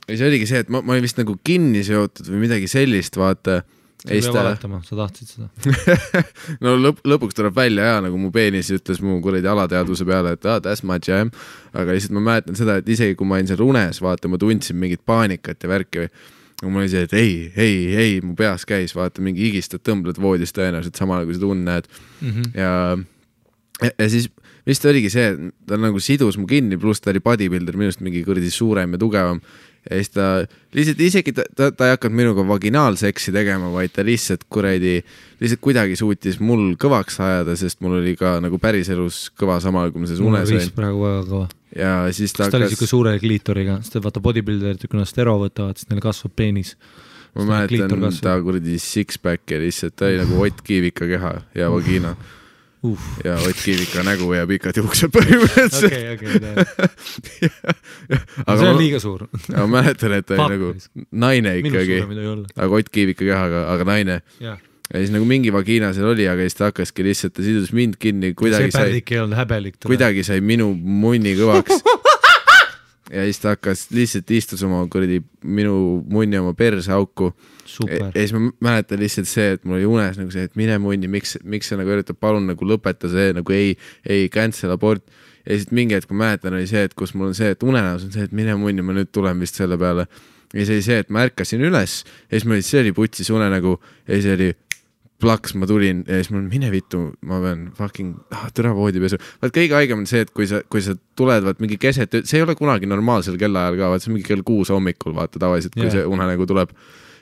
ja see oligi see, et ma olin vist nagu kinni seotud või midagi sellist, vaata. Sa ei pea valetama, sa tahtsid seda. No lõpuks tuleb välja ja nagu mu peenis ütles mu kuradi alateadvuse peale, et that's my jam, aga lihtsalt ma mäletan seda, et isegi kui ma olin seal unes, vaata, ma tundsin mingit paanikat ja värki või aga mul oli see, et ei, mu peas käis, vaata, mingi higistad, tõmbled voodist tõenäoliselt samal, kui seda näed. Ja siis vist oligi see, et ta nagu sidus mu kinni, pluss ta oli bodybuilder, minust mingi kuradi suurem ja tugevam. Ja siis ta lihtsalt isegi ta ei hakanud minuga vaginaalseksi tegema, vaid ta lihtsalt kuidagi suutis mul kõvaks ajada, sest mul oli ka nagu päriselus kõva samal, kui ma selles unes olin. Praegu väga kõva. Ja siis ta oli siuke suure kliitoriga, sest vaata bodybuilderid, kui nad stero võtavad, siis neil kasvab peenis. Ma mäletan ta kuradi six-pack ja lihtsalt ta oli nagu Ott Kiivika keha ja vagina. Ja Ott Kiivika nägu ja pikad juuksed põhimõtteliselt. Okay. See on liiga suur. Aga mäletan, et ta oli nagu naine ikkagi, aga Ott Kiivika kehaga, aga naine. Ja siis nagu mingi vagiina seal oli, aga siis ta hakkaski lihtsalt, ta sidus mind kinni, kuidagi sai minu munni kõvaks. Ja siis ta hakkas lihtsalt istus oma minu munni oma perse auku. Ja siis ma mäletan lihtsalt see, et mul oli unes nagu see, et mine munni, miks sa nagu üritab, palun nagu lõpeta see, nagu ei cancel abort. Ja siis mingi hetk ma mäletan oli see, et kus mul on see, et unenäos on see, et mine munni, ma nüüd tulen vist selle peale. Ja see oli see, et ma ärkasin üles ja siis see oli putsis unenägu ja siis oli plaks, ma tulin ja siis mul mine vittu, ma pean fucking türa voodipesu. Vaat kõige haigem on see, et kui sa tuled, vaat mingi keset, see ei ole kunagi normaalsel kellaajal ka, vaat see on mingi kell 6 hommikul, vaata tavaliselt, kui see unenägu tuleb.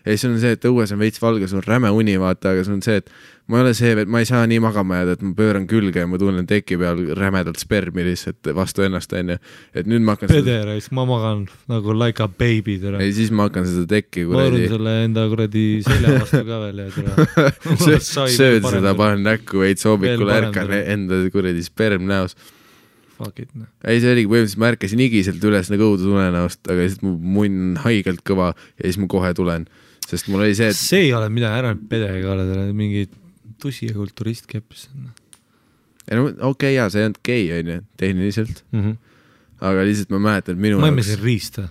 Ja siis on see, et õues on veits valge, sul on räme uni, vaata, aga sul on see, et ma ei ole see, et ma ei saa nii magama jääda, et ma pööran külge ja ma tunnen teki peal rämedalt spermi lihtsalt vastu ennast, on ju. Et nüüd ma hakkan Pederais, ma magan nagu like a baby, tere. Ja siis ma hakkan seda tekki ma arun selle enda kuradi selja vastu ka veel ja tere. Sööd seda, panen näkku veits hommikul ärkan enda kuradi sperm näos. Fuck it, no. Ei, see oligi põhimõtteliselt, ma ärkasin igiselt üles nagu õudus unenäost, aga siis mu munn haigelt kõva ja siis ma kohe tulen, sest mul oli see, et see ei ole midagi, ära pedega ole, mingi tusi ja kulturist keppis. No, okei, jaa, see ei olnud gei, on ju, tehniliselt. Aga lihtsalt ma mäletan, et minu ma emme siin riista.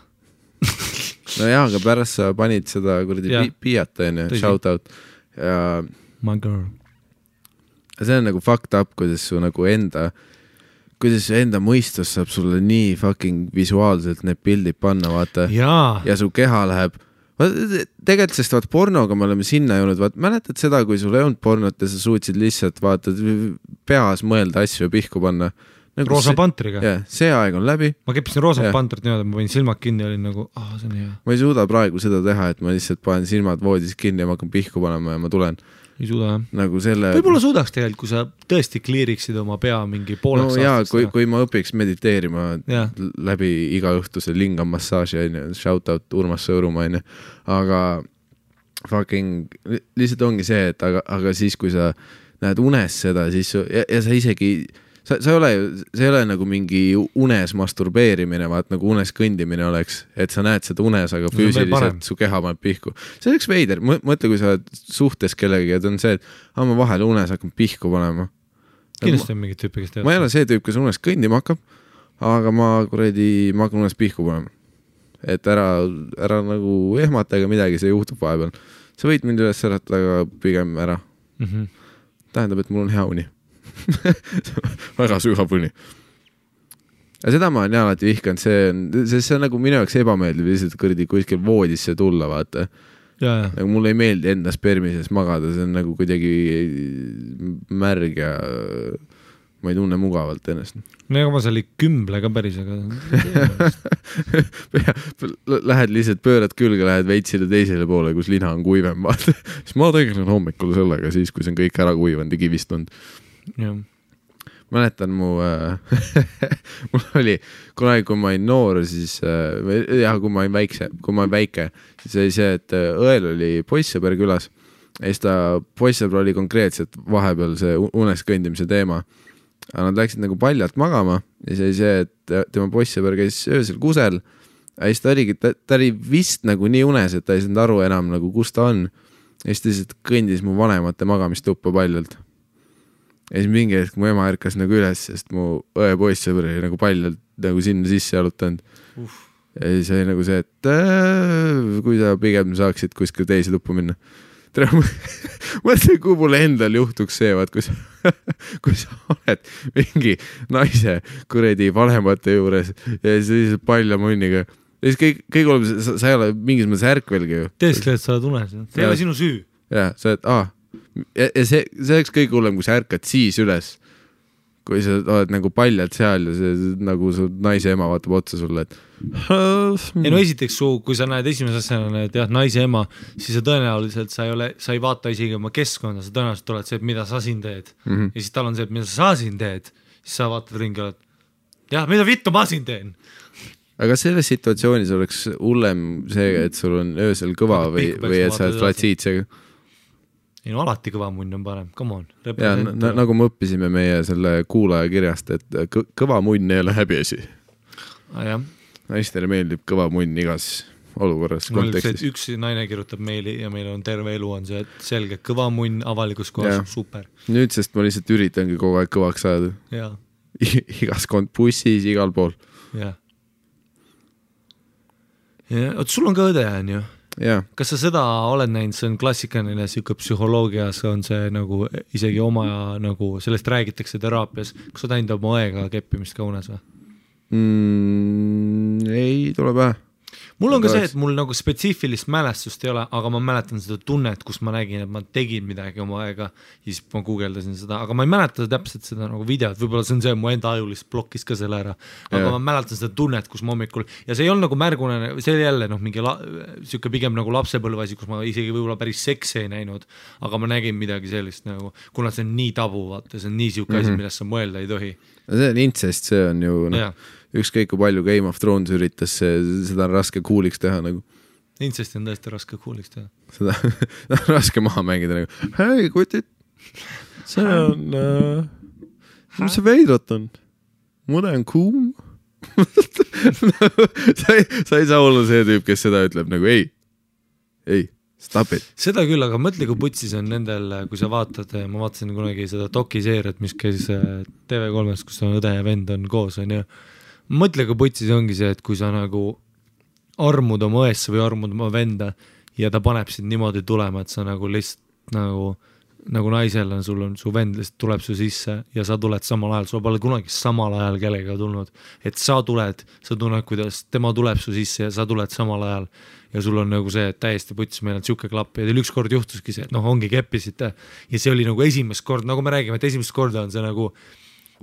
no jaa, aga pärast sa panid seda kuradi piiata, on ju, shout out. Ja my girl. See on nagu fucked up, kuidas su nagu enda mõistus saab sulle nii fucking visuaalselt need pildid panna, vaata. Ja su keha läheb. Tegelikult sest vaat pornoga me oleme sinna jõudnud, vaat mäletad seda, kui sul ei olnud pornot ja sa suutsid lihtsalt vaata peas mõelda asju ja pihku panna. Nagu Roosa Pantriga. Jah, see aeg on läbi. Ma keppisin Roosa Pantrit niimoodi, ma võin silmad kinni ja olin nagu, see on hea. Ma ei suuda praegu seda teha, et ma lihtsalt panen silmad voodis kinni ja ma hakkan pihku panema ja ma tulen. Ei suuda, jah. Nagu selle... Võib-olla suudaks tegelikult, kui sa tõesti kliiriksid oma pea mingi pooleks aastast. No jaa, kui ma õpiks mediteerima läbi iga õhtuse lingamassaaži, shout out Urmas Sõõrumaa, aga fucking lihtsalt ongi see, et aga siis, kui sa näed unes seda, siis ja sa isegi... See ei ole nagu mingi unes masturbeerimine, vaat nagu unes kõndimine oleks, et sa näed seda unes, aga füüsiliselt su keha paneb pihku. See oleks veider. Mõtle, kui sa oled suhtes kellegi, et on see, et ma vahel unes hakkan pihku panema. Kindlasti on mingid tüüpi, kes tead. Ma ei ole see tüüp, kes unes kõndima hakkab, aga ma hakkan unes pihku panema. Et ära nagu ehmata ega midagi, see juhtub vahepeal. Sa võid mind üles äratada, aga pigem ära. Tähendab, et mul on hea uni. väga sügav uni. Ja seda ma olen alati vihkanud, see on nagu minu jaoks ebameeldiv lihtsalt kõrdi kuskil voodisse tulla, vaata. Nagu mulle ei meeldi enda spermises magada, see on nagu kuidagi märg ja ma ei tunne mugavalt ennast. No ega ma seal ei kümble ka päris, aga lähed lihtsalt, pöörad külge, lähed veitsile teisele poole, kus lina on kuivem, vaata. Siis ma tegelen hommikul sellega, siis kui see on kõik ära kuivanud ja kivistunud. Mäletan mul oli kunagi, kui ma olin noor, siis kui ma olin väike, siis oli see, et õel oli poissõber külas ja siis ta poissõber oli konkreetselt vahepeal see unes kõndimise teema. Aga nad läksid nagu paljalt magama ja siis oli see, et tema poissõber käis öösel kusel ja siis ta oli vist nagu nii unes, et ta ei saanud aru enam nagu kus ta on ja siis ta lihtsalt kõndis mu vanemate magamistuppa paljalt. Ja siis mingi hetk mu ema ärkas nagu üles, sest mu õe poissõber oli nagu paljalt nagu sinna sisse jalutanud. Ja siis oli nagu see, et kui sa pigem saaksid kuskil teise tuppu minna. Mõtle, kui mulle endal juhtuks see, vaat, kui sa oled mingi naise kuredi vanemate juures ja siis palja munniga. Ja siis kõik oleb, sa ei ole mingis mõttes ärkvelgi ju. Teeskle, et sa oled unes. See ei ole sinu süü. Ja, sa oled, ja see oleks kõik hullem, kui sa ärkad siis üles, kui sa oled nagu paljalt seal ja see nagu su naise ema vaatab otsa sulle, et ei no esiteks kui sa näed esimese asjana, et jah, naise ema, siis sa tõenäoliselt sa ei vaata isegi oma keskkonda, sa tõenäoliselt oled see, et mida sa siin teed ja siis tal on see, et mida sa siin teed, siis sa vaatad ringi, oled jah, mida vittu ma siin teen. Aga selles situatsioonis oleks hullem see, et sul on öösel kõva või et sa oled flatsiitsega. Ei no alati kõva munn on parem, come on. Ja, nagu me õppisime meie selle kuulaja kirjast, et kõva munn ei ole häbiasi. Naistele meeldib kõva munn igas olukorras kontekstis. Üks naine kirjutab meili ja meil on terve elu on see, et selge kõva munn avalikus kohas, super. Nüüd, sest ma lihtsalt üritangi kogu aeg kõvaks saada. Igas bussis, igal pool. Oot, sul on ka õde, on ju? Ja. Kas sa seda oled näinud, see on klassikaline siuke psühholoogias on see nagu isegi oma nagu sellest räägitakse teraapias, kas sa näinud oma õega keppimist ka unes või? Ei tule pähe. mul on ka see, et mul nagu spetsiifilist mälestust ei ole, aga ma mäletan seda tunnet, kus ma nägin, et ma tegin midagi oma aega ja siis ma guugeldasin seda, aga ma ei mäleta täpselt seda nagu videot, võib-olla see on see, mu enda ajulist blokkis ka selle ära, aga ma mäletan seda tunnet, kus ma hommikul ja see ei olnud nagu märgune, see oli jälle mingi siuke pigem nagu lapsepõlvasi, kus ma isegi võib-olla päris seksi ei näinud, aga ma nägin midagi sellist nagu, kuna see on nii tabu, vaata, see on nii siuke asi, millest sa mõelda ei tohi. See on incest, see on ju ükskõik kui palju Game of Thrones üritas, seda on raske cool'iks teha nagu. Incesti on tõesti raske cool'iks teha. Seda on raske maha mängida nagu, hei kutid, see on, mis see veidrat on? Mude on kuum? sa ei saa olla see tüüp, kes seda ütleb nagu ei, stop it. Seda küll, aga mõtle, kui putsis on nendel, kui sa vaatad, ma vaatasin kunagi seda dokiseeriat, mis käis TV3-s, kus on õde ja vend on koos, on ju. Mõtle, kui putsis ongi see, et kui sa nagu armud oma õesse või armud oma venda ja ta paneb sind niimoodi tulema, et sa nagu lihtsalt nagu naisel on, sul on su vend lihtsalt tuleb su sisse ja sa tuled samal ajal, sul pole kunagi samal ajal kellega tulnud, et sa tunned, kuidas tema tuleb su sisse ja sa tuled samal ajal ja sul on nagu see, et täiesti putsis, meil on siuke klapp ja teil ükskord juhtuski see, et ongi keppisite ja see oli nagu esimest kord, nagu me räägime, et esimest korda on see nagu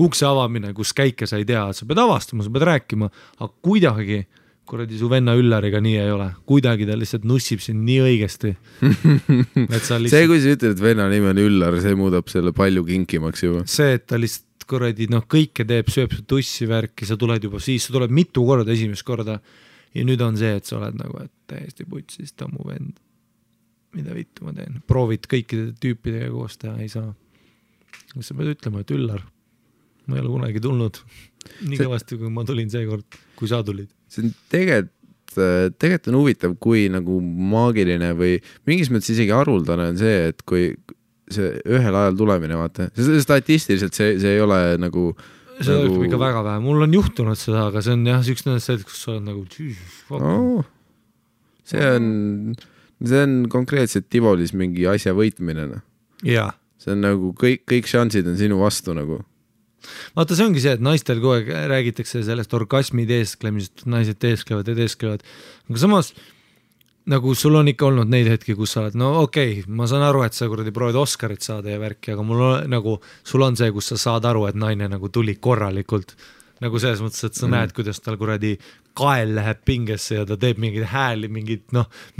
ukse avamine, kus käike sa ei tea, sa pead avastama, sa pead rääkima, aga kuidagi, kuradi su venna Üllariga nii ei ole, kuidagi ta lihtsalt nussib sind nii õigesti. Lihtsalt... See, kui sa ütled, et venna nimi on Üllar, see muudab selle palju kinkimaks juba. See, et ta lihtsalt kuradi, kõike teeb, sööb su tussi värki, sa tuled juba siis, sa tuled mitu korda esimest korda ja nüüd on see, et sa oled nagu, et täiesti putsis, ta mu vend. Mida vittu ma teen? Proovid kõikide tüüpidega koos teha, ei saa. Sa pead ütlema, et Üllar, ma ei ole kunagi tulnud nii kõvasti, kui ma tulin seekord, kui sa tulid. See on tegelikult on huvitav, kui nagu maagiline või mingis mõttes isegi haruldane on see, et kui see ühel ajal tulemine, vaata, statistiliselt see ei ole nagu see nagu... ikka väga vähe, mul on juhtunud seda, aga see on jah, üks nendest, kus sa oled nagu see on konkreetselt Tivolis mingi asja võitmine. Jaa. See on nagu kõik šansid on sinu vastu nagu. Vaata, see ongi see, et naistel kogu aeg räägitakse sellest orgasmi teesklemisest, naised teesklevad, aga samas nagu sul on ikka olnud neid hetki, kus sa oled, no okei, ma saan aru, et sa kuradi proovid Oscarit saada ja värki, aga mul on, nagu, sul on see, kus sa saad aru, et naine nagu tuli korralikult nagu selles mõttes, et sa näed, kuidas tal kuradi kael läheb pingesse ja ta teeb mingid hääli, mingid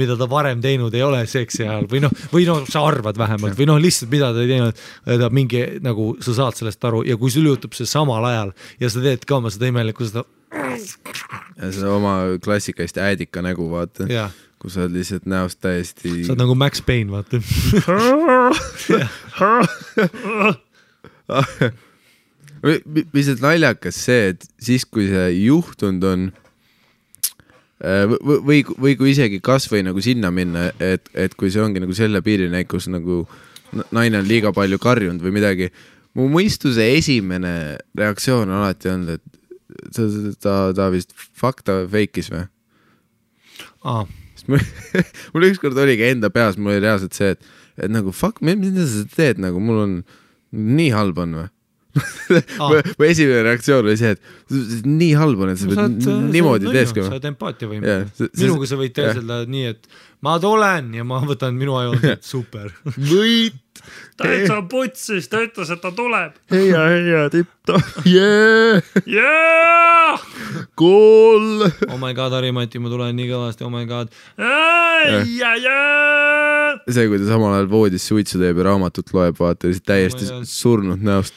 mida ta varem teinud ei ole seksi ajal või sa arvad vähemalt või lihtsalt mida ta ei teinud, ta mingi nagu sa saad sellest aru ja kui sul juhtub see samal ajal ja sa teed ka oma seda imelikku seda ja seda oma klassikalist äädika nägu vaata, kus sa oled lihtsalt näost täiesti sa oled nagu Max Payne vaata mis naljakas see, et siis kui see juhtunud on või kui isegi kas või nagu sinna minna, et kui see ongi nagu selle piirine, kus nagu naine on liiga palju karjunud või midagi, mu mõistuse esimene reaktsioon on alati olnud, et ta vist fakta feikis või? Mul ükskord oligi enda peas, mul oli reaalselt see, et nagu fuck, mida sa teed, nagu mul on nii halb on või? Mu esimene reaktsioon oli see, et nii halb on, et sa pead niimoodi teeskama. Sa oled empaatia võime. Minuga sa võid teeselda nii, et ma tulen ja ma võtan minu aju, et super. Võit! Täitsa putsis, ta ütles, et ta tuleb. Heia, tippta. Yeah! Kool! Oh my god, Harimati, ma tulen nii kõvasti, oh my god. See, kui ta samal ajal voodis suitsu teeb ja raamatut loeb, vaata, täiesti surnud näost.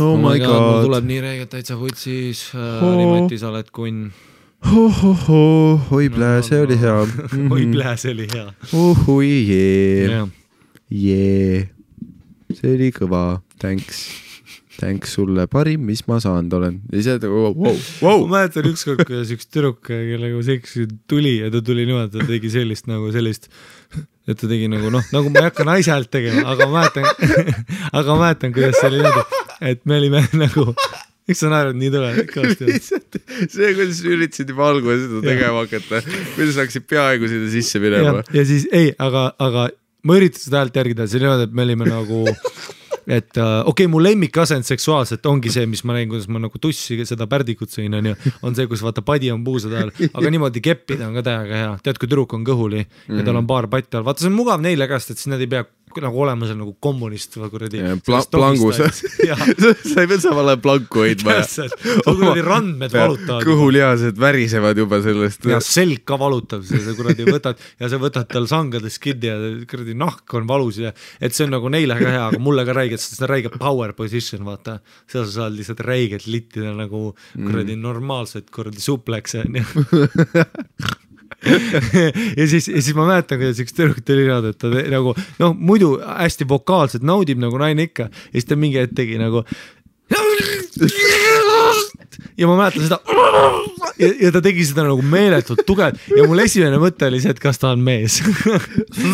Oh my god. Mul tuleb nii reegelt täitsa putsis. Harimati, sa oled kunn. Oi plää, see oli hea. Oi plää, see oli hea. Oi jee. See oli kõva. Thanks sulle parim, mis ma saanud olen. Ja see wow. Ma mäletan ükskord, kuidas üks tüdruk, kellega seksi tuli ja ta tuli niimoodi, ta tegi sellist, et ta tegi nagu nagu ma ei hakka naise häält tegema, aga ma mäletan, kuidas see oli niimoodi, et me olime nagu, miks sa naerad nii tule? See, kuidas üritasid juba algul seda tegema hakata, kuidas hakkasid peaaegu sinna sisse minema. Ja siis, aga ma üritasin seda häält järgida, see niimoodi, et me olime nagu et okei, mu lemmikasend seksuaalselt ongi see, mis ma näin, kuidas ma nagu tussi seda pärdikut sõin, on see, kus vaata padi on puusade all, aga niimoodi keppida on ka täiega hea. Tead, kui tüdruk on kõhuli ja tal on paar patti all, vaata see on mugav neile käest, et siis nad ei pea nagu olema seal nagu kommunist või kuradi plangus. Sa ei pea samal ajal planku hoidma. Kuradi randmed valutavad. Kõhulihased värisevad juba sellest. Ja selg ka valutab, sa kuradi võtad ja sa võtad tal sangades kinni ja kuradi nahk on valus ja et see on nagu neile ka hea, aga mulle ka räigelt, sest see on räige power position, vaata. Seal sa saad lihtsalt räigelt littida nagu kuradi normaalselt kuradi suplekse. ja siis ma mäletan, kuidas üks tüdruk tuli niimoodi, et ta nagu muidu hästi vokaalselt naudib nagu naine ikka ja siis ta mingi hetk tegi nagu ja ma mäletan seda ja ta tegi seda nagu meeletult tugev ja mul esimene mõte oli see, et kas ta on mees.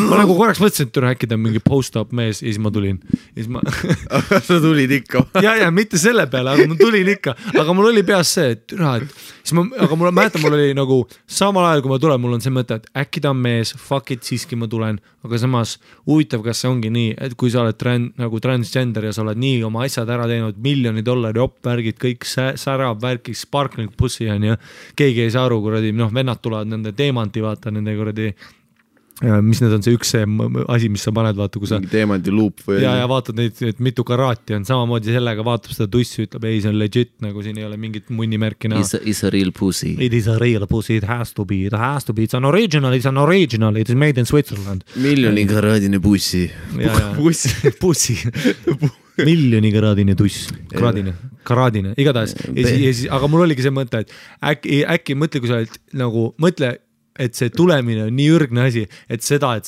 Ma nagu korraks mõtlesin, et äkki ta on mingi post-up mees ja siis ma tulin. Sa tulid ikka? ja mitte selle peale, aga ma tulin ikka, aga mul oli peas see, et aga mul mäletan, mul oli nagu samal ajal, kui ma tulen, mul on see mõte, et äkki ta on mees, fuck it, siiski ma tulen, aga samas huvitav, kas see ongi nii, et kui sa oled nagu transgender ja sa oled nii oma asjad ära teinud, $1 miljon opvärgid, kõik särab värk, sparkling pussi on ja keegi ei saa aru, kuradi, vennad tulevad nende teemanti, vaata nende kuradi, mis need on see üks asi, mis sa paned, vaata, kui sa teemanti luup või ja vaatad neid, et mitu karaati on, samamoodi sellega vaatab seda tussi, ütleb, ei, see on legit, nagu siin ei ole mingit munnimärki näha. It's a real pussy. It is a real pussy, it has to be, it's an original, it is made in Switzerland. Miljonikaraadine pussi. Pussi. Miljonikaraadine tuss, karaadine, igatahes. Aga mul oligi see mõte, et äkki mõtle, kui sa oled nagu, mõtle, et see tulemine on nii ürgne asi, et seda, et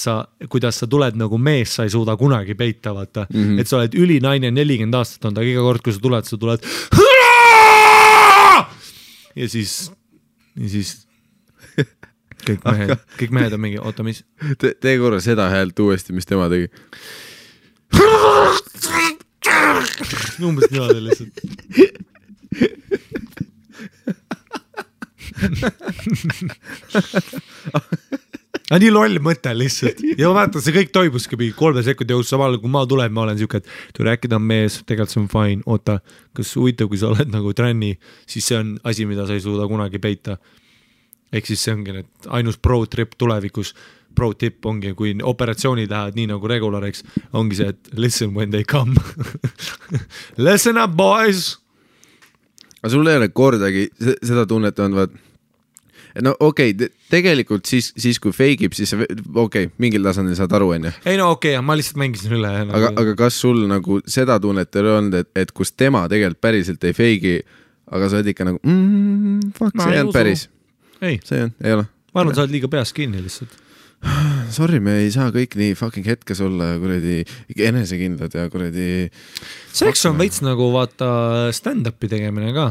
kuidas sa tuled nagu mees, sa ei suuda kunagi peita, vaata. Et sa oled ülinaine 40 aastat on ta, iga kord, kui sa tuled ja siis kõik mehed on mingi, oota, mis? Tee korra seda häält uuesti, mis tema tegi. Umbes niimoodi lihtsalt. Nii loll mõte lihtsalt ja ma mäletan, see kõik toimuski 3 sekundi jõus, samal kui ma tulen, ma olen siuke, et tule äkki ta on mees, tegelikult see on fine, oota, kas huvitav, kui sa oled nagu tränni, siis see on asi, mida sa ei suuda kunagi peita. Ehk siis see ongi need ainus pro-trip tulevikus, pro-tip ongi, kui operatsioonid lähevad nii nagu regulariks, ongi see, et listen when they come. Listen up, boys! Aga sul ei ole kordagi seda tunnet on, vaat, no okei, tegelikult siis kui feigib, siis mingil tasandil saad aru, on ju? Ei no okei, ma lihtsalt mängisin üle. Aga kas sul nagu seda tunnet ei olnud, et kus tema tegelikult päriselt ei feigi, aga sa oled ikka nagu, fuck, see ei olnud päris. Ei. See ei ole. Ma arvan, sa oled liiga peas kinni lihtsalt. Sorry, me ei saa kõik nii fucking hetkes olla kuradi enesekindlad ja kuradi... Seks on veits nagu vaata stand-upi tegemine ka.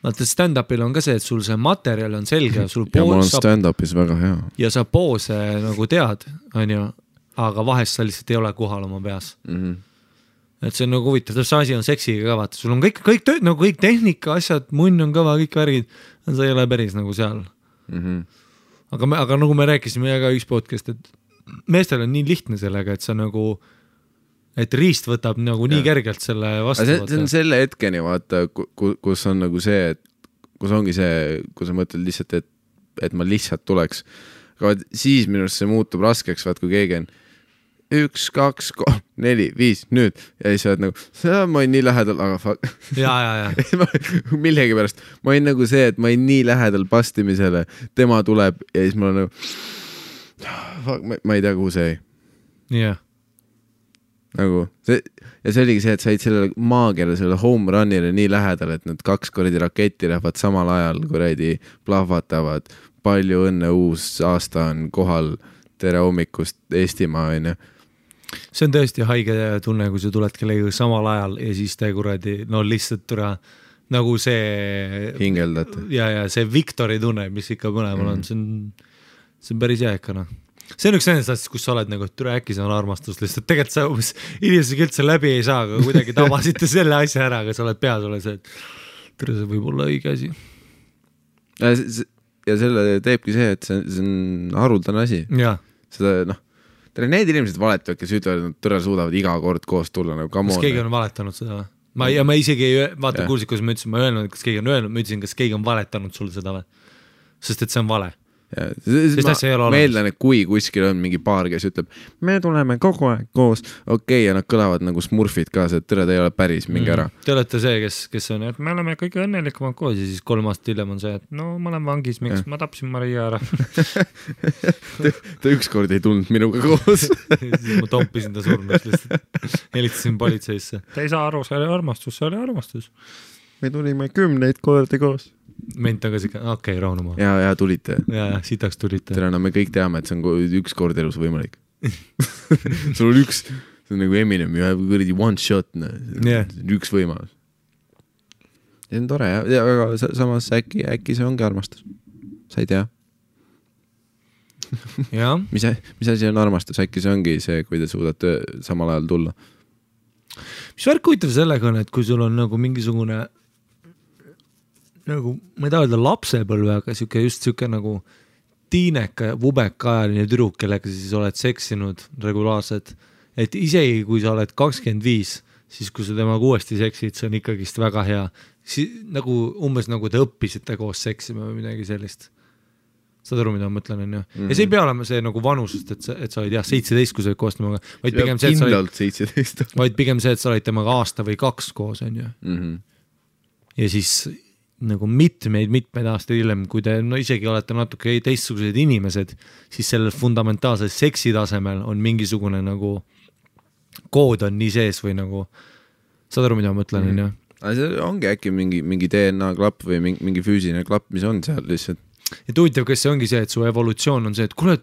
Vaata stand-upil on ka see, et sul see materjal on selge. Ja mul on stand-upis väga hea. Ja sa poose nagu tead, on ju, aga vahest sa lihtsalt ei ole kohal oma peas. Et see on nagu huvitav, see asi on seksiga ka, vaata. Sul on kõik tööd, nagu kõik tehnika, asjad, munn on kõva, kõik värgid, sa ei ole päris nagu seal. Aga nagu me rääkisime ka üks podcast, et meestel on nii lihtne sellega, et sa nagu, et riist võtab nagu nii kergelt selle vastu. See on selle hetkeni, vaata, kus on nagu see, et kus ongi see, kus sa mõtled lihtsalt, et ma lihtsalt tuleks. Aga siis minust see muutub raskeks, vaat kui keegi on 1, 2, 3, 4, 5, nüüd. Ja siis sa oled nagu, ma olin nii lähedal, aga fuck. Ja. Millegi pärast. Ma olin nagu see, et ma olin nii lähedal pastimisele. Tema tuleb ja siis ma olen nagu, fuck, ma ei tea, kuhu see ei. Yeah. Nagu, ja see oligi see, et said sellele maagiale, selle home runile nii lähedal, et need 2 kordi raketti lähevad samal ajal, kuradi plahvatavad. Palju õnne, uus aasta on kohal, tere hommikust Eestimaa, on ju. See on tõesti haige tunne, kui sa tuled kellega samal ajal ja siis te kuradi, no lihtsalt tule nagu see hingeldad. Ja see Victori tunne, mis ikka mõlemal on, see on päris jääkana. See on üks nendest asjast, kus sa oled nagu, et äkki see on armastus lihtsalt. Tegelikult sa inimesega üldse läbi ei saa, aga kuidagi tabasite selle asja ära, aga sa oled peas, ole see, et see võib olla õige asi. Ja selle teebki see, et see on haruldane asi. Ja. Seda, need inimesed valetavad, kes ütlevad, et nad tõre suudavad iga kord koos tulla nagu come on. Kas keegi on valetanud seda või? Ma isegi ei vaata kuulsid, kus ma ütlesin, ma ei öelnud, kas keegi on öelnud, ma ütlesin, kas keegi on valetanud sulle seda või? Sest et see on vale. Ma eeldan, et kui kuskil on mingi paar, kes ütleb, me tuleme kogu aeg koos, okei, ja nad kõlavad nagu smurfid ka, see tõre, ta ei ole päris, mingi ära. Te olete see, kes on, et me oleme kõige õnnelikumad koos ja siis 3 aastat hiljem on see, et no ma olen vangis, miks ma tapsin Maria ära. ta ükskord ei tulnud minuga koos. Siis ma tompisin ta surnud lihtsalt. Helistasin politseisse. Ta ei saa aru, see oli armastus. Me tulime 10 kordi koos. Ment on ka siuke, okei, rahunuma. Ja tulite. Ja, sitaks tulite. Tere, no me kõik teame, et see on üks kord elus võimalik. Sul on see on nagu Eminem, you have kuradi one shot, üks võimalus. See on tore, ja aga samas äkki see ongi armastus. Sa ei tea. Mis asi on armastus, äkki see ongi see, kui te suudate samal ajal tulla. Mis värk huvitav sellega on, et kui sul on nagu mingisugune nagu, ma ei taha öelda lapsepõlve, aga siuke nagu tiineka ja vubeka ajaline tüdruk, kellega siis oled seksinud regulaarselt, et isegi kui sa oled 25, siis kui sa temaga uuesti seksid, see on ikkagist väga hea. Nagu umbes nagu te õppisite koos seksima või midagi sellist. Saad aru, mida ma mõtlen, on ju. Ja see ei pea olema see nagu vanusest, et sa olid 17, kui sa olid koos temaga, vaid pigem see, et sa olid temaga aasta või 2 koos, on ju. Ja siis nagu mitmeid aastaid hiljem, kui te isegi olete natuke teistsugused inimesed, siis sellel fundamentaalsel seksi tasemel on mingisugune nagu kood on nii sees või nagu, saad aru, mida ma mõtlen, on ju? See ongi äkki mingi DNA klapp või mingi füüsiline klapp, mis on seal lihtsalt. Ja huvitav, kas see ongi see, et su evolutsioon on see, et kuule,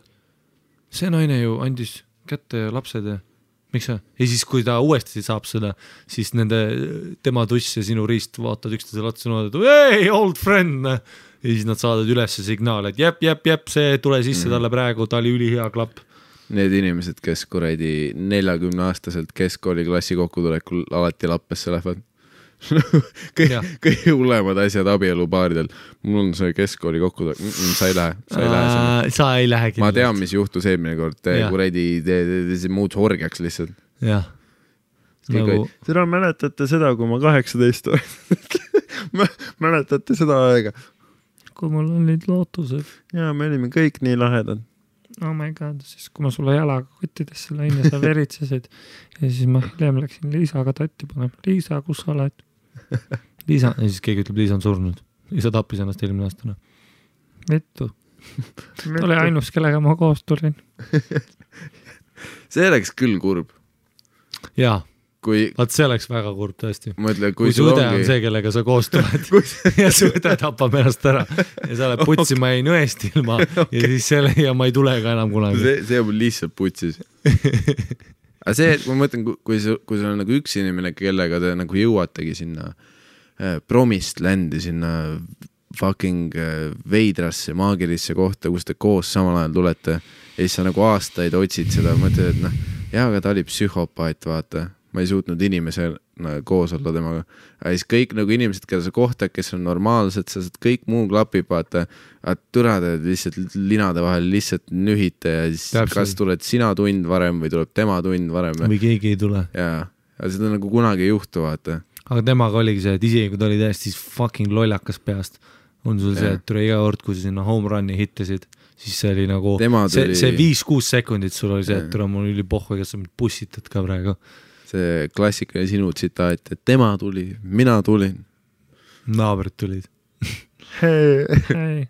see naine ju andis kätte lapsed ja miks see? Ja siis, kui ta uuesti saab seda, siis tema tuss ja sinu riist vaatad üksteisele otsa ja et hey, old friend! Ja siis nad saadavad üles signaal, et jep, see tule sisse talle praegu, ta oli ülihea klapp. Need inimesed, kes kuradi 40-aastaselt keskkooli klassi kokkutulekul alati lappesse lähevad. Kõige hullemad asjad abielupaaridel. Mul on see keskkooli kokkutulek. Sa ei lähe. Sa ei lähe kindlasti. Ma tean, mis juhtus eelmine kord. Kuradi muud horgiaks lihtsalt. Jah. Nagu... Seda mäletate seda, kui ma 18 olen. Mäletate seda aega? Kui mul olid lootused. Ja, me olime kõik nii lahedad. Oh my god, siis kui ma sulle jalaga kottidesse läin ja sa veritsesid ja siis ma hiljem läksin Liisaga tatti panema. Liisa, kus sa oled? Liisa, ja siis keegi ütleb, Liisa on surnud. Liisa tappis ennast eelmine aastane. Vittu. Oli ainus, kellega ma koos tulin. See oleks küll kurb. Jaa. Vaat see oleks väga kurb tõesti. Mõtle, kui su õde on see, kellega sa koos tuled ja su õde tapab ennast ära ja sa oled putsi, ma jäin õest ilma ja siis selle ja ma ei tule ka enam kunagi. See on lihtsalt putsis. Aga see, et ma mõtlen, kui sul on nagu üks inimene, kellega te nagu jõuategi sinna promist ländi, sinna fucking veidrasse, maagilisse kohta, kus te koos samal ajal tulete ja siis sa nagu aastaid otsid seda, mõtled, et aga ta oli psühhopaat, vaata. Ma ei suutnud inimesena koos olla temaga. Ja siis kõik nagu inimesed, keda sa kohtad, kes on normaalsed, sa saad kõik muu klapib, vaata, türade lihtsalt linade vahel lihtsalt nühite ja siis täpselt. Kas tuled sina tund varem või tuleb tema tund varem. Või keegi ei tule. Ja seda nagu kunagi ei juhtu, vaata. Aga temaga oligi see, et isegi kui ta oli täiesti fucking lollakas peast, on sul see, et tule iga kord, kui sa sinna home run'i hittasid, siis see oli nagu, see 5-6 sekundit sul oli see, et tule mul üli pohhu, kes sa mind pussitad ka praegu. See klassikaline sinu tsitaat, et tema tuli, mina tulin. Naabrid tulid. Hei.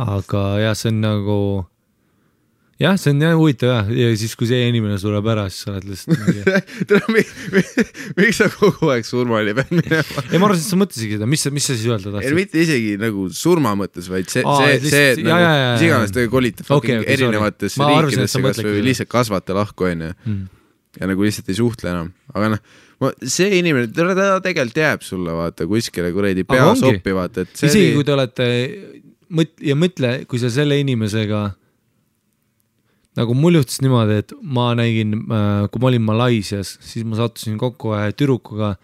Aga jah, see on nagu... Jah, see on jah huvitav ja siis kui see inimene sureb ära, siis sa oled lihtsalt... Miks sa kogu aeg surmali pead minema? Ei, ma arvan, et sa mõtlesid seda, mis sa siis öelda tahtsid? Mitte isegi nagu surma mõttes, vaid see et nagu mis iganes te kolite erinevates riikidesse kas või lihtsalt kasvate lahku, on ju. Ja nagu lihtsalt ei suhtle enam. Aga see inimene, ta tegelikult jääb sulle, vaata, kuskile kuredi pea soppi, vaata. Isegi kui te olete, ja mõtle, kui sa selle inimesega, nagu mul juhtus niimoodi, et ma nägin, kui ma olin Malaisias, siis ma sattusin kokku tüdrukuga,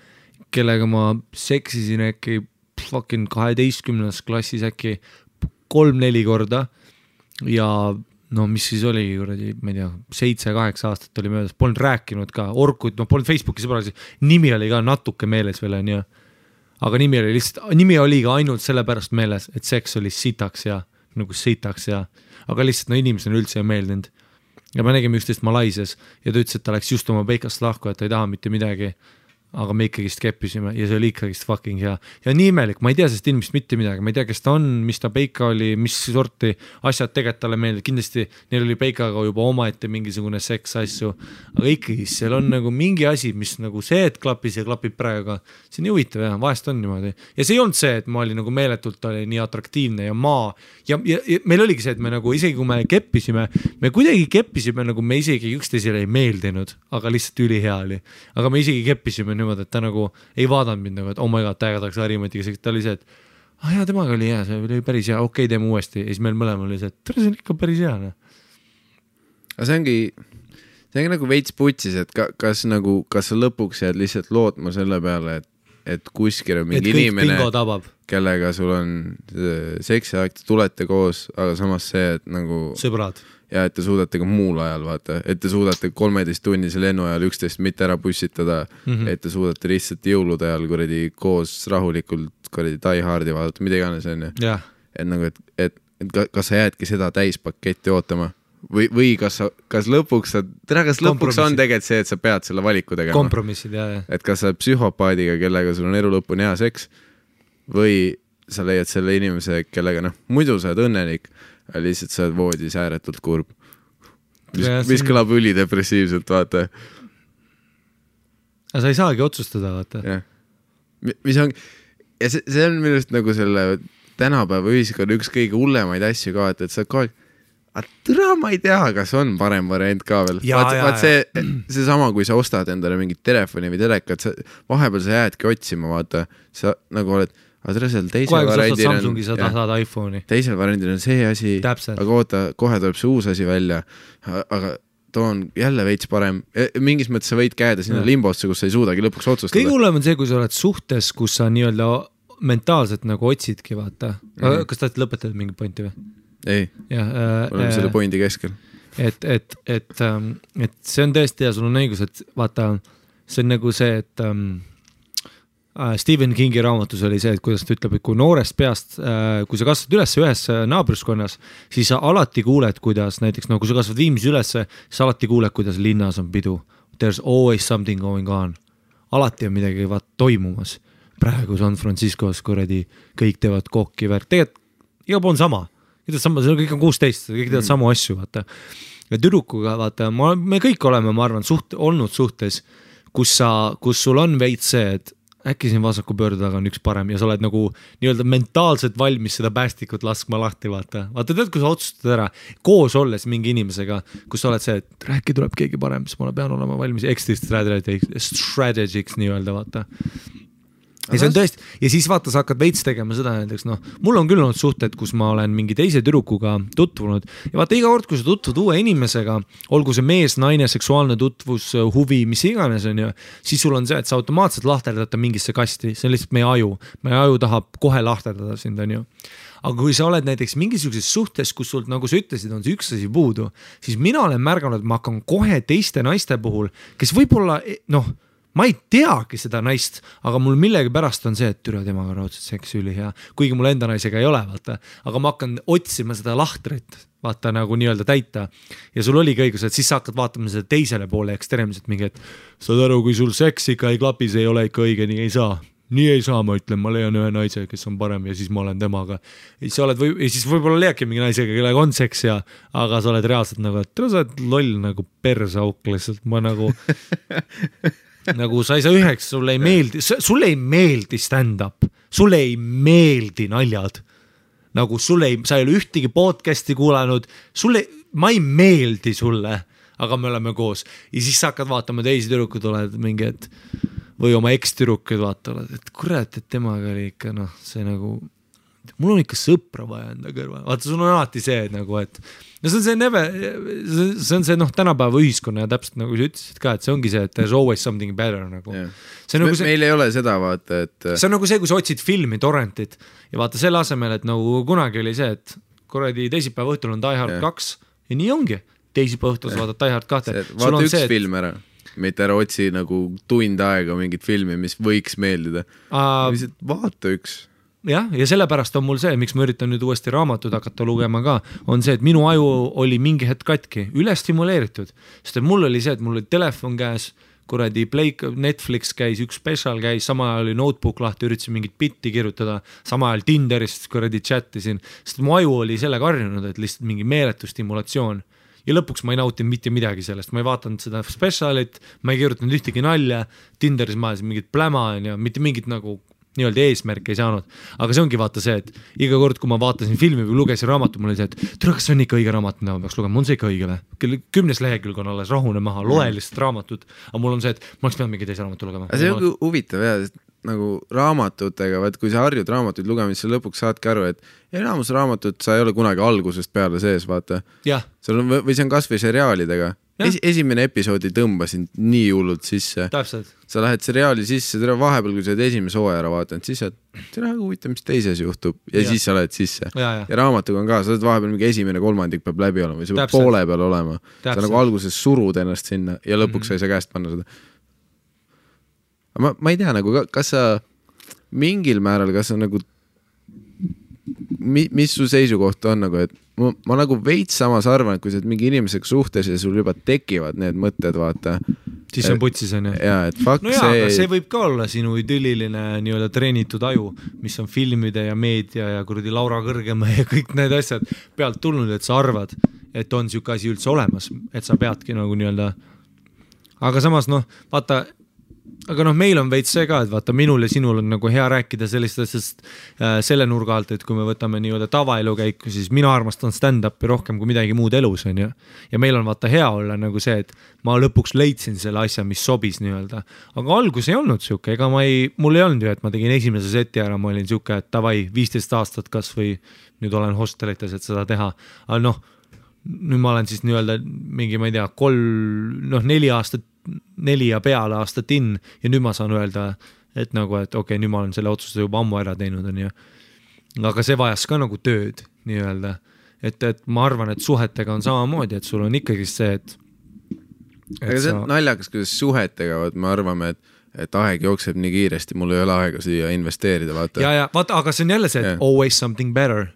kellega ma seksisin äkki fucking 12. klassis äkki 3-4 korda ja no mis siis oli, ma ei tea, 7-8 aastat oli möödas, polnud rääkinud ka, Orkut, noh, polnud Facebooki sõbrasi, nimi oli ka natuke meeles veel, on ju. Aga nimi oli ka ainult sellepärast meeles, et seks oli sitaks ja nagu sitaks ja, aga lihtsalt no inimesena üldse ei meeldinud. Ja me nägime üksteist Malaisias ja ta ütles, et ta läks just oma peikast lahku, et ta ei taha mitte midagi. Aga me ikkagist keppisime ja see oli ikkagist fucking hea. Ja nii imelik, ma ei tea sest inimest mitte midagi, ma ei tea, kes ta on, mis ta peika oli, mis sorti asjad tegelikult talle meeldib. Kindlasti neil oli peikaga juba omaette mingisugune seks asju, aga ikkagi seal on nagu mingi asi, mis nagu see, et klapis ja klapib praegu. See on huvitav ja vahest on niimoodi. Ja see ei olnud see, et ma olin nagu meeletult oli nii atraktiivne ja ja meil oligi see, et me nagu isegi kui me keppisime, me kuidagi keppisime nagu me isegi üksteisele ei meeldinud, aga lihtsalt ülihea oli. Aga me isegi keppisime niimoodi, et ta nagu ei vaadanud mind nagu, et oh my god, täigataks Harimatiga, ta oli see, et jaa, temaga oli hea, see oli päris hea, okei, teeme uuesti. Ja siis meil mõlemal oli see, et see on ikka päris hea. Aga see ongi nagu veits putsis, et kas sa lõpuks jääd lihtsalt lootma selle peale, et kuskil on mingi inimene, kellega sul on seksiakt, tulete koos, aga samas see, et nagu sõbrad. Ja et te suudate ka muul ajal, vaata, et te suudate 13-tunnise lennu ajal 11 mitte ära pussitada, et te suudate lihtsalt jõulude ajal kuradi koos rahulikult kuradi Die Hardi vaadata, mida iganes on. Et nagu, et kas sa jäädki seda täispaketti ootama või kas lõpuks on tegelikult see, et sa pead selle valiku tegema. Kompromissid, jah. Et kas sa psühhopaadiga, kellega sul on elu lõpuni hea seks või sa leiad selle inimese, kellega muidu sa oled õnnelik, lihtsalt sa oled voodis ääretult kurb. Mis kõlab ülidepressiivselt, vaata. Aga sa ei saagi otsustada, vaata. Ja. Mis on, ja see on minust nagu selle tänapäeva ühiskonna üks kõige hullemaid asju ka, et sa kogu aeg, ma ei tea, kas on parem variant ka veel. Vaat see sama, kui sa ostad endale mingit telefoni või telekat, vahepeal sa jäädki otsima, vaata, sa nagu oled aga teisel variandil on see asi, aga oota, kohe tuleb see uus asi välja, aga too on jälle veits parem. Mingis mõttes sa võid käeda sinna limbosse, kus sa ei suudagi lõpuks otsustada. Kõige hullem on see, kui sa oled suhtes, kus sa nii-öelda mentaalselt nagu otsidki, vaata. Kas ta lõpetad mingi pointi või? Ei, oleme selle pointi keskel. Et see on tõesti ja sul on õigus, et vaata, see on nagu see, et Stephen Kingi raamatus oli see, et kuidas ta ütleb, et kui noorest peast, kui sa kasvad üles ühes naabruskonnas, siis sa alati kuuled, kuidas näiteks, kui sa kasvad Viimsis üles, siis alati kuuled, kuidas linnas on pidu. There's always something going on. Alati on midagi toimumas. Praegu San Franciscos kuradi kõik teevad kokki värk. Tegelikult iga pool on sama. See kõik on 16, kõik teevad samu asju, vaata. Ja tüdrukuga, vaata, me kõik oleme, ma arvan, olnud suhtes, kus sul on veits see, et äkki siin vasaku pöörde taga on üks parem ja sa oled nagu nii-öelda mentaalselt valmis seda päästikut laskma lahti, vaata. Vaata, tead, kui sa otsustad ära koos olles mingi inimesega, kus sa oled see, et rääki tuleb keegi parem, siis ma pean olema valmis exit strategics nii-öelda, vaata. Ja see on tõesti, ja siis vaata, sa hakkad veits tegema seda näiteks, mul on küll olnud suhted, kus ma olen mingi teise tüdrukuga tutvunud ja vaata iga kord, kui sa tutvud uue inimesega, olgu see mees, naine, seksuaalne tutvus, huvi, mis iganes on ju, siis sul on see, et sa automaatselt lahterdata mingisse kasti, see on lihtsalt meie aju tahab kohe lahterdada sind, on ju. Aga kui sa oled näiteks mingisuguses suhtes, kus sul, nagu sa ütlesid, on see üks asi puudu, siis mina olen märganud, et ma hakkan kohe teiste naiste puhul, kes võib-olla, ma ei teagi seda naist, aga mul millegi pärast on see, et türa temaga raudselt seksi üli hea, kuigi mul enda naisega ei ole, vaata, aga ma hakkan otsima seda lahtrit, vaata nagu nii-öelda täita ja sul oligi õigus, et siis sa hakkad vaatama seda teisele poole ekstreemselt mingi, et saad aru, kui sul seks ikka ei klapi, see ei ole ikka õige, nii ei saa, ma ütlen, ma leian ühe naise, kes on parem ja siis ma olen temaga. Ja siis võib-olla leiadki mingi naisega, kellega on seks ja, aga sa oled reaalselt nagu, et sa oled loll nagu persauk lihtsalt, ma nagu nagu sa ei saa üheks, sulle ei meeldi stand-up, sulle ei meeldi naljad, nagu sa ei ole ühtegi podcasti kuulanud, ma ei meeldi sulle, aga me oleme koos ja siis sa hakkad vaatama teisi tüdrukud, oled mingi, et või oma eks-tüdrukud vaatavad, et kurat, et temaga oli ikka, see nagu, mul on ikka sõpra vaja enda kõrval, vaata, sul on alati see nagu, et see on see tänapäeva ühiskonna ja täpselt nagu sa ütlesid ka, et see ongi see, et there's always something better nagu. Nagu meil ei ole seda, vaata, et see on nagu see, kui sa otsid filmi, torrentit ja vaata selle asemel, et nagu kunagi oli see, et kuradi teisipäeva õhtul on Die Hard 2 ja nii ongi. Teisipäeva õhtus vaatad Die Hard 2. Vaata üks film ära, mitte ära otsi nagu tund aega mingit filmi, mis võiks meeldida. Vaata üks. Jah, ja sellepärast on mul see, miks ma üritan nüüd uuesti raamatud hakata lugema ka, on see, et minu aju oli mingi hetk katki, üle stimuleeritud, sest et mul oli see, et mul oli telefon käes, kuradi Netflix käis, üks special käis, sama ajal oli notebook lahti, üritasin mingit bitti kirjutada, sama ajal Tinderist kuradi chatisin, sest mu aju oli sellega harjunud, et lihtsalt mingi meeletu stimulatsioon. Ja lõpuks ma ei nautinud mitte midagi sellest, ma ei vaatanud seda specialit, ma ei kirjutanud ühtegi nalja, Tinderis ma ajasin mingit pläma ja mitte mingit nagu nii-öelda eesmärk ei saanud, aga see ongi vaata see, et iga kord, kui ma vaatasin filmi või lugesin raamatu, mul oli see, et tere, kas see on ikka õige raamat, mida ma peaks lugema, on see ikka õige või? 10 lehekülg on alles, rahune maha, loe lihtsalt raamatut, aga mul on see, et ma oleks pidanud mingi teise raamatu lugema. See on huvitav jah, nagu raamatutega, vaat kui sa harjud raamatuid lugemist, sa lõpuks saadki aru, et enamus raamatut sa ei ole kunagi algusest peale sees, vaata. Või see on kas või seriaalidega. Esimene episoodi tõmbasin nii hullult sisse. Täpselt. Sa lähed seriaali sisse, vahepeal kui sa oled esimese hooaja ära vaatanud, siis sa huvitav, mis teises juhtub ja siis sa lähed sisse. Ja raamatuga on ka, sa oled vahepeal mingi esimene kolmandik peab läbi olema või sa peab poole peal olema. Sa nagu alguses surud ennast sinna ja lõpuks sa ei saa käest panna seda. Ma ei tea, nagu, kas sa mingil määral, kas sa nagu mis su seisukoht on nagu, et ma nagu veits samas arvan, et kui sa oled mingi inimesega suhtes ja sul juba tekivad need mõtted, vaata. Siis on putsis, on ju. Jaa, et fuck no see... see võib ka olla sinu idülliline nii-öelda treenitud aju, mis on filmide ja meedia ja kuradi Laura Kõrgemäe ja kõik need asjad pealt tulnud, et sa arvad, et on siuke asi üldse olemas, et sa peadki nagu nii-öelda. Aga samas vaata, aga meil on veits see ka, et vaata minul ja sinul on nagu hea rääkida sellistest selle nurga alt, et kui me võtame nii-öelda tavaelu käiku, siis mina armastan stand-upi rohkem kui midagi muud elus on ju. Ja meil on vaata hea olla nagu see, et ma lõpuks leidsin selle asja, mis sobis nii-öelda. Aga algus ei olnud siuke, ega mul ei olnud ju, et ma tegin esimese seti ära, ma olin siuke, et tavai 15 aastat kas või nüüd olen hostelites, et seda teha. Aga nüüd ma olen siis nii-öelda mingi, ma ei tea, 4 ja peale aastat in ja nüüd ma saan öelda, et nagu, et okei, nüüd ma olen selle otsuse juba ammu ära teinud on ju. Aga see vajas ka nagu tööd nii-öelda, et ma arvan, et suhetega on samamoodi, et sul on ikkagi see, et aga see on naljakas, kuidas suhetega, me arvame, et aeg jookseb nii kiiresti, mul ei ole aega siia investeerida, vaata. Ja, vaata, aga see on jälle see, et always something better.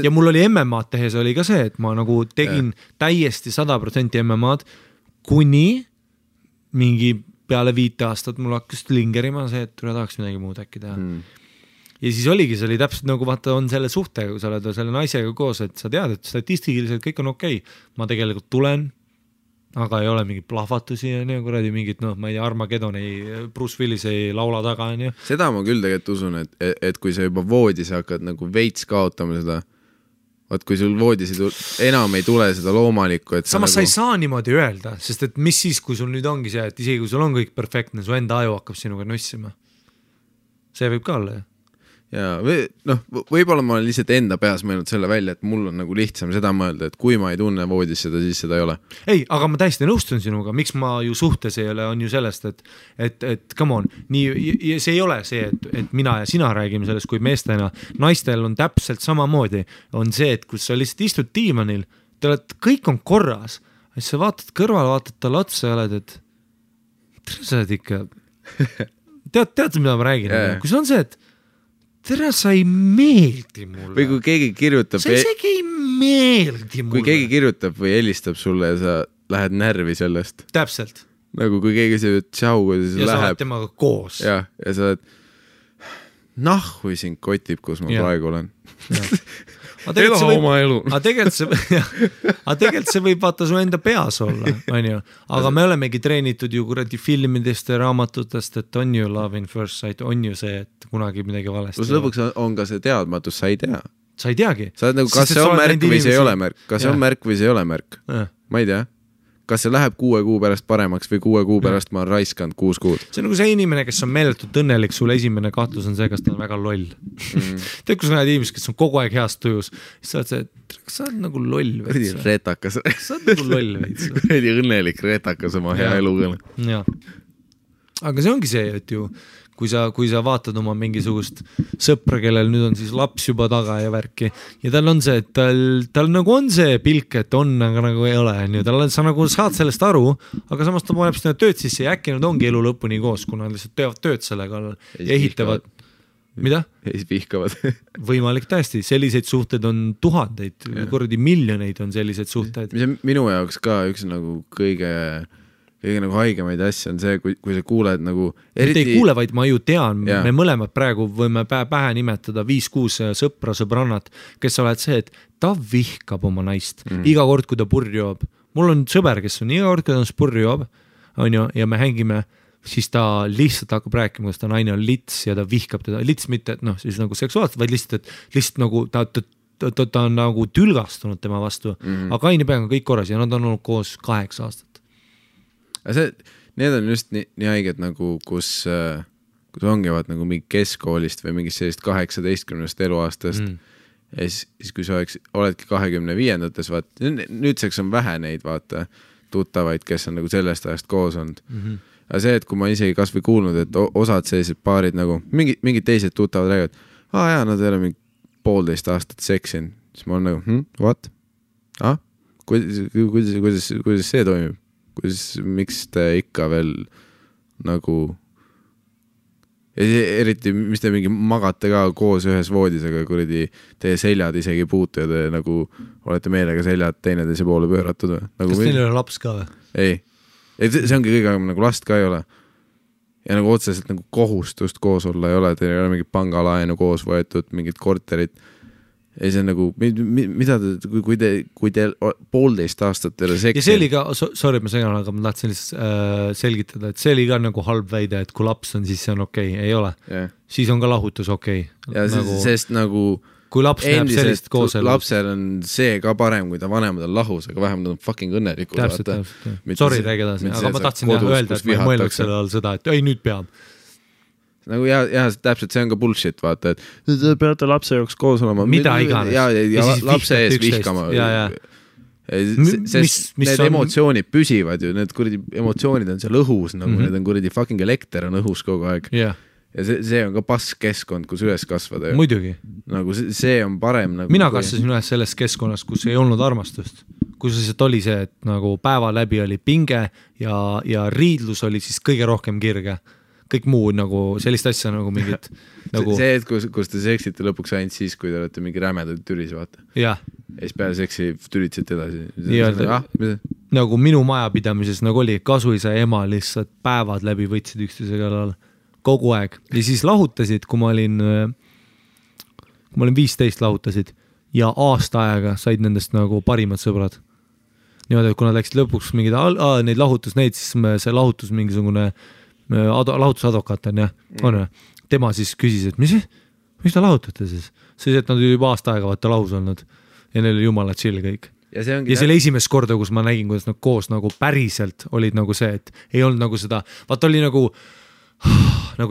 Ja mul oli MMA-d tehes oli ka see, et ma nagu tegin täiesti 100% MMA-d, kuni mingi peale 5 aastat mul hakkas lingerima see, et tahaks midagi muud äkki teha. Ja siis oligi, see oli täpselt nagu vaata on selle suhtega, kui sa oled selle naisega koos, et sa tead, et statistiliselt kõik on okei. Ma tegelikult tulen, aga ei ole mingit plahvatusi ja kuradi mingit, ma ei tea, Armageddon Bruce Willis ei laula taga. Seda ma küll tegelikult usun, et kui sa juba voodis hakkad nagu veits kaotama seda, kui sul voodisid enam ei tule seda loomalikku, et samas nagu... sa ei saa niimoodi öelda, sest et mis siis, kui sul nüüd ongi see, et isegi kui sul on kõik perfektne, su enda aju hakkab sinuga nussima. See võib ka olla, ja võib-olla ma olen lihtsalt enda peas mõelnud selle välja, et mul on nagu lihtsam seda mõelda, et kui ma ei tunne voodis seda, siis seda ei ole. Ei, aga ma täiesti nõustun sinuga, miks ma ju suhtes ei ole, on ju sellest, et come on, nii, see ei ole see, et mina ja sina räägime sellest kui meestena, naistel on täpselt samamoodi, on see, et kui sa lihtsalt istud diivanil, kõik on korras, et sa vaatad kõrval, vaatad talle otsa ja oled, et sa oled ikka tead, mida ma räägin, kui see on see, et tere, sa ei meeldi mulle. Või kui keegi kirjutab... Sa isegi ei meeldi mulle. Kui keegi kirjutab või helistab sulle ja sa lähed närvi sellest. Täpselt. Nagu kui keegi see tšau, kui see ja läheb... Ja sa oled temaga koos. Ja sa oled... Nahhui sind kotib, kus ma praegu olen. Ela oma elu. Aga tegelikult see võib vaata su enda peas olla, on ju. Aga me olemegi treenitud ju kuradi filmidest ja raamatutest, et on ju love in first sight, on ju see, et kunagi midagi valesti. Plus lõpuks on ka see teadmatus, sa ei tea. Sa ei teagi. Sa oled nagu, kas see on märk või see ei ole märk? Kas see on märk või see ei ole märk? Ma ei tea. Kas see läheb 6 kuu pärast paremaks või 6 kuu pärast ma olen raiskanud 6 kuud? See on nagu see inimene, kes on meeletult õnnelik, sul esimene kahtlus on see, kas ta on väga loll. Tead, kus näed inimesed, kes on kogu aeg heast tujus, siis sa oled see, kas sa oled nagu loll veits? Retakas. Sa oled nagu loll veits. Õnnelik retakas oma hea elukõne. Jah. Aga see ongi see, et ju kui sa vaatad oma mingisugust sõpra, kellel nüüd on siis laps juba taga ja värki ja tal on see, et tal nagu on see pilk, et on, aga nagu ei ole, sa nagu saad sellest aru, aga samas ta paneb seda tööd sisse ja äkki nad ongi elu lõpuni koos, kuna nad lihtsalt teevad tööd selle kallal ja ehitavad. Mida? Ja siis vihkavad. Võimalik täiesti, selliseid suhteid on tuhandeid, kuradi miljoneid on selliseid suhteid. Mis minu jaoks ka üks nagu kõige nagu haigemaid asja on see, kui sa kuuled nagu eriti... Ei kuule, vaid ma ju tean, me mõlemad praegu võime pähe nimetada 5-6 sõbrannat, kes oled see, et ta vihkab oma naist iga kord, kui ta purri joob. Mul on sõber, kes on iga kord, kui ta purri joob, on ju, ja me hängime, siis ta lihtsalt hakkab rääkima, kas ta naine on lits ja ta vihkab teda. Lits mitte, et siis nagu seksuaalselt, vaid lihtsalt nagu ta on nagu tülgastunud tema vastu, aga kaine peaga kõik korras ja nad on olnud koos 8 aastat. Need on just nii haiged nagu, kus ongivad nagu mingi keskkoolist või mingist sellist 18 eluaastast ja siis kui sa oledki 25-ndates, nüüdseks on vähe neid tuttavaid, kes on nagu sellest ajast koos olnud. Aga see, et kui ma isegi kas või kuulnud, et osad sellised paarid nagu mingid teised tuttavad räägivad, nad ei ole mingi 1,5 aastat seksin, siis ma olen nagu, what? Kuidas see toimib? Miks te ikka veel nagu eriti, mis te mingi magate ka koos ühes voodis, aga kuradi teie seljad isegi ei puutu ja te nagu olete meelega seljad teineteise poole pööratud nagu kas teil ei ole laps ka või? Ei, see ongi kõige nagu last ka ei ole ja nagu otseselt nagu kohustust koos olla ei ole, teil ei ole mingit pangalaenu koos võetud, mingit korterit ja see on nagu, mida kui te 1,5 aastat teile seksin. Ja see oli ka, sorry, ma segan, aga ma tahtsin selgitada, et see oli ka nagu halb väide, et kui laps on, siis see on okei, ei ole. Siis on ka lahutus okei. Ja nagu, sest nagu kui laps näeb sellist koos elus. Lapsel on see ka parem, kui ta vanemad on lahus, aga vähemalt nad on fucking õnnelikud. Täpselt. Sorry, räägi edasi, aga ma tahtsin öelda, et ma ei mõelnud selle all seda, et ei, nüüd peab. Nagu täpselt, see on ka bullshit, vaata, et te peate lapse jaoks koos olema. Mida iganes. Ja lapse ees vihkama. Sest need emotsioonid püsivad ju, need kuradi emotsioonid on seal õhus, nagu need on kuradi fucking elekter on õhus kogu aeg. Ja see on ka pask keskkond, kus üles kasvada. Muidugi. Nagu see on parem. Mina kasvasin üles selles keskkonnas, kus ei olnud armastust. Kus lihtsalt oli see, et nagu päeva läbi oli pinge ja riidlus oli siis kõige rohkem kirge. Kõik muu nagu sellist asja nagu mingit nagu... See, et kus te seksite lõpuks ainult siis, kui te olete mingi rämedad tülis, vaata. Ja siis peale seksi tülitsete edasi. Nagu minu majapidamises nagu oli kasuisa ema lihtsalt päevad läbi võtsid üksteise kallal kogu aeg. Ja siis lahutasid, kui ma olin 15 lahutasid ja aasta aega said nendest nagu parimad sõbrad. Niimoodi, et kui nad läksid lõpuks mingid neid lahutus neid, siis see lahutus mingisugune lahutusadvokaat on, on. Tema siis küsis, et mis ta lahutate siis? Siis, et nad juba aasta aega vaata lahus olnud ja neil oli jumala chill kõik. Ja see oli esimest korda, kus ma nägin, kuidas nad koos nagu päriselt olid nagu see, et ei olnud nagu seda, vaata oli nagu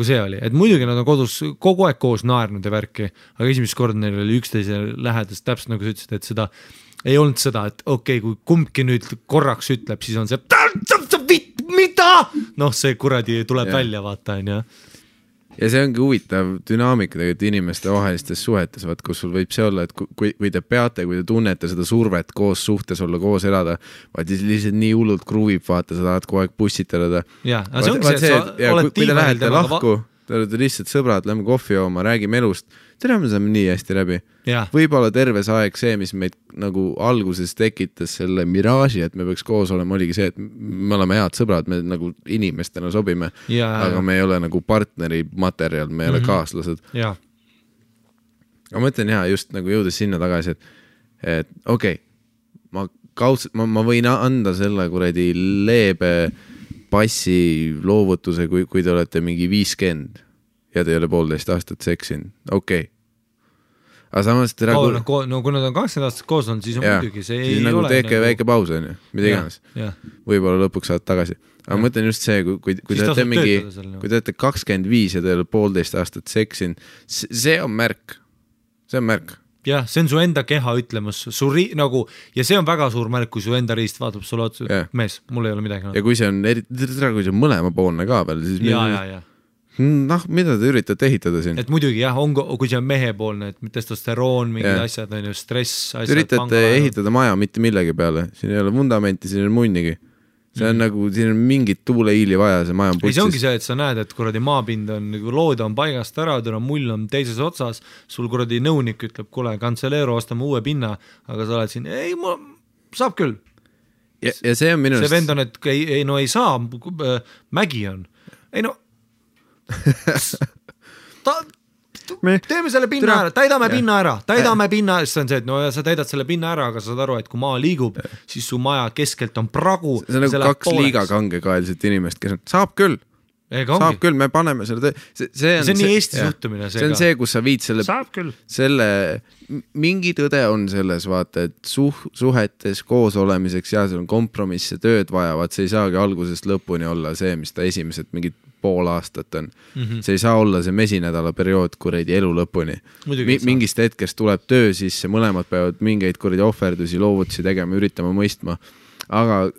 see oli, et muidugi nad on kodus kogu aeg koos naernud ja värki, aga esimest korda neil oli üksteise lähedast, täpselt nagu sa ütlesid, et seda ei olnud seda, et okei, kui kumbki nüüd korraks ütleb, siis on see mida? See kuradi tuleb välja, vaata, on. Ja see ongi huvitav dünaamika tegelikult inimeste vahelistes suhetes, kus sul võib see olla, et kui te peate, kui te tunnete seda survet koos suhtes olla, koos elada, vaid lihtsalt nii hullult kruuvib, vaata, sa tahad kogu aeg pussitada. Ja, aga see ongi see, et sa oled tiimal lahku, te olete lihtsalt sõbrad, lähme kohvi jooma, räägime elust, tere, me saame nii hästi läbi. Võib-olla terves aeg see, mis meid nagu alguses tekitas selle miraaži, et me peaks koos olema, oligi see, et me oleme head sõbrad, me nagu inimestena sobime, aga me ei ole nagu partneri materjal, me ei ole kaaslased. Aga ma ütlen just nagu jõudes sinna tagasi, et okei, ma võin anda selle kuradi leebe passi loovutuse, kui te olete mingi 50 ja te ei ole 1,5 aastat seksin, okei. Aga samas kui nad on 20 aastat koos on, siis on muidugi see ei nagu ole. Teeke väike paus on ju, mida iganes. Võib-olla lõpuks saad tagasi. Aga ma mõtlen just see, kui te olete 25 ja te ei ole 1,5 aastat seksin, see on märk. See on märk. Jah, see on su enda keha ütlemas. Ja see on väga suur märk, kui su enda riist vaatab sulle otsa. Mees, mul ei ole midagi. Ja kui see on mõlema poolne ka veel, siis Noh, mida te üritate ehitada siin? Et muidugi jah, kui see on mehepoolne, et testosteroon, mingid asjad, on ju, stress, asjad. Üritate ehitada maja mitte millegi peale, siin ei ole vundamenti, siin on munnigi. See on nagu, siin on mingit tuuleiili vaja, see maja on putsis. Ei, see ongi see, et sa näed, et kuradi maapind on, lood on paigast ära, mull on teises otsas, sul kuradi nõunik ütleb, kuule, Cancelero, ostame uue pinna, aga sa oled siin, ei, saab küll. Ja see on minu see vend on, et ei saa, mägi on. Ei no, teeme selle pinna ära, täidame pinna ära, siis on see, et no ja sa täidad selle pinna ära, aga sa saad aru, et kui maa liigub, siis su maja keskelt on pragu. See on nagu 2 liiga kangekaelset inimest, kes on, saab küll, me paneme selle see on nii Eesti suhtumine. See on see, kus sa viid selle mingi tõde on selles, vaata, et suhetes koos olemiseks ja seal on kompromisse, tööd vajavad, see ei saagi algusest lõpuni olla see, mis ta esimesed mingid pool aastat on. See ei saa olla see mesinädala periood kuradi elu lõpuni. Mingist hetkest tuleb töö sisse, mõlemad peavad mingeid kuradi ohverdusi, loovutusi tegema, üritama mõistma. Aga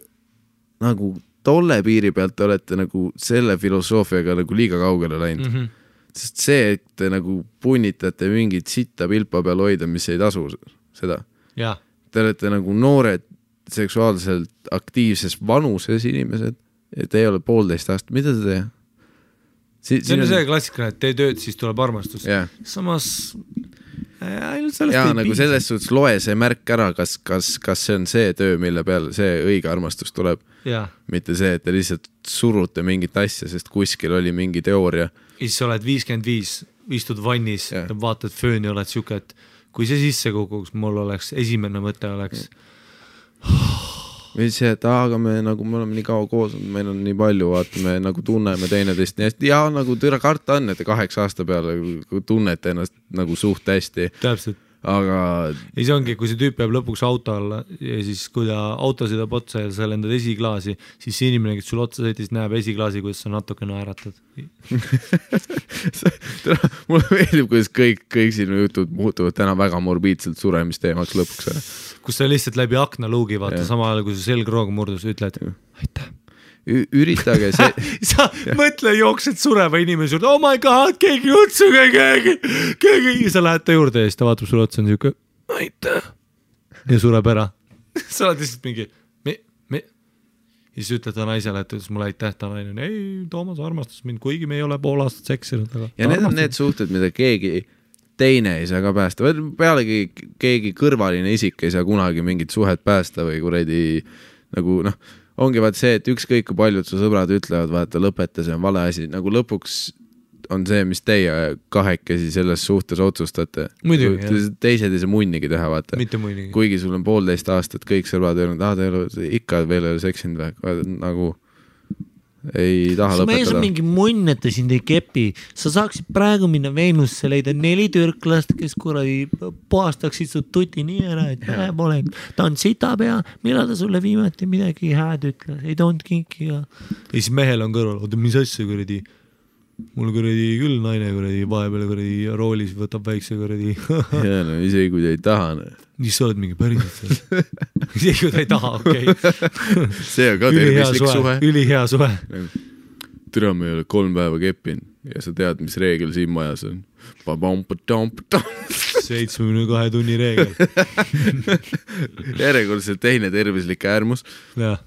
nagu tolle piiri pealt olete nagu selle filosoofiaga nagu liiga kaugele läinud. Sest see, et te nagu punnitate mingit sitta pilpa peal hoida, mis ei tasu seda. Ja. Te olete nagu noored seksuaalselt aktiivses vanuses inimesed, et ei ole 1,5 aastat. Mida te teha? See on see klassikaline, et tee tööd, siis tuleb armastus. Yeah. Samas nagu selles suhtes loe see märk ära, kas see on see töö, mille peal see õige armastus tuleb. Yeah. Mitte see, et te lihtsalt surute mingit asja, sest kuskil oli mingi teooria. Siis sa oled 55, istud vannis ja vaatad fööni, oled siuke, et kui see sisse kukuks, mul oleks esimene mõte oleks või see, et aga me oleme nii kaua koos, meil on nii palju, vaata, me nagu tunneme teineteist nii hästi ja nagu türa karta on, et 8 aasta peale tunnete ennast nagu suht hästi. Täpselt. Aga ei, see ongi, kui see tüüp jääb lõpuks auto alla ja siis kui ta auto sõidab otsa ja sa lendad esiklaasi, siis see inimene, kes sul otsa sõitis, näeb esiklaasi, kuidas sa natuke naeratad. Mulle meeldib, kuidas kõik sinu jutud muutuvad täna väga morbiidselt suremisteemaks lõpuks. Kus sa lihtsalt läbi akna luugi vaata, sama ajal, kui sa selgroog murdus, ütled aitäh. Üritage see sa mõtle, jooksed sureva inimese juurde, oh my god, keegi utsuge, keegi ja sa lähed ta juurde ja siis ta vaatab sulle otsa on siuke aitäh ja sureb ära. Sa oled lihtsalt mingi ja siis ütled ta naisele, et ütles mulle aitäh, ta naine, ei, Toomas armastas mind, kuigi me ei ole 1,5 aastat seksinud. Ja need on need suhted, mida keegi teine ei saa ka päästa. Pealegi keegi kõrvaline isik ei saa kunagi mingit suhet päästa või kuredi nagu ongi vaat see, et ükskõik kui paljud su sõbrad ütlevad, vaata lõpeta, see on vale asi, nagu lõpuks on see, mis teie kahekesi selles suhtes otsustate. Muidugi, teised ei saa munnigi teha, vaata. Mitte munnigi. Kuigi sul on 1,5 aastat kõik sõbrad öelnud, te ei ole ikka veel ei ole seksinud või, nagu ei taha lõpetada. Mees on mingi munn, et ta sind ei kepi. Sa saaksid praegu minna Veenusse leida 4 türklast, kes kuradi puhastaksid su tuti nii ära, et vähe pole. Ta on sitapea, millal ta sulle viimati midagi hääd ütles, ei toonud kinkiga. Ja siis mehel on kõrval, oota, mis asja kuradi? Mul kuradi küll naine kuradi vahepeal kuradi roolis võtab väikse kuradi. Ja no isegi kui ta ei taha. Siis sa oled mingi päriselt seal. Isegi kui ta ei taha, okei. See on ka tervislik suhe. Ülihea suhe. Türa me ei ole 3 päeva keppinud ja sa tead, mis reegel siin majas on. 72 tunni reegel. Järjekordselt teine tervislik äärmus. Ja.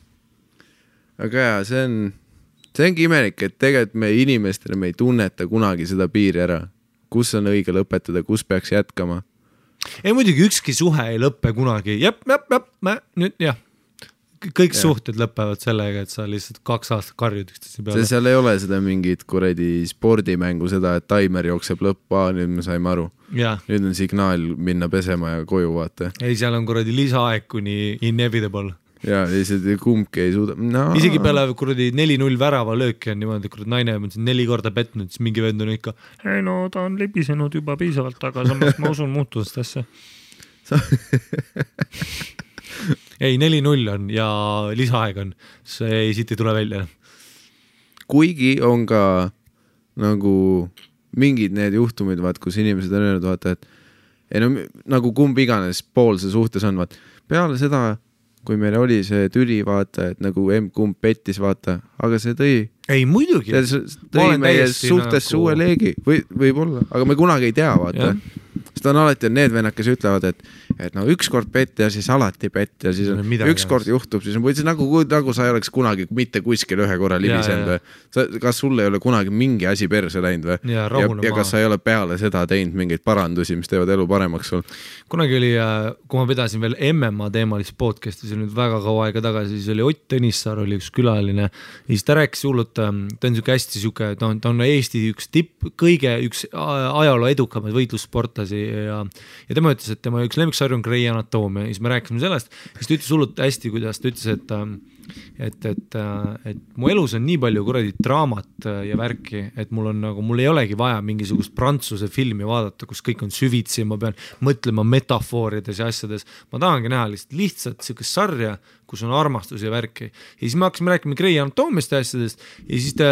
Aga ja, see ongi imelik, et tegelikult me inimestele me ei tunneta kunagi seda piiri ära. Kus on õige lõpetada, kus peaks jätkama? Ei muidugi ükski suhe ei lõppe kunagi. Nüüd jah. Kõik suhted lõpevad sellega, et sa lihtsalt 2 aastat karjud üksteise peale. Seal ei ole seda mingit kuradi spordimängu, seda, et taimer jookseb lõppa, nüüd me saime aru. Ja. Nüüd on signaal minna pesema ja koju vaata. Ei, seal on kuradi lisaaeg kuni inevitable. Ja lihtsalt kumbki ei suuda. Isegi peale kuradi 4-0 värava lööki on niimoodi, kuradi naine on 4 korda petnud, siis mingi vend on ikka ei no, ta on libisenud juba piisavalt, aga samas ma usun muutust asja. Ei, 4-0 on ja lisaaeg on. See siit ei tule välja. Kuigi on ka nagu mingid need juhtumid, vaat, kus inimesed on öelnud, vaata, et ei no, nagu kumb iganes pool see suhtes on, vaat, peale seda kui meil oli see tüli, vaata, et nagu kumb pettis, vaata, aga see tõi ei muidugi. Tõi meie suhtesse uue leegi, võib-olla, aga me kunagi ei tea, vaata. Sest on alati need vennad, kes ütlevad, et no ükskord pett ja siis alati pett ja siis ükskord juhtub, siis on nagu sa ei oleks kunagi mitte kuskil ühe korra libisenud või. Kas sul ei ole kunagi mingi asi perse läinud või? Ja kas sa ei ole peale seda teinud mingeid parandusi, mis teevad elu paremaks sul? Kunagi oli, kui ma pidasin veel MMA teemalist podcasti, see oli nüüd väga kaua aega tagasi, siis oli Ott Tõnissaar, oli üks külaline ja siis ta rääkis hullult, ta on hästi siuke, ta on Eesti üks üks ajaloo edukamaid võitlussportlasi ja tema ütles, et tema üks lemmiksarju on Grey Anatoomia ja siis me rääkisime sellest, siis ta ütles hullult hästi, kuidas ta ütles, et mu elus on nii palju kuradi draamat ja värki, et mul ei olegi vaja mingisugust prantsuse filmi vaadata, kus kõik on süvitsi, ma pean mõtlema metafoorides ja asjades, ma tahangi näha lihtsalt siukest sarja, kus on armastus ja värki. Ja siis me hakkasime rääkima Grey Anatoomist ja asjadest ja siis ta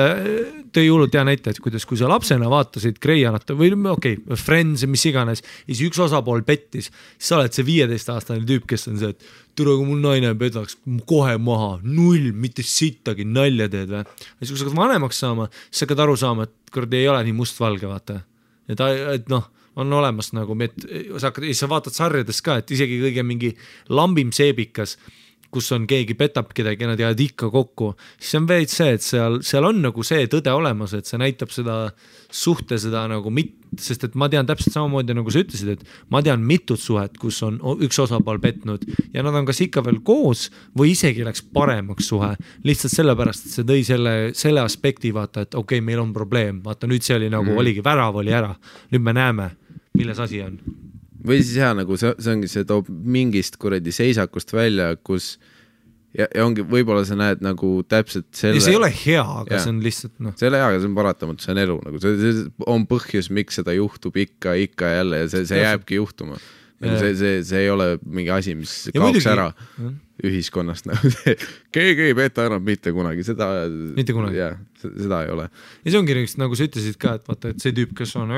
tõi hullult hea näite, et kuidas, kui sa lapsena vaatasid Grey Anatoomia või Friends ja mis iganes ja siis üks osapool pettis, siis sa oled see 15-aastane tüüp, kes on see, et tule, kui mul naine pedaks kohe maha, 0, mitte sittagi, nalja teed või. Ja siis kui sa hakkad vanemaks saama, siis sa hakkad aru saama, et kord ei ole nii mustvalge, vaata. Et on olemas nagu, sa vaatad sarjades ka, et isegi kõige mingi lambim seebikas, kus on keegi petab kedagi ja nad jäävad ikka kokku, siis on veid see, et seal on nagu see tõde olemas, et see näitab seda suhte, seda nagu sest et ma tean täpselt samamoodi, nagu sa ütlesid, et ma tean mitut suhet, kus on üks osapool petnud ja nad on kas ikka veel koos või isegi läks paremaks suhe, lihtsalt sellepärast, et see tõi selle aspekti, vaata, et okei, meil on probleem, vaata nüüd see oli nagu, oligi värav oli ära, nüüd me näeme, milles asi on. Või siis nagu see ongi, see toob mingist kuradi seisakust välja, kus ja ongi, võib-olla sa näed nagu täpselt selle. Ja see ei ole hea, aga see on lihtsalt See ei ole hea, aga see on paratamatu, see on elu nagu, see on põhjus, miks seda juhtub ikka jälle ja see jääbki juhtuma. See ei ole mingi asi, mis kaoks ära ühiskonnast. Keegi ei peta enam mitte kunagi, seda ei ole. Ja see ongi nagu sa ütlesid ka, et vaata, et see tüüp, kes on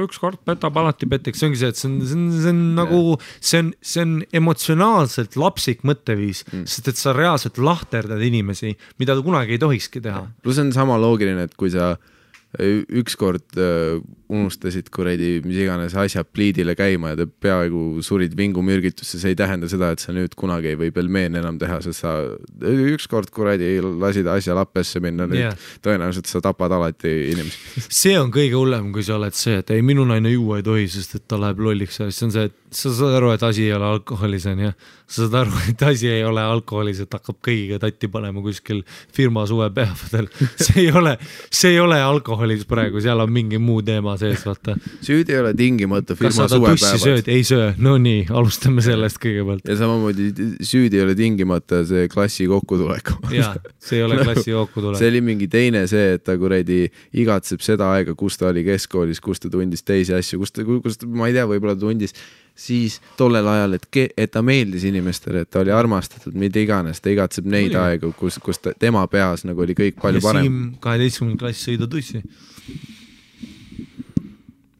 ükskord petab, alati peteks, see ongi see, et see on nagu, see on emotsionaalselt lapsik mõtteviis, sest et sa reaalselt lahterdad inimesi, mida ta kunagi ei tohikski teha. Plus on sama loogiline, et kui sa ükskord unustasid kuradi mis iganes asja pliidile käima ja te peaaegu surid vingumürgitusse, see ei tähenda seda, et sa nüüd kunagi ei või pelmeen enam teha, sest sa ükskord kuradi lasid asja lappesse minna, nüüd tõenäoliselt sa tapad alati inimesi. See on kõige hullem, kui sa oled see, et ei, minu naine juua ei tohi, sest et ta läheb lolliks, siis on see, et sa saad aru, et asi ei ole alkoholis, on ja sa saad aru, et asi ei ole alkoholis, et hakkab kõigiga tatti panema kuskil firma suvepäevadel. See ei ole alkoholis praegu, seal on mingi muu teema sees, vaata. Süüd ei ole tingimata firma suvepäevad. Kas sa tussi sööd? Ei söö. No nii, alustame sellest kõigepealt. Ja samamoodi süüd ei ole tingimata see klassi kokkutulek. Jaa, see ei ole klassi kokkutulek. See oli mingi teine see, et ta kuradi igatseb seda aega, kus ta oli keskkoolis, kus ta tundis teisi asju, kus ta, ma ei tea, võib-olla tundis siis tollel ajal, et ta meeldis inimestele, et ta oli armastatud, mida iganes, ta igatseb neid aegu, kus tema peas nagu oli kõik palju parem. Ja Siim 12. klass sõida tussi.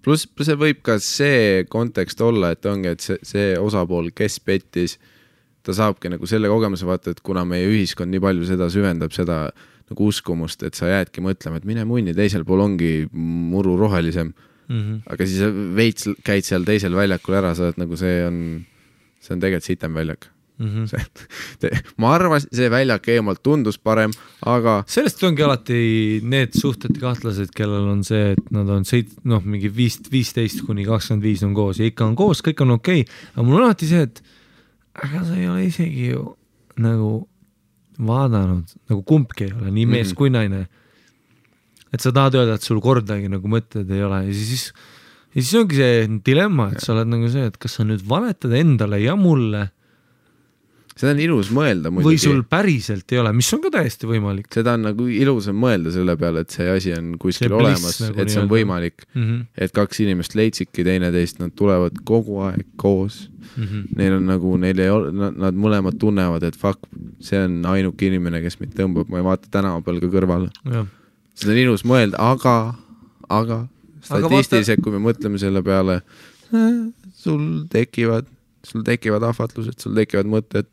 Plus see võib ka see kontekst olla, et ongi, et see osapool, kes pettis, ta saabki nagu selle kogemuse vaata, et kuna meie ühiskond nii palju seda süvendab, seda nagu uskumust, et sa jäädki mõtlema, et mine munni, teisel pool ongi muru rohelisem. Aga siis veits käid seal teisel väljakul ära, sa oled nagu see on tegelikult sitem väljak. Ma arvan, see väljak eemalt tundus parem, aga sellest ongi alati need suhted kahtlased, kellel on see, et nad on mingi 15 kuni 25 on koos ja ikka on koos, kõik on okei. Aga mul on alati see, et aga sa ei ole isegi ju nagu vaadanud, nagu kumbki ei ole, nii mees kui naine. Et sa tahad öelda, et sul kordagi nagu mõtted ei ole ja siis ongi see dilemma, et sa oled nagu see, et kas sa nüüd valetad endale ja mulle seda on ilus mõelda muidugi. Või sul päriselt ei ole, mis on ka täiesti võimalik. Seda on nagu ilusam mõelda selle peale, et see asi on kuskil olemas, nagu et see on võimalik. Et kaks inimest leidsidki teineteist, nad tulevad kogu aeg koos. Neil on nagu, nad mõlemad tunnevad, et fuck, see on ainuke inimene, kes mind tõmbab, ma ei vaata tänava peal ka kõrval. Seda on ilus mõelda, aga statistiliselt, kui me mõtleme selle peale, sul tekivad ahvatlused, sul tekivad mõtted.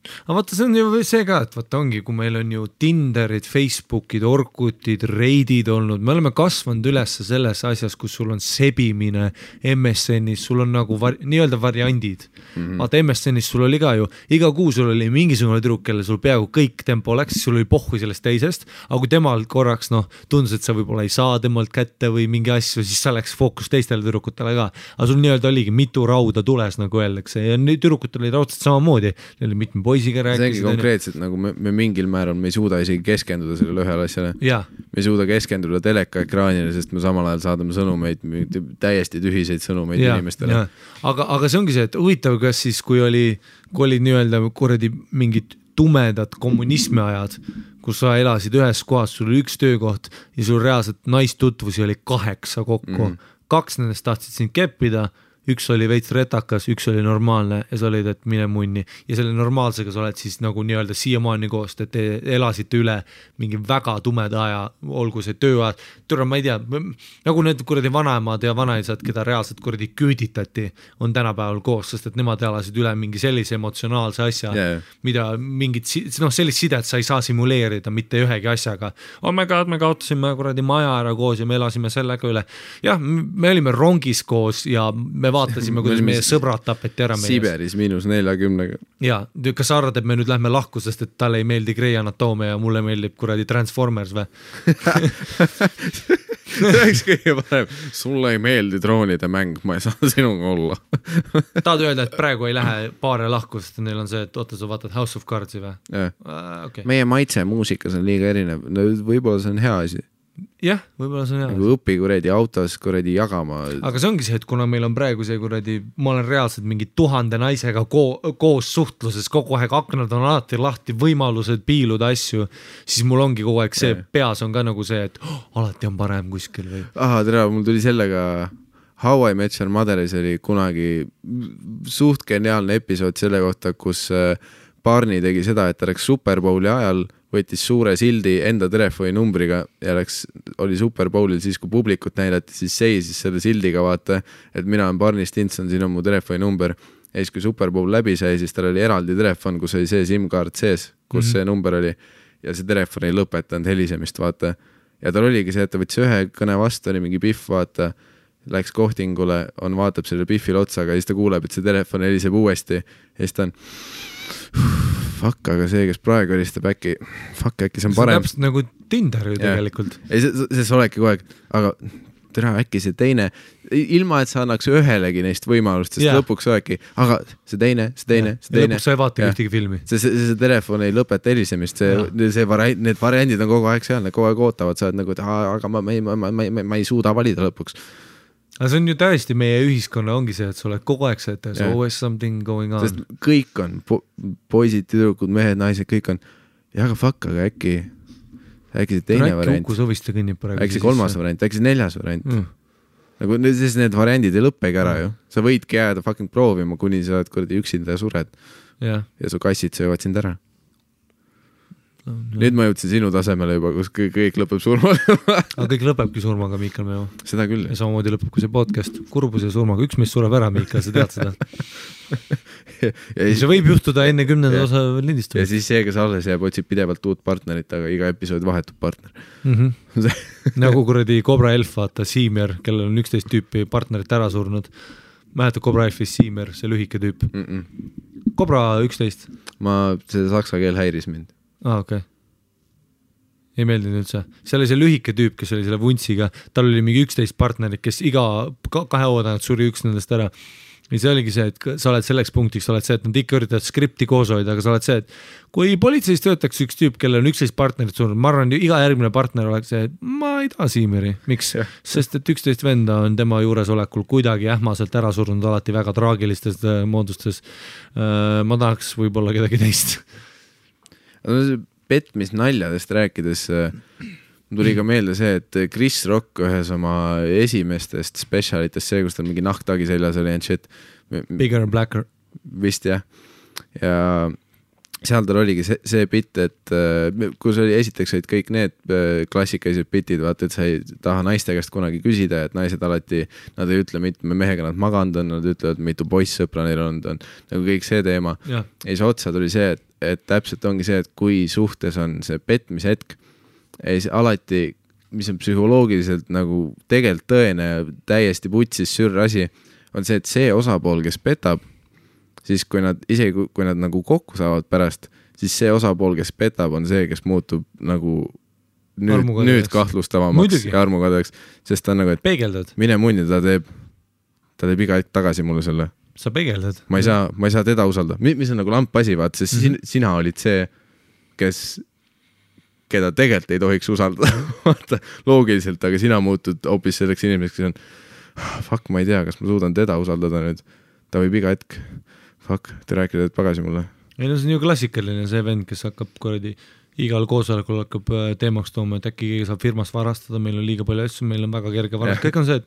aga vaata, see on ju see ka, et vaata ongi, kui meil on ju Tinderid, Facebookid, Orkutid, Reidid olnud, me oleme kasvanud üles selles asjas, kus sul on sebimine MSN-is, sul on nagu nii-öelda variandid. Vaata MSN-is sul oli ka ju, iga kuu sul oli mingisugune tüdruk, kelle sul peaaegu kõik tempo läks, sul oli pohhu sellest teisest, aga kui temal korraks tundus, et sa võib-olla ei saa temalt kätte või mingi asju, siis sa läks fookus teistele tüdrukutele ka. Aga sul nii-öelda oligi mitu rauda tules, nagu öeldakse, ja tüdrukutel oli raudselt samamoodi, neil oli mitme poisiga rääkisid. See ongi konkreetselt, nagu me mingil määral me ei suuda isegi keskenduda sellele ühele asjale. Me ei suuda keskenduda teleka ekraanile, sest me samal ajal saadame sõnumeid, täiesti tühiseid sõnumeid inimestele. Aga see ongi see, et huvitav, kas siis, kui oli nii-öelda kuradi mingid tumedad kommunismi ajad, kus sa elasid ühes kohas, sul oli üks töökoht ja sul reaalselt naistutvusi oli 8 kokku. 2 nendest tahtsid sind keppida, üks oli veits retakas, üks oli normaalne ja sa olid, et mine munni. Ja selle normaalsega sa oled siis nagu nii-öelda siiamaani koost, et te elasite üle mingi väga tumeda aja, olgu see tööajad. Türa, ma ei tea, nagu need kuradi vanaemad ja vanaisad, keda reaalselt kuradi küüditati, on tänapäeval koos, sest et nemad elasid üle mingi sellise emotsionaalse asja, mida mingit, sellist sidet sa ei saa simuleerida mitte ühegi asjaga. Oh my god, me kaotasime kuradi maja ära koos ja me elasime sellega üle. Jah, me olime rongis koos ja me vaatasime, kuidas meie sõbrad tapeti ära meie. Siberis -40. Ja, kas sa arvad, et me nüüd lähme lahku, sest et talle ei meeldi Grey Anatoomia ja mulle meeldib kuradi Transformers või? See oleks kõige parem. Sulle ei meeldi droonide mäng, ma ei saa sinuga olla. Tahad öelda, et praegu ei lähe paare lahku, sest neil on see, et oota, sa vaatad House of Cardsi või? Okay. Meie maitse muusikas on liiga erinev. No, võib-olla see on hea asi. Jah, võib-olla see on hea. Nagu õpi kuradi autos kuradi jagama. Aga see ongi see, et kuna meil on praegu see kuradi, ma olen reaalselt mingi 1000 naisega koos suhtluses, kogu aeg aknad on alati lahti, võimalused piiluda asju, siis mul ongi kogu aeg see peas on ka nagu see, et alati on parem kuskil või. Tere, mul tuli sellega How I Met Your Motheris oli kunagi suht geniaalne episood selle kohta, kus Barney tegi seda, et ta läks Super Bowli ajal võttis suure sildi enda telefoni numbriga ja oli Super Bowlil siis, kui publikut näidati, siis seisis selle sildiga vaata, et mina olen Barney Stinson, siin on mu telefoni number. Ja siis, kui Super Bowl läbi sai, siis tal oli eraldi telefon, kus oli see SIM-kaart sees, kus see number oli ja see telefon ei lõpetanud helisemist, vaata. Ja tal oligi see, et ta võttis ühe kõne vastu, oli mingi Biff, vaata, läks kohtingule, vaatab selle Biffile otsaga ja siis ta kuuleb, et see telefon heliseb uuesti ja siis ta on fuck, aga see, kes praegu helistab äkki see on parem. See on täpselt nagu Tinder ju tegelikult. Ei, see olegi kogu aeg, aga tere, äkki see teine, ilma et sa annaks ühelegi neist võimalust, sest lõpuks olegi, aga see teine. Lõpuks sa ei vaata ühtegi filmi. See telefon ei lõpeta helisemist, need variandid on kogu aeg seal, need kogu aeg ootavad, sa oled nagu, aga ma ei suuda valida lõpuks. Aga see on ju täiesti meie ühiskonna ongi see, et sa oled kogu aeg see, et there's always something going on. Sest kõik on, poisid, tüdrukud, mehed, naised, kõik on, ja aga fuck, aga äkki see teine variant. Äkki see 3. variant, äkki see 4. variant. Nagu need variandid ei lõppegi ära ju. Sa võidki jääda fucking proovima, kuni sa oled kuradi üksinda ja sured. Ja su kassid söövad sind ära. Nüüd ma jõudsin sinu tasemele juba, kus kõik lõpeb surmaga. Aga kõik lõpebki surmaga, Miikal Meo. Seda küll. Ja samamoodi lõpeb kui see podcast kurbus ja surmaga. Üks meist sureb ära, Miikal, sa tead seda. See võib juhtuda enne 10. osa lindistamist. Ja siis see, kes alles jääb, otsib pidevalt uut partnerit, aga iga episood vahetub partner. Nagu kuradi Cobra Elf, vaata, Siimer, kellel on 11 tüüpi partnerit ära surnud. Mäletad Cobra Elfis Siimer, see lühike tüüp. Cobra 11. See saksa keel häiris mind. Okay. Ei meeldinud üldse. Seal oli see lühike tüüp, kes oli selle vuntsiga, tal oli mingi 11 partnerit, kes iga 2 oodanat suri üks nendest ära. Ja see oligi see, et sa oled selleks punktiks, sa oled see, et nad ikka üritavad skripti koos hoida, aga sa oled see, et kui politseis töötaks üks tüüp, kellel on 11 partnerit surnud, ma arvan, iga järgmine partner oleks see, et ma ei taha Siimeri. Miks? Sest et 11 venda on tema juuresolekul kuidagi ähmaselt ära surnud alati väga traagilistes moodustes. Ma tahaks võib-olla kedagi teist. Petmis naljadest rääkides tuli ka meelde see, et Chris Rock ühes oma esimestest specialitest, see, kus tal mingi nahktagi seljas oli and shit. Bigger and blacker. Vist jah. Ja seal tal oligi see bitt, et kus oli esiteks olid kõik need klassikalised bitid, vaata, et sa ei taha naiste käest kunagi küsida, et naised alati, nad ei ütle mitme mehega nad maganud on, nad ütlevad, mitu poissõpra neil on nagu kõik see teema. Ja siis otsa tuli see, et täpselt ongi see, et kui suhtes on see petmise hetk, alati, mis on psühholoogiliselt nagu tegelikult tõene ja täiesti putsis sürr asi, on see, et see osapool, kes petab, siis kui nad nagu kokku saavad pärast, siis see osapool, kes petab, on see, kes muutub nagu nüüd kahtlustavamaks ja armukadeks, sest ta on nagu, et peegeldad. Mine munni, ta teeb iga hetk tagasi mulle selle. Sa peegeldad. Ma ei saa teda usaldada. Mis on nagu lampasi, vaat, sest sina olid see, keda tegelikult ei tohiks usaldada. Vaata, loogiliselt, aga sina muutud hoopis selleks inimeseks, kes on fuck, ma ei tea, kas ma suudan teda usaldada nüüd. Ta võib iga hetk te rääkida pagasi mulle. Ei, no see on ju klassikaline see vend, kes hakkab kordi igal koosolekul hakkab teemaks tooma, et äkki keegi saab firmast varastada, meil on liiga palju asju, meil on väga kerge varastada. Kõik on see, et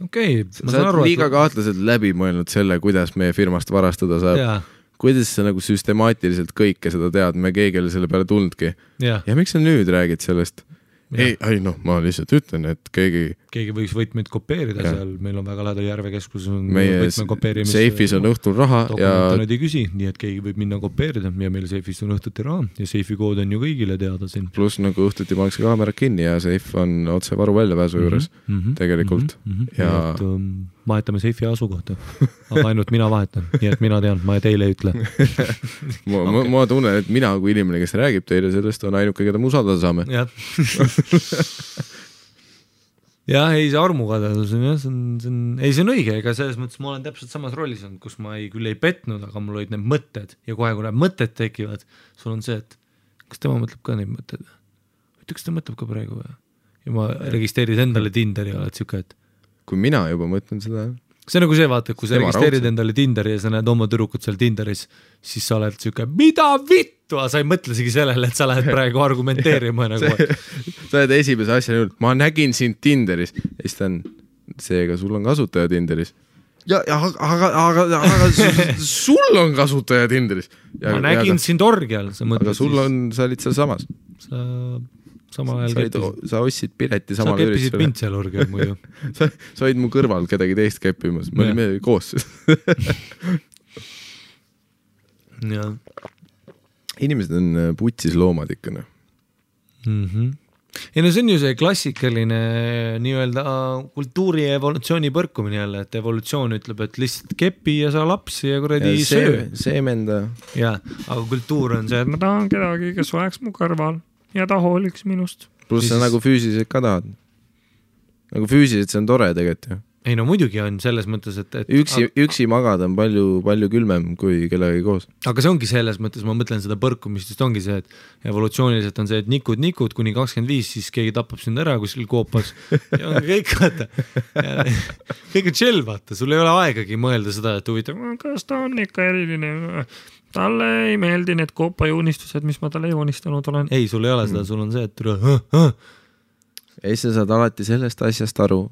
okei, ma saan aru, liiga kahtlaselt läbi mõelnud selle, kuidas meie firmast varastada saab. Ja. Kuidas sa nagu süstemaatiliselt kõike seda tead, me keegi oli selle peale tulnudki. Ja miks sa nüüd räägid sellest? Ei, ma lihtsalt ütlen, et keegi võiks võtmeid kopeerida seal, meil on väga lähedal Järvekeskus meie seifis on õhtul raha ja nad ei küsi, nii et keegi võib minna kopeerida ja meil seifis on õhtuti raha ja seifi kood on ju kõigile teada siin. Pluss nagu õhtuti pannakse kaamerad kinni ja seif on otse varu väljapääsu juures tegelikult. Ja vahetame seifi asukohta, aga ainult mina vahetan, nii et mina tean, ma teile ei ütle. Ma tunnen, et mina kui inimene, kes räägib teile sellest, on ainuke, keda me usaldada saame. Jah, ei see armukadedus on jah, see on õige, ega selles mõttes ma olen täpselt samas rollis olnud, kus ma küll ei petnud, aga mul olid need mõtted ja kohe, kui need mõtted tekivad, sul on see, et kas tema mõtleb ka neid mõtted? Kas ta mõtleb ka praegu? Ja ma registreerid endale Tinderi ja oled siuke, et kui mina juba mõtlen seda. See on nagu see, vaata, kui sa registreerid endale Tinderi ja sa näed oma tüdrukut seal Tinderis, siis sa oled siuke, mida vittu, sa ei mõtlesigi sellele, et sa lähed praegu argumenteerima. Sa oled esimese asja nüüd, ma nägin sind Tinderis. Ja siis ta on, seega sul on kasutaja Tinderis. Aga sul on kasutaja Tinderis. Ma nägin sind orgial. Aga sul on, sa olid seal samas. Samal ajal sa ostsid pileti samal üritusele. Sa keppisid mind seal orgial muidu. sa olid mu kõrval kedagi teist keppimas. Me olime koos. Ja. Inimesed on putsis loomad ikka. Ei no see on ju see klassikaline nii-öelda kultuuri ja evolutsiooni põrkumine jälle, et evolutsioon ütleb, et lihtsalt kepi ja sa lapsi ja kuradi söö. Seemenda. Ja, aga kultuur on see, et ma tahan kedagi, kes oleks mu kõrval ja ta hooliks minust. Pluss sa nagu füüsiliselt ka tahad. Nagu füüsiliselt see on tore tegelikult ju. Ei no muidugi on selles mõttes, et üksi magada on palju külmem kui kellegagi koos. Aga see ongi selles mõttes, ma mõtlen seda põrkumist, just ongi see, et evolutsiooniliselt on see, et nikud kuni 25, siis keegi tapab sind ära kuskil koopas ja kõik vaata. Kõik on chill, vaata, sul ei ole aegagi mõelda seda, et huvitav, kas ta on ikka eriline, talle ei meeldi need koopajuunistused, mis ma talle joonistanud olen. Ei, sul ei ole seda, sul on see, et ei, sa saad alati sellest asjast aru.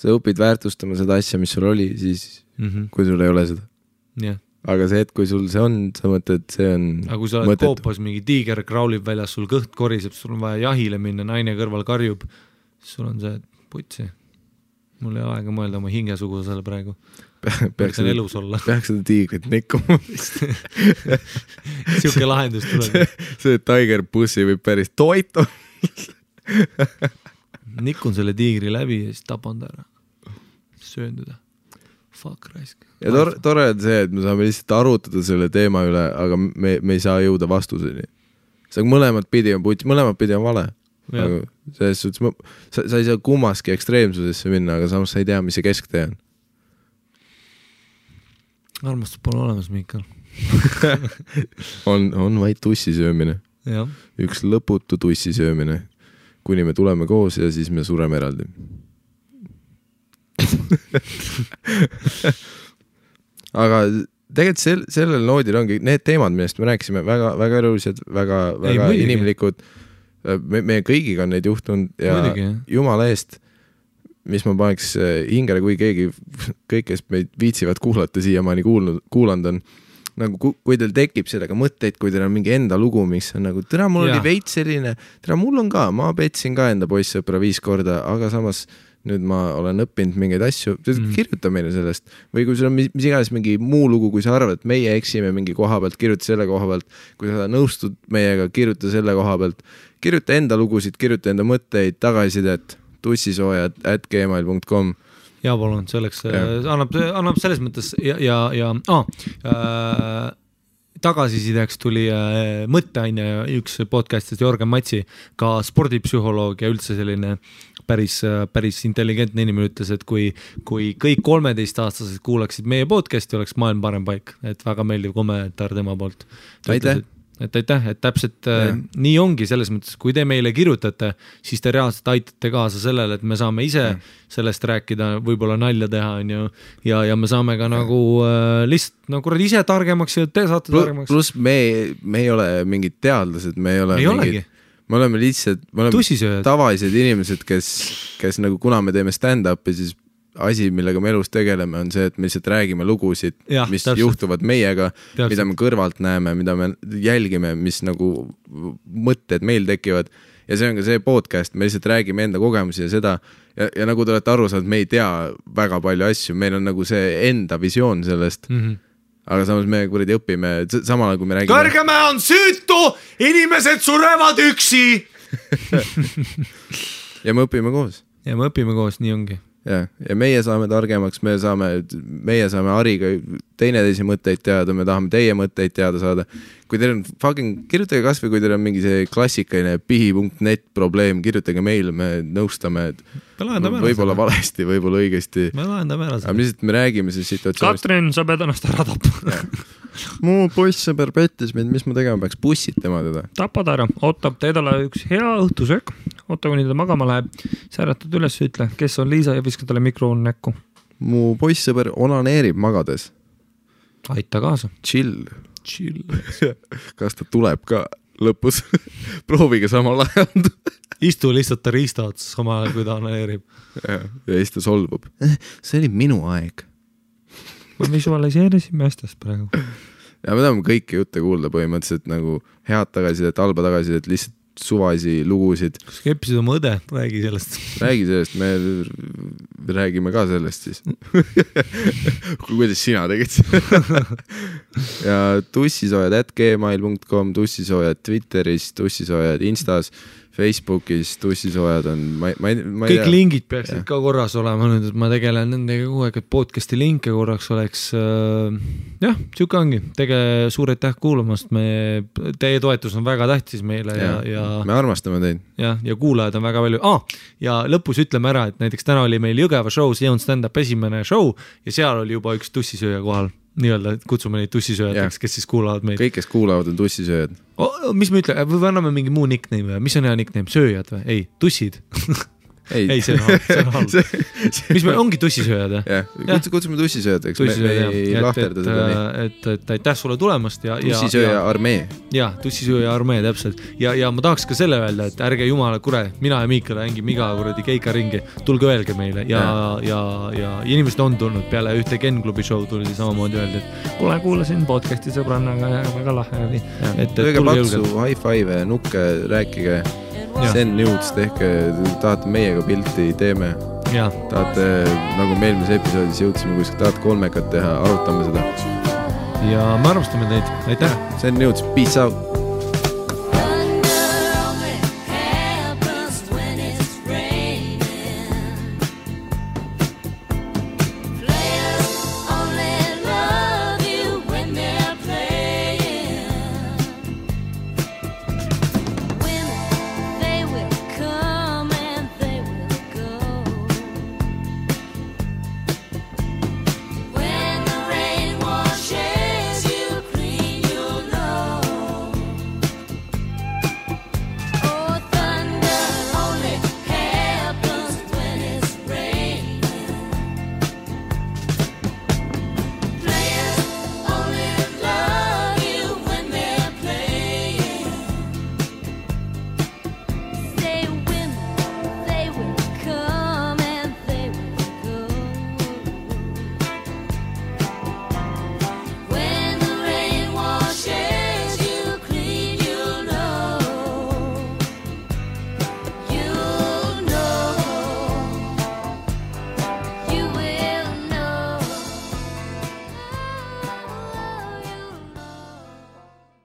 Sa õpid väärtustama seda asja, mis sul oli, siis kui sul ei ole seda. Yeah. Aga see, et kui sul see on, sa mõtled, see on aga kui sa oled koopas, mingi tiiger kraulib väljas, sul kõht koriseb, sul on vaja jahile minna, naine kõrval karjub, siis sul on see, et putsi. Mul ei ole aega mõelda oma hingesugusele praegu. Peaks elus olla. Peaks seda tiigrit nikkuma. Siuke lahendus tuleb. See tiger pussi võib päris toitu. Nikun selle tiigri läbi ja siis tapan ta ära. Söönduda. Fuck raisk. Ja tore on see, et me saame lihtsalt arutada selle teema üle, aga me ei saa jõuda vastuseni. See mõlemad pidi on vale. Aga selles suhtes, sa ei saa kummaski ekstreemsusesse minna, aga samas sa ei tea, mis see kesktee on. Armastus pole olemas, Miikal. on vaid tussi söömine. Ja. Üks lõputu tussi söömine. Kuni me tuleme koos ja siis me sureme eraldi. Aga tegelikult sellel noodil ongi need teemad, millest me rääkisime, väga elulised, väga inimlikud. Me kõigiga on neid juhtunud ja muidugi, jumala eest, mis ma paneks hingele, kui keegi, kõik, kes meid viitsivad kuulata siiamaani kuulanud on, nagu kui teil tekib sellega mõtteid, kui teil on mingi enda lugu, mis on nagu, mul oli veits selline, mul on ka, ma petsin ka enda poissõpra 5 korda, aga samas nüüd ma olen õppinud mingeid asju, kirjuta meile sellest. Või kui sul on mis iganes mingi muu lugu, kui sa arvad, et meie eksime mingi koha pealt, kirjuta selle koha pealt. Kui sa nõustud meiega, kirjuta selle koha pealt. Kirjuta enda lugusid, kirjuta enda mõtteid, tagasisidet, tussisoojad@gmail.com. Ja palun, selleks annab selles mõttes tagasisideks tuli mõtteaine üks podcastist Jorgen Matsi, ka spordipsühholoog ja üldse selline päris intelligentne inimene ütles, et kui kõik 13-aastased kuulaksid meie podcasti, oleks maailm parem paik, et väga meeldiv kommentaar tema poolt. Aitäh! Et täpselt nii ongi selles mõttes, kui te meile kirjutate, siis te reaalselt aitate kaasa sellele, et me saame ise sellest rääkida, võib-olla nalja teha ja me saame ka nagu lihtsalt ise targemaks ja te saate targemaks. Plus me ei ole mingid teadlased, me ei oleme lihtsalt tavalised inimesed, kes nagu kuna me teeme stand-upi, siis asi, millega me elus tegeleme, on see, et me lihtsalt räägime lugusid, mis juhtuvad meiega, mida me kõrvalt näeme, mida me jälgime, mis nagu mõtted meil tekivad. Ja see on ka see podcast, me lihtsalt räägime enda kogemusi ja seda. Ja nagu te olete aru saanud, me ei tea väga palju asju, meil on nagu see enda visioon sellest. Aga samas me kuradi õpime, samal kui me räägime. Kõrgemäe on süütu, inimesed surevad üksi. Ja me õpime koos. Nii ongi. Ja meie saame targemaks, meie saame Hariga teineteisi mõtteid teada, me tahame teie mõtteid teada saada. Kui teil on kirjutage kas või kui teil on mingi see klassikaline pihi.net probleem, kirjutage meile, me nõustame, võib-olla valesti, võib-olla õigesti. Me lahendame ära. Aga lihtsalt me räägime see situatsioonist. Katrin, sa pead ennast ära tappa. Mu poissõber pettis meid, mis ma tegema peaks, bussid tema teda. Tapad ära, ootab teedale üks hea õhtusöök, oota kuni ta magama läheb, säratad üles, ütle, kes on Liisa ja viska talle mikrofon näkku. Mu poissõber onaneerib magades. Aita kaasa. Chill. Kas ta tuleb ka lõpus? Proovige samal ajal. Istu lihtsalt ta riista otsas samal ajal, kui ta onaneerib. Ja siis ta solvub. See oli minu aeg. Me visualiseerisime asjast praegu. Ja me tahame kõiki jutte kuulda põhimõtteliselt nagu head tagasidet, halba tagasidet, lihtsalt suvasi lugusid. Kas keppisid oma õde? Räägi sellest. Räägi sellest, me räägime ka sellest siis. Kuidas sina tegid? Ja tussisoojad@gmail.com, tussisoojad Twitteris, tussisoojad Instas, Facebookis, tussisoojad on kõik lingid peaksid ka korras olema nüüd, et ma tegelen nendega kogu aeg, et podcasti linke korraks oleks siuke ongi, suur aitäh kuulamast, teie toetus on väga tähtis meile ja me armastame teid ja kuulajad on väga palju ja lõpus ütleme ära, et näiteks täna oli meil Jõgeva show, see on stand-up esimene show ja seal oli juba üks tussisööja kohal nii-öelda, et kutsume neid tussisööjateks, kes siis kuulavad meid. Kõik, kes kuulavad, on tussisööjad. Mis me ütle, või anname mingi muu nickname või? Mis on hea nickname? Sööjad või? Ei, tussid. Ei, see on halb. Mis me ongi tussisööjad? Kutsume tussisööjateks. Me ei lahterda seda nii. Et aitäh sulle tulemast. Tussisööja armee. Tussisööja armee, täpselt. Ja ma tahaks ka selle öelda, et ärge jumala kure, mina ja Miikal hängime iga kuradi keika ringi. Tulge öelge meile. Ja inimesed on tulnud peale ühte Ken Klubi show tuli samamoodi öelda, et kuulasin podcasti sõbrannaga ja väga lahe oli. Tõige paksu, high five, nukke, rääkige. Send nudes, tehke, tahate meiega pilti, teeme. Tahate, nagu me eelmises episoodis jõudsime, kui tahate kolmekat teha, arutame seda. Ja me armastame teid. Aitäh! Send nudes, peace out!